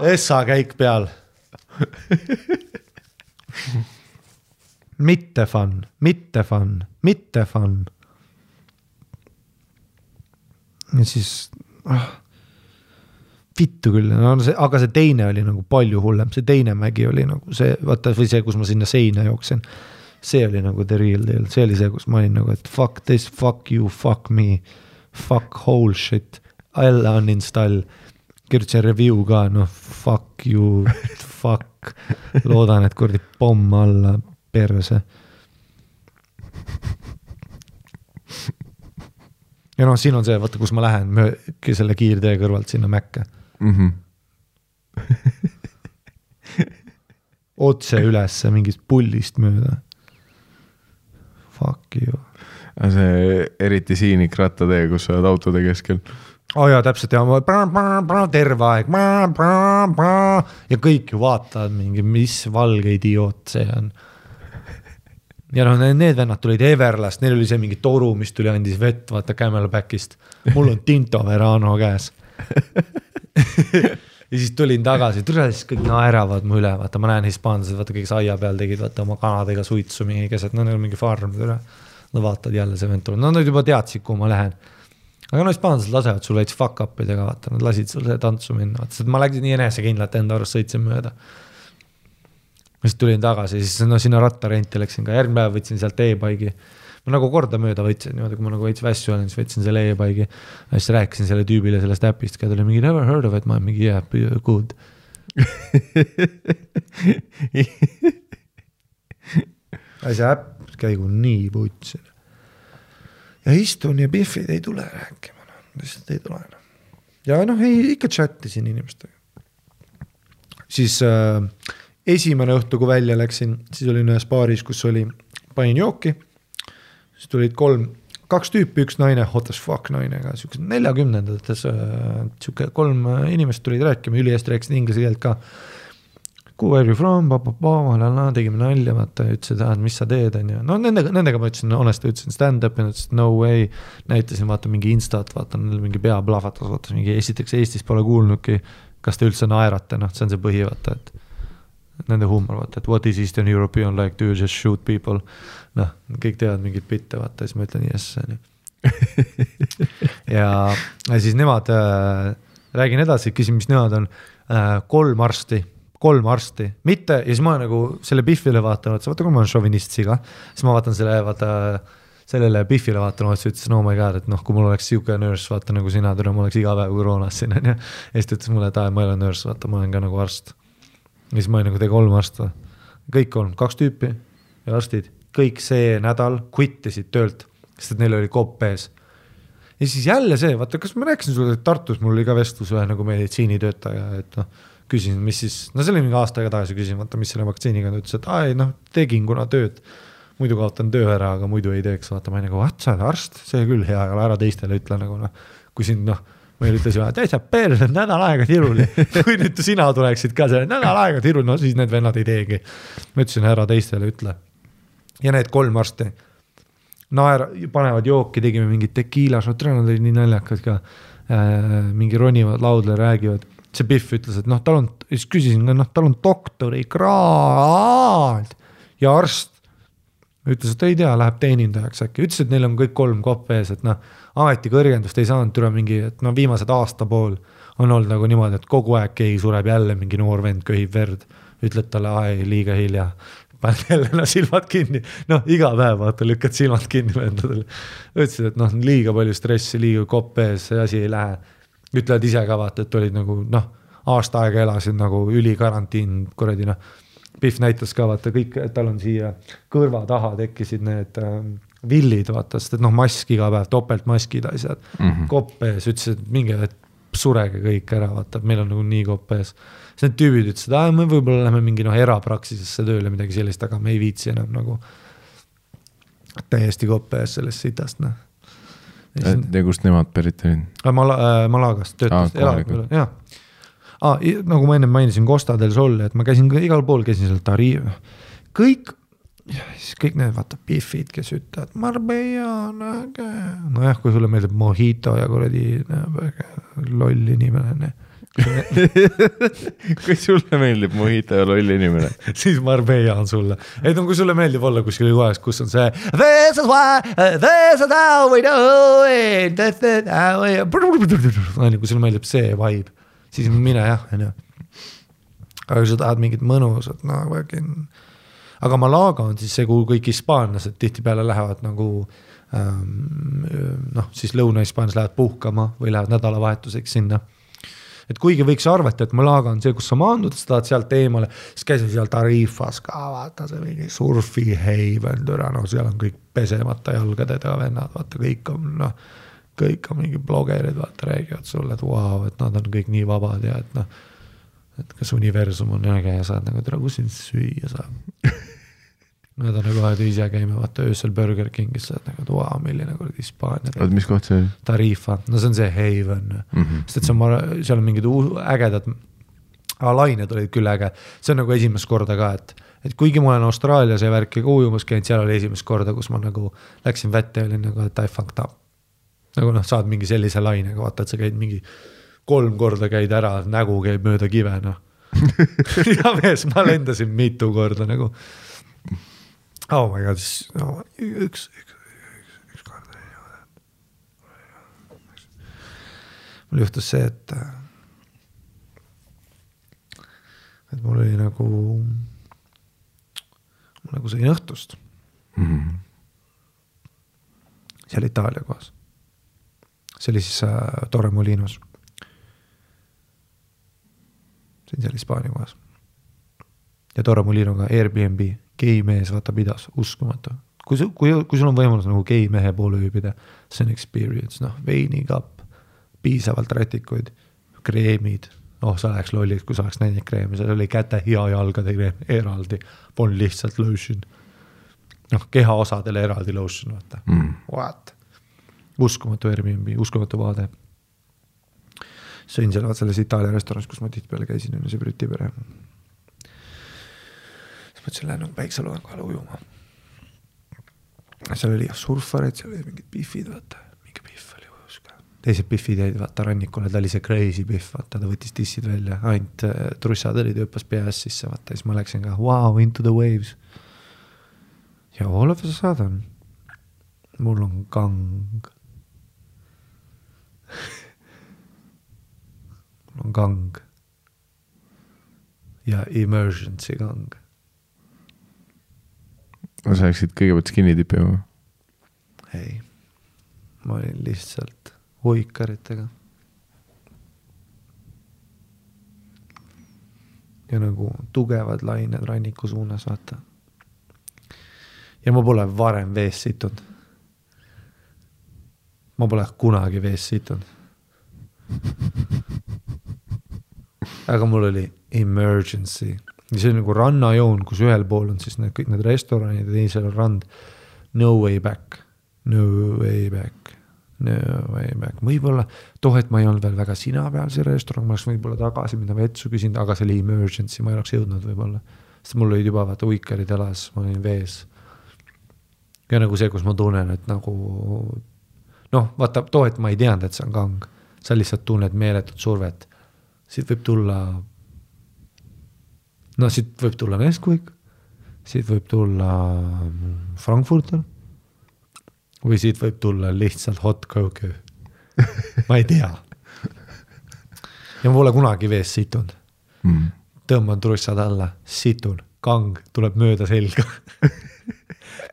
Essa käik peal. Mitte fun. Ja siis vittu küll, no aga see teine oli nagu palju hullem, see teine mägi oli nagu see, vaata, või see, kus ma sinna seina jooksin, see oli nagu the real deal, see oli see, kus ma olin nagu, et fuck this, fuck you, fuck me, fuck whole shit, I'll uninstall, kirjutasin review ka, no fuck you, fuck, loodan, et kurdi pomm alla perse. Ja noh, siin on see, vaata, kus ma lähen selle kiirtee kõrvalt sinna Mäkke. Otse ülesse mingist pullist mööda. Fuck you. See eriti siinik rattatee, kus sa oled autode keskel. Jaa, täpselt, ja terve aeg ja kõik ju vaatavad mingi, mis valge idioot see on. Ja noh, need vennad tulid Everlast, neil oli see mingi toru, mis tuli andis vett, vaata Camelbackist. Mul on Tinto Verano käes. Ja siis tulin tagasi, siis kõik naeravad mu üle, vaata, ma näen hispaanlased, vaata, kõik saia peal tegid, vaata, oma kanadega suitsu mingi keset, no neil on mingi farm, no vaatad jälle see vend tuleb, no nad juba teadsid, kuhu ma lähen. Aga no hispaanlased lasevad sul veits fuck up'idega, vaata, nad lasid sul see tantsu minna, vaata, ma läksin nii enesekindlalt enda arust sõitsin mööda. Siis tulin tagasi, siis no sinna rattarenti läksin ka, järgmine päev võtsin sealt e-baigi. Ma nagu korda mööda võtsin, niimoodi, kui ma nagu veits vässu olen, siis võtsin selle e-baigi. Ja siis rääkisin selle tüübile sellest äpist, keda oli mingi never heard of it, ma olen mingi yeah, good. Ja see äpp käigu nii putsin. Ja istun ja Biffid ei tule rääkima, lihtsalt ei tule. Ja noh, ikka chattisin inimestega. Siis esimene õhtu, kui välja läksin, siis olin ühes baaris, kus oli, panin jooki, siis tulid 2 tüüpi, üks naine, hot as fuck naine, 40-ndates, 3 inimest tulid rääkima, ülihästi rääkisid inglise keelt ka. Where are you from, tegime nalja, vaata, ütlesid, mis sa teed, on ju. No nendega ma ütlesin, honesti ütlesin stand-up ja ütlesin, no way, näitasin, vaata, mingi instat, vaata, mingi pea plahvatas, vaata, mingi esiteks Eestis pole kuulnudki, kas te üldse naerate, noh, see on see põhi, vaata, et nende huumor, vaata, et what is Eastern European like, do you just shoot people? Noh, kõik teevad mingit bitte, vaata, siis ma ütlen yes, nii. ja siis nemad, räägin edasi, küsin, mis nemad on, 3 arsti, mitte, ja siis ma nagu selle Biffile vaatan, vaata, kui ma olen šovinist siga, siis ma vaatan sellele Biffile vaatan, siis ütlesin, oh my god, et noh, kui mul oleks siuke nurse, vaata nagu sina, ma oleks iga päev koroonas siin, ja siis ta ütles mulle, et ma ei ole nurse, vaata, ma olen ka nagu arst. Ja siis ma olin nagu 3 arsta, kõik 3, 2 tüüpi ja arstid, kõik see nädal quittisid töölt, sest et neil oli kopp ees. Ja siis jälle see, vaata, kas ma rääkisin sulle, et Tartus mul oli ka vestlus ühe nagu meditsiinitöötaja, et noh, küsin, mis siis, no see oli mingi aasta aega tagasi küsin, vaata, mis selle vaktsiiniga ta ütles, et noh, tegin kuna tööd, muidu kaotan töö ära, aga muidu ei teeks, vaata, ma nagu, sa oled arst, see küll hea, aga ära teistele ütle nagu noh, kui siin noh, ma ütlesin, et täitsa perse, nädal aega tiruli, kui nüüd sina tuleksid ka selle nädal aega tiruli, no siis need vennad ei teegi. Ma ütlesin, ära teistele ütle. ja need 3 arsti panevad jooki, tegime mingid tekiilas, nad olid nii naljakad ka, mingi ronivad laudle, räägivad, see Biff ütles, et siis küsisin, tal on doktori kraad ja arst ütles, et ei tea, läheb teenindajaks äkki, ütles, et neil on kõik 3 kopp ees, et ametikõrgendust ei saanud türa mingi, et viimased aasta pool on olnud nagu niimoodi, et kogu aeg keegi sureb jälle, mingi noor vend köhib verd, ütled talle, liiga hilja, paned jälle silmad kinni, iga päev vaata, lükkad silmad kinni vendadele. Ütlesid, et liiga palju stressi, liiga kopp ees, see asi ei lähe. Ütlevad ise ka vaata, et olid nagu, aasta aega elasid nagu ülikarantiin, kuradi, Biff näitas ka vaata kõik, et tal on siia kõrva taha tekkisid need villid, vaata, sest et mask iga päev, topeltmaskid asjad, kopp ees, ütlesid, et minge, et surege kõik ära, vaata, meil on nagu nii kopp ees. Siis need tüübid ütlesid, me võib-olla lähme mingi erapraksisesse tööle midagi sellist, aga me ei viitsi enam nagu täiesti kopp ees sellest sitast. Ja kust nemad pärit olid? Malagast töötas, jah. Nagu ma enne mainisin Costa del Sol, et ma käisin igal pool, käisin seal Tariif. Kõik need vaata Biffid, kes ütlevad Marbella on äge. Nojah, kui sulle meeldib Mojito ja kuradi loll inimene. Kui sulle meeldib Mojito ja loll inimene, siis Marbella on sulle. Et kui sulle meeldib olla kuskil kohas, kus on see this is how we do it. Kui sulle meeldib see vibe, siis mine jah. Aga kui sa tahad mingit mõnusat, aga Malaga on siis see, kuhu kõik hispaanlased tihti peale lähevad nagu siis Lõuna-Hispaanias lähevad puhkama või lähevad nädalavahetuseks sinna. Et kuigi võiks arvata, et Malaga on see, kus sa maandud, sa tahad sealt eemale, siis käisin seal Tarifas ka, vaata see mingi surfi heiven, seal on kõik pesemata jalgadega vennad, vaata kõik on mingi blogerid, vaata räägivad sulle, et wow, et nad on kõik nii vabad ja et kas universum on äge ja saad nagu kus sind süüa saab. Nad on nagu aed ise käime, vaata öösel Burger Kingis saad nagu, et wow, milline kord Hispaania. Mis koht see oli? Tarifa, see on see Haven. Sest et seal on mingid ägedad lained olid küll äge. See on nagu esimest korda ka, et kuigi ma olen Austraalias ja värki ka ujumas käinud, seal oli esimest korda, kus ma nagu läksin vette ja olin nagu, et I fucked up. Nagu saad mingi sellise lainega, vaata, et sa käid mingi 3 korda käid ära, nägu käib mööda kive, ja mees, ma lendasin mitu korda nagu. Oh my god, üks kord. Mul juhtus see, et mul oli nagu sõin õhtust. Seal Itaalia kohas. See oli siis Torremolinos. See on seal Hispaania kohas. Ja Torremolinoga Airbnb. Gei mees vaata pidas, uskumatu. Kui sul on võimalus nagu gei mehe poole ööbida, see on experience, veinikapp, piisavalt rätikuid, kreemid, sa läheks lolliks, kui sa oleks näinud kreemi, seal oli käte ja jalgade kreem eraldi, polnud lihtsalt lotion. Keha osadele eraldi lotion, vaata. What? Uskumatu Airbnb, uskumatu vaade. Sõin selles Itaalia restoranis, kus ma tihtipeale käisin, see Briti pere. Mõtlesin, lähen päikseloen kohale ujuma. Seal oli surfareid, seal oli mingid Biffid, vaata. Mingi Biff oli ujus ka. Teised Biffid jäid vaata rannikule, ta oli see crazy Biff, vaata, ta võttis tissid välja. Ainult trussad olid ööpas peas sisse, vaata. Siis ma läksin ka, wow, into the waves. Ja all of a sudden, mul on gang. Mul on gang. Ja emergency gang. Sa läksid kõigepealt skinny tipima? Ei, ma olin lihtsalt hoikaritega. Ja nagu tugevad lained ranniku suunas, vaata. Ja ma pole varem vees situnud. Ma pole kunagi vees situnud. Aga mul oli emergency. See on nagu rannajoon, kus ühel pool on siis kõik need restoranid ja teisel on rand. No way back. No way back. No way back. Võibolla, et ma ei olnud veel väga sina peal see restoran, ma oleks võibolla tagasi minna vetsu küsinud, aga see oli emergency, ma ei oleks jõudnud võibolla. Sest mul olid juba vaata uikarid elas, ma olin vees. ja nagu see, kus ma tunnen, et nagu noh, vaata too, et ma ei teadnud, et see on kang, sa lihtsalt tunned meeletut survet, siit võib tulla siit võib tulla Nesquik, siit võib tulla Frankfurter või siit võib tulla lihtsalt hot coke. Ma ei tea. Ja ma pole kunagi vees situnud. Tõmban trussad alla, situn, kang tuleb mööda selga.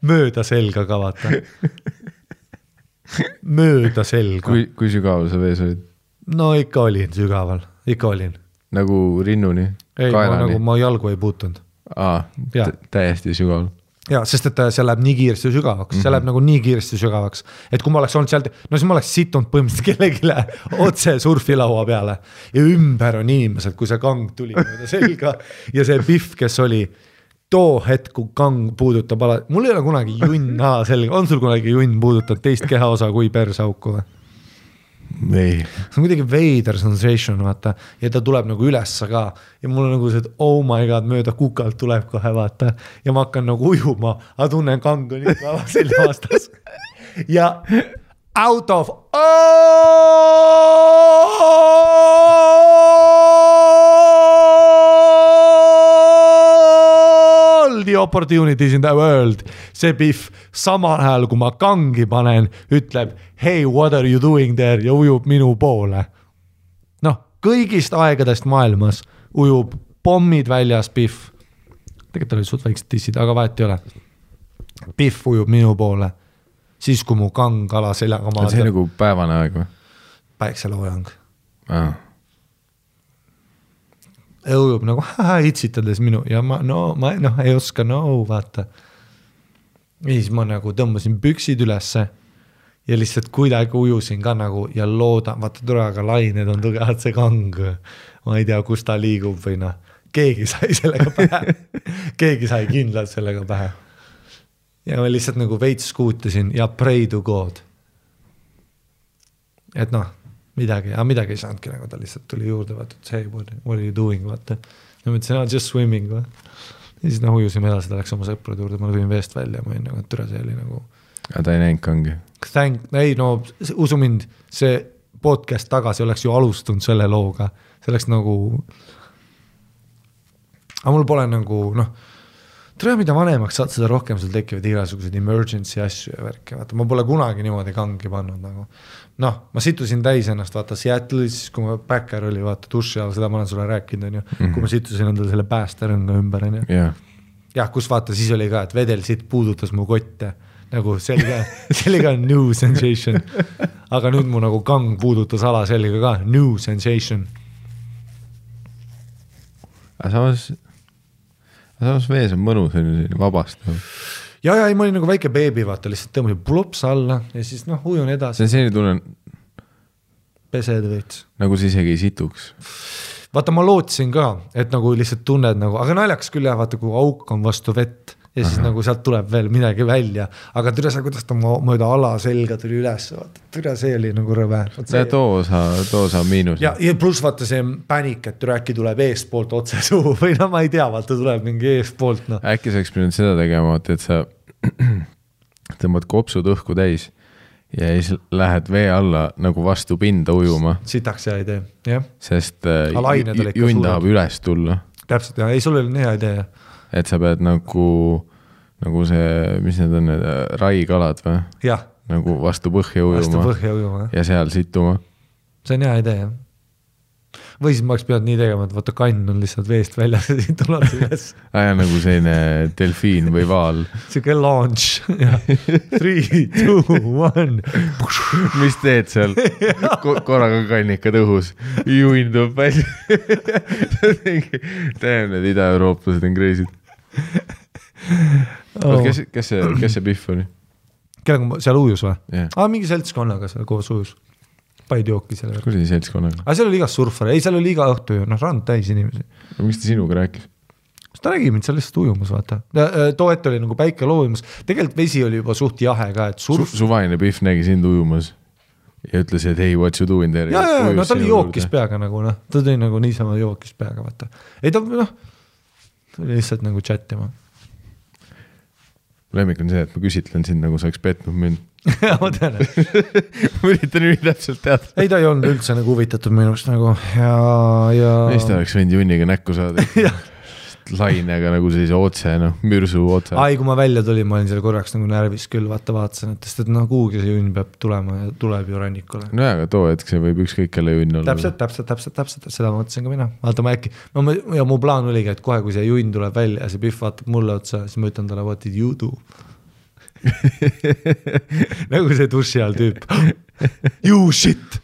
Mööda selga ka vaata. Mööda selga. Kui sügaval sa vees olid? No ikka olin sügaval, ikka olin. Nagu rinnuni? Ei, nagu ma jalgu ei puutunud. Täiesti sügaval. Ja, sest et see läheb nii kiiresti sügavaks, see läheb nagu nii kiiresti sügavaks, et kui ma oleks olnud sealt, no siis ma oleks situnud põhimõtteliselt kellegile otse surfilaua peale ja ümber on inimesed, kui see kang tuli mööda selga ja see Biff, kes oli too hetk, kui kang puudutab mul ei ole kunagi junn selga, on sul kunagi junn puudutab teist kehaosa kui persauku või? Ei. See on kuidagi veider sensation, vaata, ja ta tuleb nagu ülesse ka ja mul on nagu see, et oh my god, mööda kukalt tuleb kohe, vaata, ja ma hakkan nagu ujuma, aga tunnen kang on ikka selja vastas ja out of all the opportunities in the world, see Biff samal ajal, kui ma kangi panen, ütleb hey, what are you doing there ja ujub minu poole. Noh, kõigist aegadest maailmas ujub pommid väljas Biff. Tegelikult oli suht väiksed tissid, aga vahet ei ole. Biff ujub minu poole. Siis kui mu kang ala seljaga maadab. See nagu päevane aeg või? Päikseloojang. Ujub nagu itsitades minu ja ma ei oska vaata. Ja siis ma nagu tõmbasin püksid ülesse ja lihtsalt kuidagi ujusin ka nagu ja loodan, vaata turaga lained on tugevad see kang, ma ei tea, kus ta liigub või keegi sai sellega pähe, keegi sai kindlalt sellega pähe ja ma lihtsalt nagu veits skuutasin ja pray to God, et midagi ei saanudki, nagu ta lihtsalt tuli juurde, vaata, et hey, what are you doing, vaata, ja ma ütlesin, just swimming või ja siis ujusime edasi, ta läks oma sõprade juurde, ma tulin veest välja, ma olin nagu, et türa see oli nagu aga ta ei näinud kangi? Ei, usu mind, see podcast tagasi oleks ju alustunud selle looga, see oleks nagu aga mul pole nagu, tere, mida vanemaks saad, seda rohkem sul tekivad igasugused emergency asju ja värki, vaata, ma pole kunagi niimoodi kangi pannud nagu. Ma situsin täis ennast, vaata, Seattle'is, kui ma backer oli, vaata, duši all, seda ma olen sulle rääkinud, kui ma situsin endale selle päästerõnga ümber, jah, kus vaata, siis oli ka, et vedel siit puudutas mu kotte, nagu sellega on new sensation, aga nüüd mu nagu kang puudutas ala sellega ka, new sensation. Aga samas vees on mõnus, vabastav. Ja, ma olin nagu väike beebi, vaata, lihtsalt tõmbasin plups alla ja siis ujun edasi. See selline tunnen pesed veits. Nagu sa isegi ei situks. Vaata, ma lootsin ka, et nagu lihtsalt tunned nagu, aga naljaks küll jah, vaata, kui auk on vastu vett ja siis nagu sealt tuleb veel midagi välja, aga türa see, kuidas ta mööda ala selga tuli üles, vaata, türa see oli nagu rõve. Too osa miinus. Ja pluss vaata see pänik, et türa äkki tuleb eespoolt otse suhu või ma ei tea, vaata tuleb mingi eespoolt. Äkki sa pidanud seda tegema, et sa tõmbad kopsud õhku täis ja siis lähed vee alla nagu vastu pinda ujuma. Sitaks hea idee, jah. Sest junn tahab üles tulla. Täpselt, jah, ei, sul oli hea idee, jah. Et sa pead nagu see, mis need on, need raikalad või? Jah. Nagu vastu põhja ujuma ja seal situma. See on hea idee, jah. Või siis ma oleks pidanud nii tegema, et vaata kann on lihtsalt veest väljas ja siin tuleb üles. Aja nagu selline delfiin või vaal. Siuke launch. 3, 2, 1. Mis teed seal? Korraga kann ikka tõhus. Juindub välja. Tähem, need ida-eurooplased on crazy'd. Kes see Biff oli? Kellega seal ujus või? Yeah. Mingi seltskonnaga seal koos ujus. Paid jooki selle. Kus oli seltskonnaga? Aga seal oli igas surfare. Ei, seal oli iga õhtu ju. Rand täis inimesi. Miks ta sinuga rääkis? Ta nägi mind seal lihtsalt ujumas, vaata. Too ette oli nagu päike loovimas. Tegelikult vesi oli juba suht jahe ka, et Suvaline Biff nägi sind ujumas ja ütles, et hey, what you doing there? Ja, ta oli jookis peaga nagu, ta tõi nagu niisama jookis peaga, vaata. Ei, ta oli lihtsalt nagu chatima. lemmik on see, et ma küsitlen sind, nagu sa oleks petnud mind. Ma tean. Ma üritan nii täpselt teada. Ei, ta ei olnud üldse nagu huvitatud minust nagu ja... Meist oleks võinud junniga näkku saada. Lainega nagu sellise otse, mürsu otse. Ai, kui ma välja tulin, ma olin seal korraks nagu närvis küll, vaatasin, et kuhugi see junn peab tulema ja tuleb ju rannikule. No aga too hetk see võib ükskõik kelle junn olla. Täpselt, seda mõtlesin ka mina. Vaata, ma äkki, ja mu plaan oligi, et kohe, kui see junn tuleb välja ja see Pihv vaatab mulle otsa, siis ma ütlen talle, what did you do? Nagu see duši all tüüp. You shit!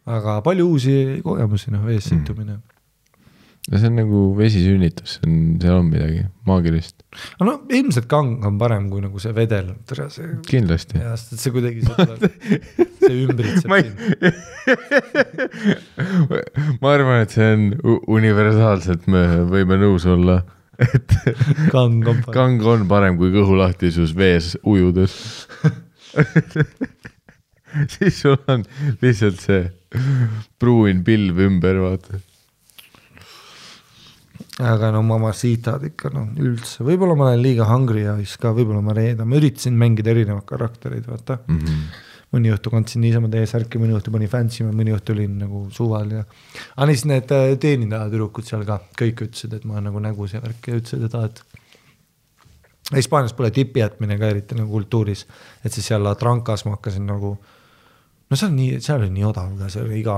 Aga palju uusi kogemusi, vees situmine. Ja see on nagu vesisünnitus, seal on midagi maagilist. No ilmselt kang on parem kui nagu see vedel. Kindlasti. Ja see kuidagi see ümbritseb Ma arvan, et see on universaalselt, me võime nõus olla, et kang on parem kui kõhulahtisus vees ujudes. Siis sul on lihtsalt see pruun pilv ümber, vaata. Aga mamacitad ikka üldse. Võib-olla ma olen liiga hungry ja ka võib-olla ma reedan. Ma üritasin mängida erinevad karakterid, vaata. Mõni õhtu kandsin niisama teie särki, mõni õhtu pani fantsima, mõni õhtu olin nagu suval. Ja... Aga siis need teenindaja tüdrukud seal ka kõik ütlesid, et ma nagu nägus ja värk ja ütlesid, et Hispaanias pole tipi jätmine ka eriti nagu kultuuris. Et siis seal Trankas ma hakkasin nagu... No seal oli nii odav, see oli iga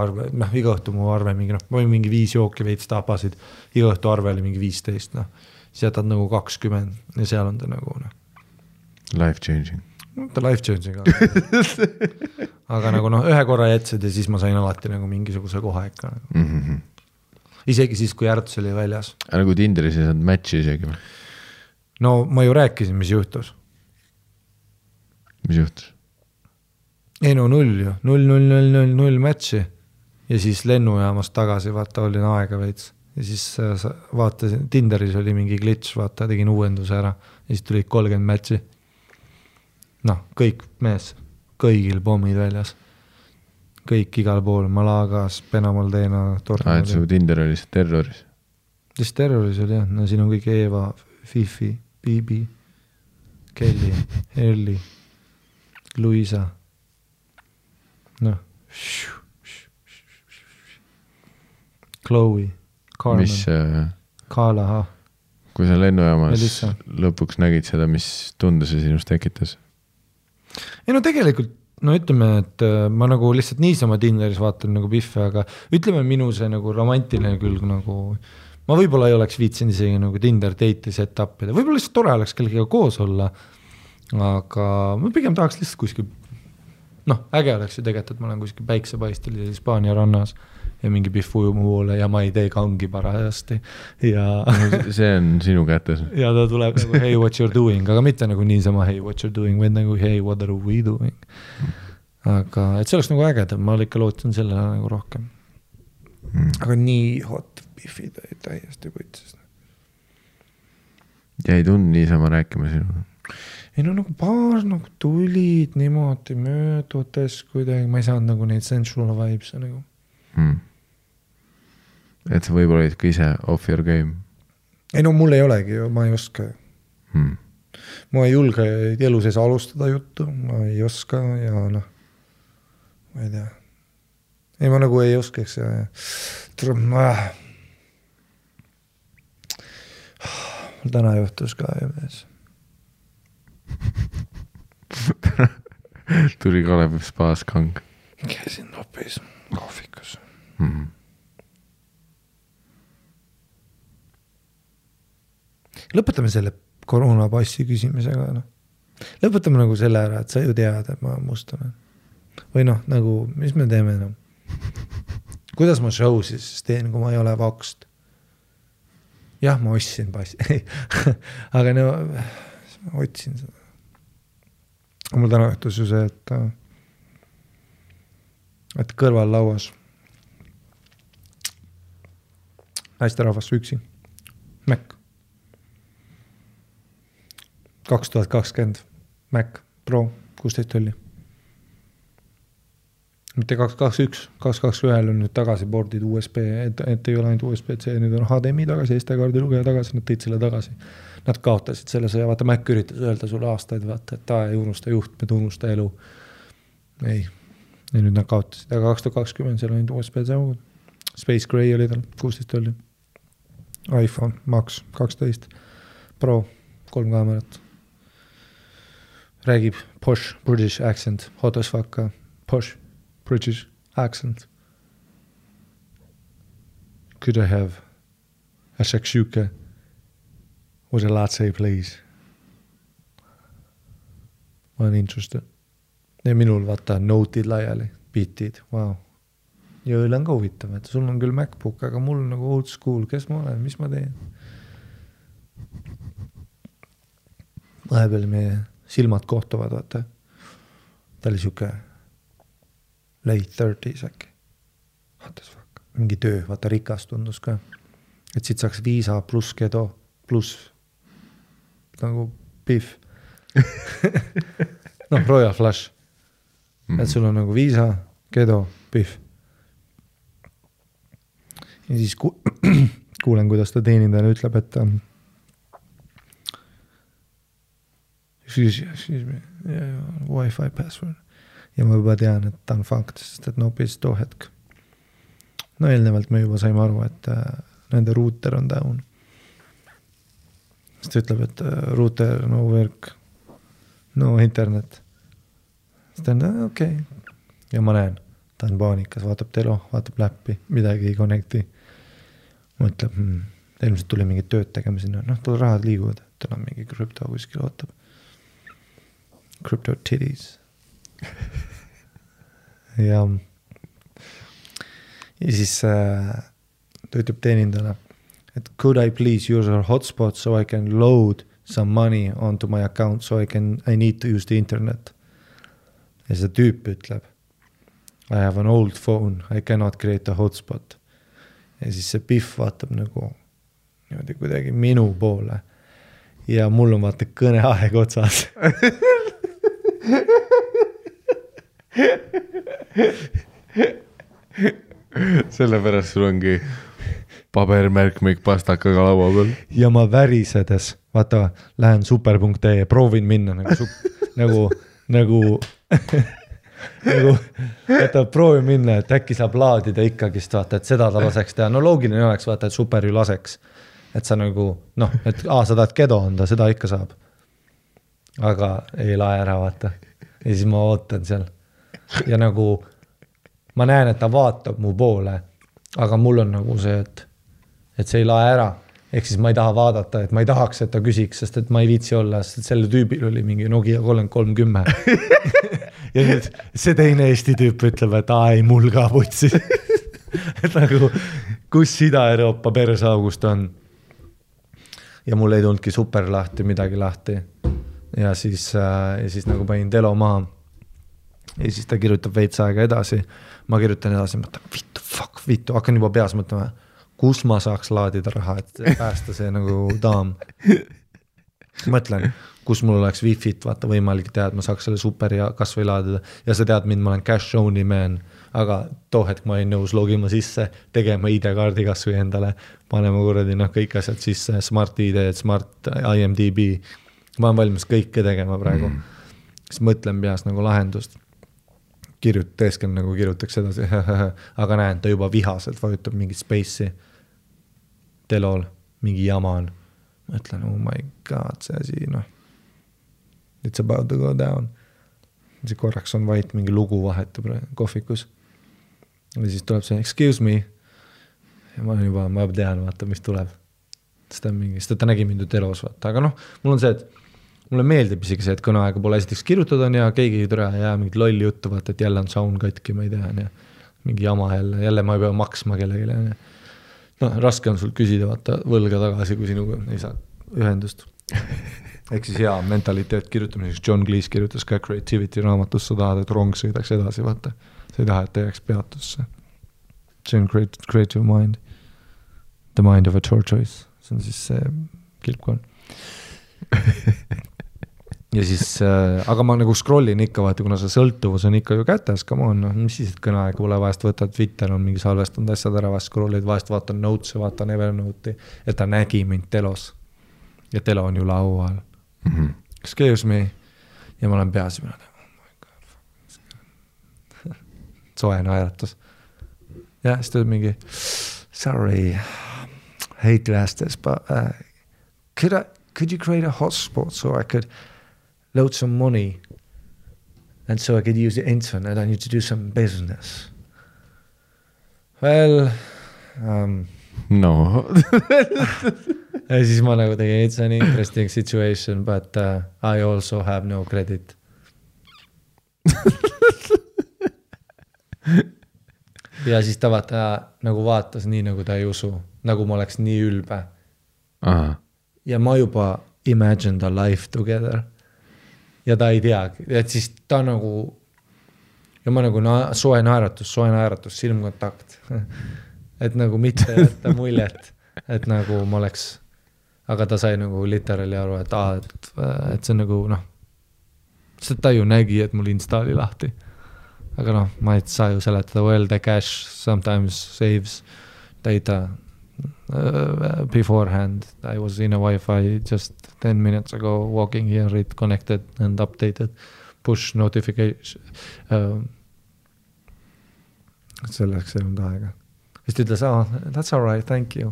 õhtu mu arve mingi, ma olin mingi 5 jooki veits tapasid, iga õhtu arve oli mingi 15, siis jätad nagu 20 ja seal on ta nagu life changing. Ta life changing aga nagu ühe korra jätsid ja siis ma sain alati nagu mingisuguse koha ikka nagu. Isegi siis, kui Järts oli väljas. Nagu Tinderis ei saanud matchi isegi? No ma ju rääkisin, mis juhtus. Mis juhtus? Ei no 0 matchi ja siis lennujaamast tagasi vaata olin aega veits ja siis vaatasin, Tinderis oli mingi glitch, vaata tegin uuenduse ära ja siis tulid 30 matchi. Kõik mees, kõigil pommid väljas. Kõik igal pool, Malagas, Penamaldena, et su Tinder oli see terroris? Siis terroris oli jah, siin on kõik Eva, Fifi, Bibi, Kelly, Elli, Luisa. Chloe, Carmen, Kalaha. Kui sa lennujaamas lõpuks nägid seda, mis tunde see sinust tekitas? Ei no tegelikult, ütleme, et ma nagu lihtsalt niisama Tinderis vaatan nagu Pihve, aga ütleme minu see nagu romantiline külg nagu, ma võib-olla ei oleks viitsin isegi nagu Tinder date'i set-up'ida, võib-olla lihtsalt tore oleks kellegiga koos olla, aga ma pigem tahaks lihtsalt kuskil äge oleks ju tegelikult, et ma olen kuskil päiksepaistel ja Hispaania rannas ja mingi Pihv ujub mu poole ja ma ei tee kangi parajasti ja see on sinu kätes ja ta tuleb nagu hey what you're doing, aga mitte nagu niisama hey what you're doing, vaid nagu hey what are we doing, aga et see oleks nagu ägedam, ma ikka lootan sellele nagu rohkem aga nii hot Pihvid täiesti võtsis ja ei tund niisama rääkima sinu ei no nagu paar nagu tulid niimoodi möödudes kuidagi, ma ei saanud nagu neid sensual vibes nagu. Et sa võib-olla olid ka ise off your game? Ei no mul ei olegi ju, ma ei oska. Ma ei julge elu sees alustada juttu, ma ei oska ja ma ei tea. Ei ma nagu ei oskaks ja mul täna juhtus ka ju mees. Tuli Kalev spaas kang. Käisin nopis kohvikus. Lõpetame selle koroonapassi küsimisega. Lõpetame nagu selle ära, et sa ju tead, et ma mustame. Või nagu, mis me teeme? Kuidas ma show siis teen, kui ma ei ole vakst? Jah, ma ostsin passi. Aga ma otsin seda. Mul täna õhtus ju see, et kõrval lauas naisterahvas üksi. Mac. 2020 Mac Pro 16 tolli. mitte 221 on nüüd tagasi boardid USB, et ei ole ainult USB-C, nüüd on HDMI tagasi, SD-kaardi lugeja tagasi, nad tõid selle tagasi. Nad kaotasid selle sõja, vaata Mac üritas öelda sulle aastaid, vaata, et ei unusta juhtmed, unusta elu. Ei, ja nüüd nad kaotasid, aga 2020 seal on USB-C augud. Space Gray oli tal, 16 oli. iPhone Max 12 Pro, 3 kaamerat. Räägib posh British accent, hot as fuck, posh British accent. Could I have a shakshuka with a latte, please? Ma olen interested. Ja minul vaata note'id laiali, beat'id, wow. Ja õle on ka huvitav, et sul on küll MacBook, aga mul on nagu old school, kes ma olen, mis ma teen? Vahepeal meie silmad kohtuvad, vaata. Ta oli siuke late 30s äkki. What the fuck? Mingi töö, vaata rikas tundus ka. Et siit saaks viisa pluss kedo, pluss nagu beef. Noh, Royal Flush. Et sul on nagu viisa, kedo, beef. Ja siis kuulen, kuidas ta teenindajale ütleb, et excuse me, Wi-Fi password. Ja ma juba tean, et ta on fakt, sest et nopis too hetk. No eelnevalt me juba saime aru, et nende router on down. Sest ta ütleb, et router, no work, no internet. Sest ta on, okei. Ja ma näen, ta on paanikas, vaatab telo, vaatab läppi, midagi ei connecti. Mõtleb, ilmselt tuli mingi tööd tegema sinna. Noh, tal rahad liiguvad, tal on mingi krüpto kuskil ootab. Crypto titties. ja siis ta ütleb teenindajale, et could I please use our hotspot so I can load some money onto my account so I need to use the internet. Ja see tüüp ütleb, I have an old phone, I cannot create a hotspot. Ja siis see Biff vaatab nagu niimoodi kuidagi minu poole ja mul on vaata kõneaeg otsas. Sellepärast sul ongi pabermärkmik pastakaga laua peal. Ja ma värisedes, vaata, lähen super.ee ja proovin minna nagu vaata, proovin minna, et äkki saab laadida ikkagist, vaata, et seda ta laseks teha. No loogiline oleks, vaata, et super ju laseks. Et sa nagu, noh, et sa tahad kedo anda, seda ikka saab. Aga ei lae ära, vaata. Ja siis ma ootan seal. Ja nagu ma näen, et ta vaatab mu poole, aga mul on nagu see, et see ei lae ära. Ehk siis ma ei taha vaadata, et ma ei tahaks, et ta küsiks, sest et ma ei viitsi olla, sest selle tüübil oli mingi Nokia 3310. Ja nüüd see teine Eesti tüüp ütleb, et ei, mul ka putsi. Et nagu, kus Ida-Euroopa persaugust on. Ja mul ei tulnudki super lahti, midagi lahti. Ja siis nagu panin telo maha. Ja siis ta kirjutab veits aega edasi. Ma kirjutan edasi, mõtlen, vittu, hakkan juba peas mõtlema, kus ma saaks laadida raha, et päästa see nagu daam. Mõtlen, kus mul oleks wifi't, vaata võimalik teha, et ma saaks selle super ja kas või laadida. Ja sa tead mind, ma olen cash only man, aga too hetk ma ei nõus logima sisse, tegema ID-kaardi kas või endale, panema kuradi kõik asjad sisse, smart ID, smart IMDB. Ma olen valmis kõike tegema praegu. Siis mõtlen peas nagu lahendust. Teeskel nagu kirjutaks edasi, aga näen, ta juba vihaselt vajutab mingi space'i telol, mingi jama on. Mõtlen, oh my god, see asi, noh. It's about to go down. See korraks on vait, mingi lugu vahetab kohvikus. Ja siis tuleb see, excuse me. Ja ma tean, vaata, mis tuleb. Sest ta nägi mind telos, vaata. Aga noh, mul on see, et mulle meeldib isegi see, et kõneaega pole esiteks kirjutada on ja keegi ei türa ja mingit lolli juttu, vaata, et jälle on sound katki, ma ei tea, ja mingi jama jälle ma ei pea maksma kellegile. No, raske on sul küsida, vaata, võlga tagasi, kui sinuga ei saa ühendust. Ehk siis hea mentaliteet kirjutamiseks. John Cleese kirjutas ka Creativity raamatus, sa tahad, et rong sõidaks edasi, vaata. Sa ei taha, et jääks peatusse. See on creative mind. The mind of a tortoise. See on siis see kilpkon. ja siis, aga ma nagu scrollin ikka, vaata, kuna see sõltuvus on ikka ju kätes, come on, noh, mis siis, et kõneaega pole vahest võtad, Twitter on mingi salvestanud asjad ära, vahest scrollid, vahest vaatan notes'e, vaatan Evernote'i, et ta nägi mind telos. Ja telo on ju laual. Excuse me. Ja ma olen peas, mina tean, oh my god. Soe naeratus. Ja siis tuleb mingi, sorry, hate to ask this, but could you create a hotspot so I could load some money and so I could use the internet, I need to do some business. Well, no. ja siis ma nagu tegin, it's an interesting situation, but I also have no credit. ja siis ta vaata nagu vaatas nii, nagu ta ei usu, nagu ma oleks nii ülbe. Aha. Ja ma juba imagined a life together. Ja ta ei teagi, et siis ta nagu, ja ma nagu soe naeratus, silmkontakt. et nagu mitte jätta muljet, et nagu ma oleks, aga ta sai nagu literally aru, et see nagu noh, sest ta ju nägi, et mul Insta oli lahti. Aga noh, ma ei saa ju seletada, well the cache sometimes saves data beforehand. I was in a Wi-Fi just 10 minutes ago walking here, it connected and updated push notification. Selleks ei olnud aega. Siis ta ütles, that's all right, thank you.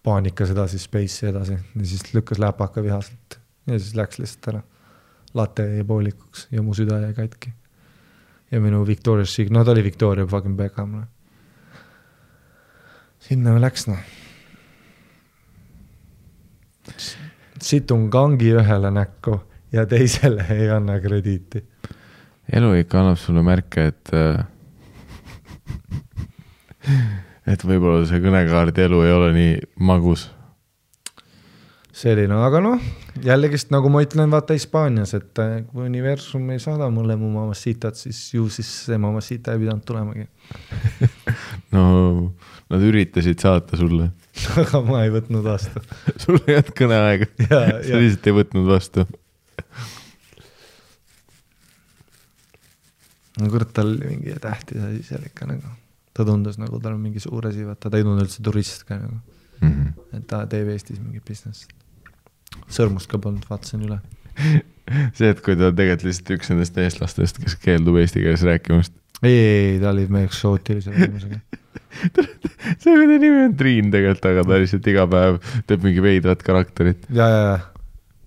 Paanikas edasi, space'i edasi. Ja siis lükkas läpaka vihaselt. Ja siis läks lihtsalt ära. Latte jäi poolikuks ja mu süda jäi katki. Ja minu Victoria's Secret, no ta oli Victoria fucking Beckham. Sinna läks, noh. Situn kangi ühele näkku ja teisele ei anna krediiti. Elu ikka annab sulle märke, et võib-olla see kõnekaardi elu ei ole nii magus. Selline, aga noh, jällegist nagu ma ütlen, vaata Hispaanias, et kui universum ei saada mulle mu mamassitat, siis ju siis see mamassita ei pidanud tulemagi. No, nad üritasid saata sulle. Aga ma ei võtnud vastu. Sul ei olnud kõneaega. Sa lihtsalt ei võtnud vastu. No kurat, tal oli mingi tähtis asi seal ikka nagu. Ta tundus nagu tal on mingi suur asi, vaata, ta ei tundu üldse turist ka nagu. Et ta teeb Eestis mingi business. Sõrmust ka polnud, vaatasin üle. See, et kui ta tegelikult lihtsalt üks nendest eestlastest, kes keeldub eesti keeles rääkimast. Ei, ta oli meie eksootilise inimesega. See kui ta nimi on Triin tegelikult, aga ta lihtsalt iga päev teeb mingi veidrat karakterit. Ja.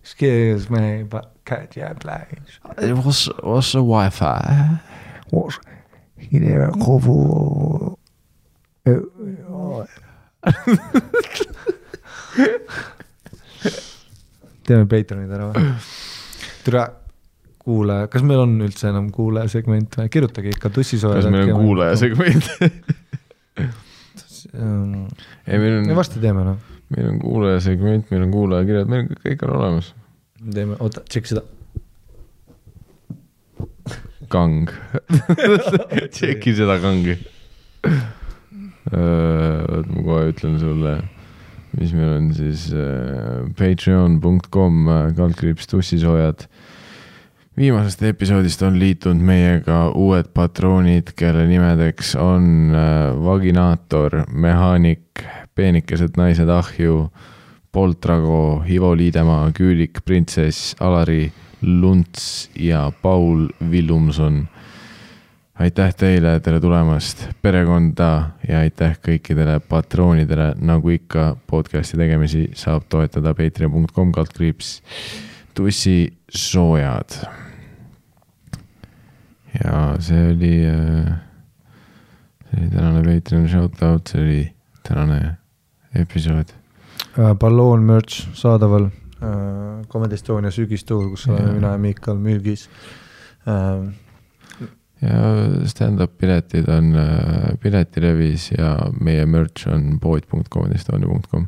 Excuse me, but can't you play? What's a Wi-Fi? What's here kovu? Teeme Patreonid ära või? Türa kuulaja, kas meil on üldse enam kuulaja segment või? Kirjutage ikka tussisoojad. Kas meil on kuulaja segment? Me vasti teeme, noh. Meil on kuulaja segment, meil on kuulaja kirjad, meil kõik on olemas. Teeme, oota, tšekk seda. Kang. Tšekki seda kangi. Ma kohe ütlen sulle, mis meil on siis patreon.com /tussisoojad. Viimasest episoodist on liitunud meiega uued patroonid, kelle nimedeks on Vaginaator, Mehaanik, Peenikesed naised ahju, Poltrago, Ivo Liidemaa, Küülik, Printsess, Alari, Lunts ja Paul Villumson. Aitäh teile, tere tulemast perekonda ja aitäh kõikidele patroonidele, nagu ikka podcasti tegemisi saab toetada patreon.com /tussisoojad. Ja see oli tänane Patreon shoutout, see oli tänane episood. Balloon merch saadaval Comedy Estonia sügistuur, kus oleme mina ja Miikal Mülgis. Ja stand-up piletid on piletilevis ja meie merch on pood.comedystonia.com.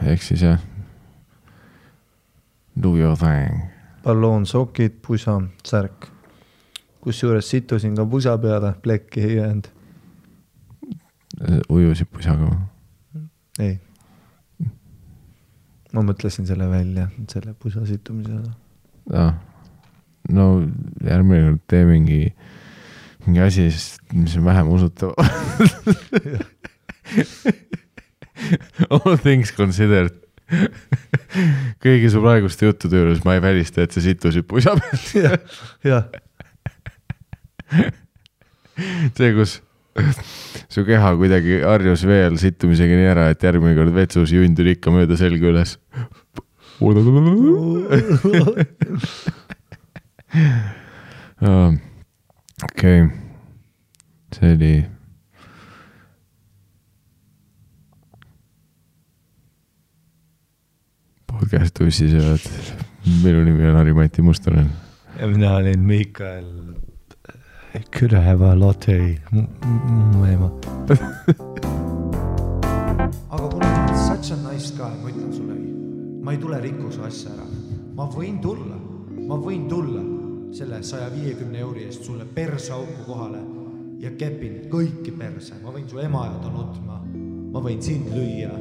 Ehk siis jah, do your thing. Balloon, sokid, pusa, särk. Kus juures situsin ka pusa peale, plekki ei jäänud. Ujusid pusaga? Ei. ma mõtlesin selle välja, selle pusa situmise. No järgmine kord tee mingi asi, mis on vähem usutav. All things considered. Kõigi su praeguste juttude juures ma ei välista, et see situsid pusa peal. Jah. See, kus su keha kuidagi harjus veel situmisega nii ära, et järgmine kord vetsus jundud ikka mööda selga üles. Okei. See oli podcast ussisööd. Minu nimi on Harri-Mati Mustonen. Ja mina olin Mikael. Could I have a latte? Mu ema. Aga kuna ma olen such a nice guy, ma ütlen sulle, ma ei tule rikkuse asja ära. Ma võin tulla selle 150 euri eest sulle perseauku kohale ja kepin kõiki perse. Ma võin su ema jada nutma. Ma võin sind lüüa.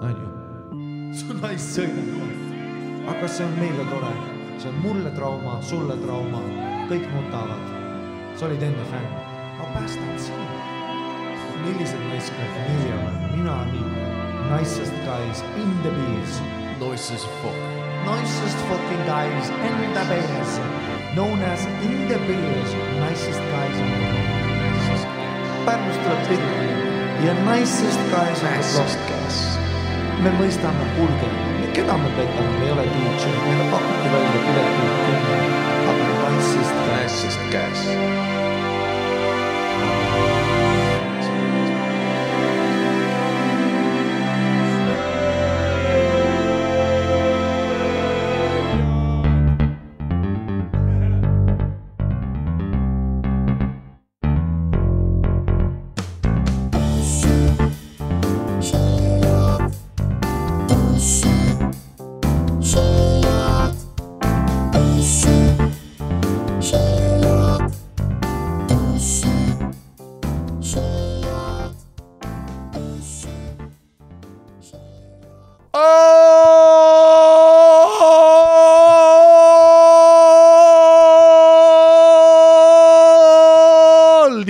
Anju. Su naist sõina. Aga see on meile tore. See on mulle trauma, sulle trauma. Kõik nutavad. Sa olid enne fänn. Ma päästan sind. Millised naiskad nii on? Mina nii. Nicest guys in the beers. Nicest fuck. Nicest fucking guys in the beers. Known as in the beers. Nicest guys in the beers. Pärnust tuleb tihti. Ja nicest guys in the beers. Me mõistame kulge. Keda me petame? Me ei ole DJ. Meile pakuti välja pileti. Aga nicest guys.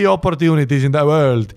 Opportunities in the world.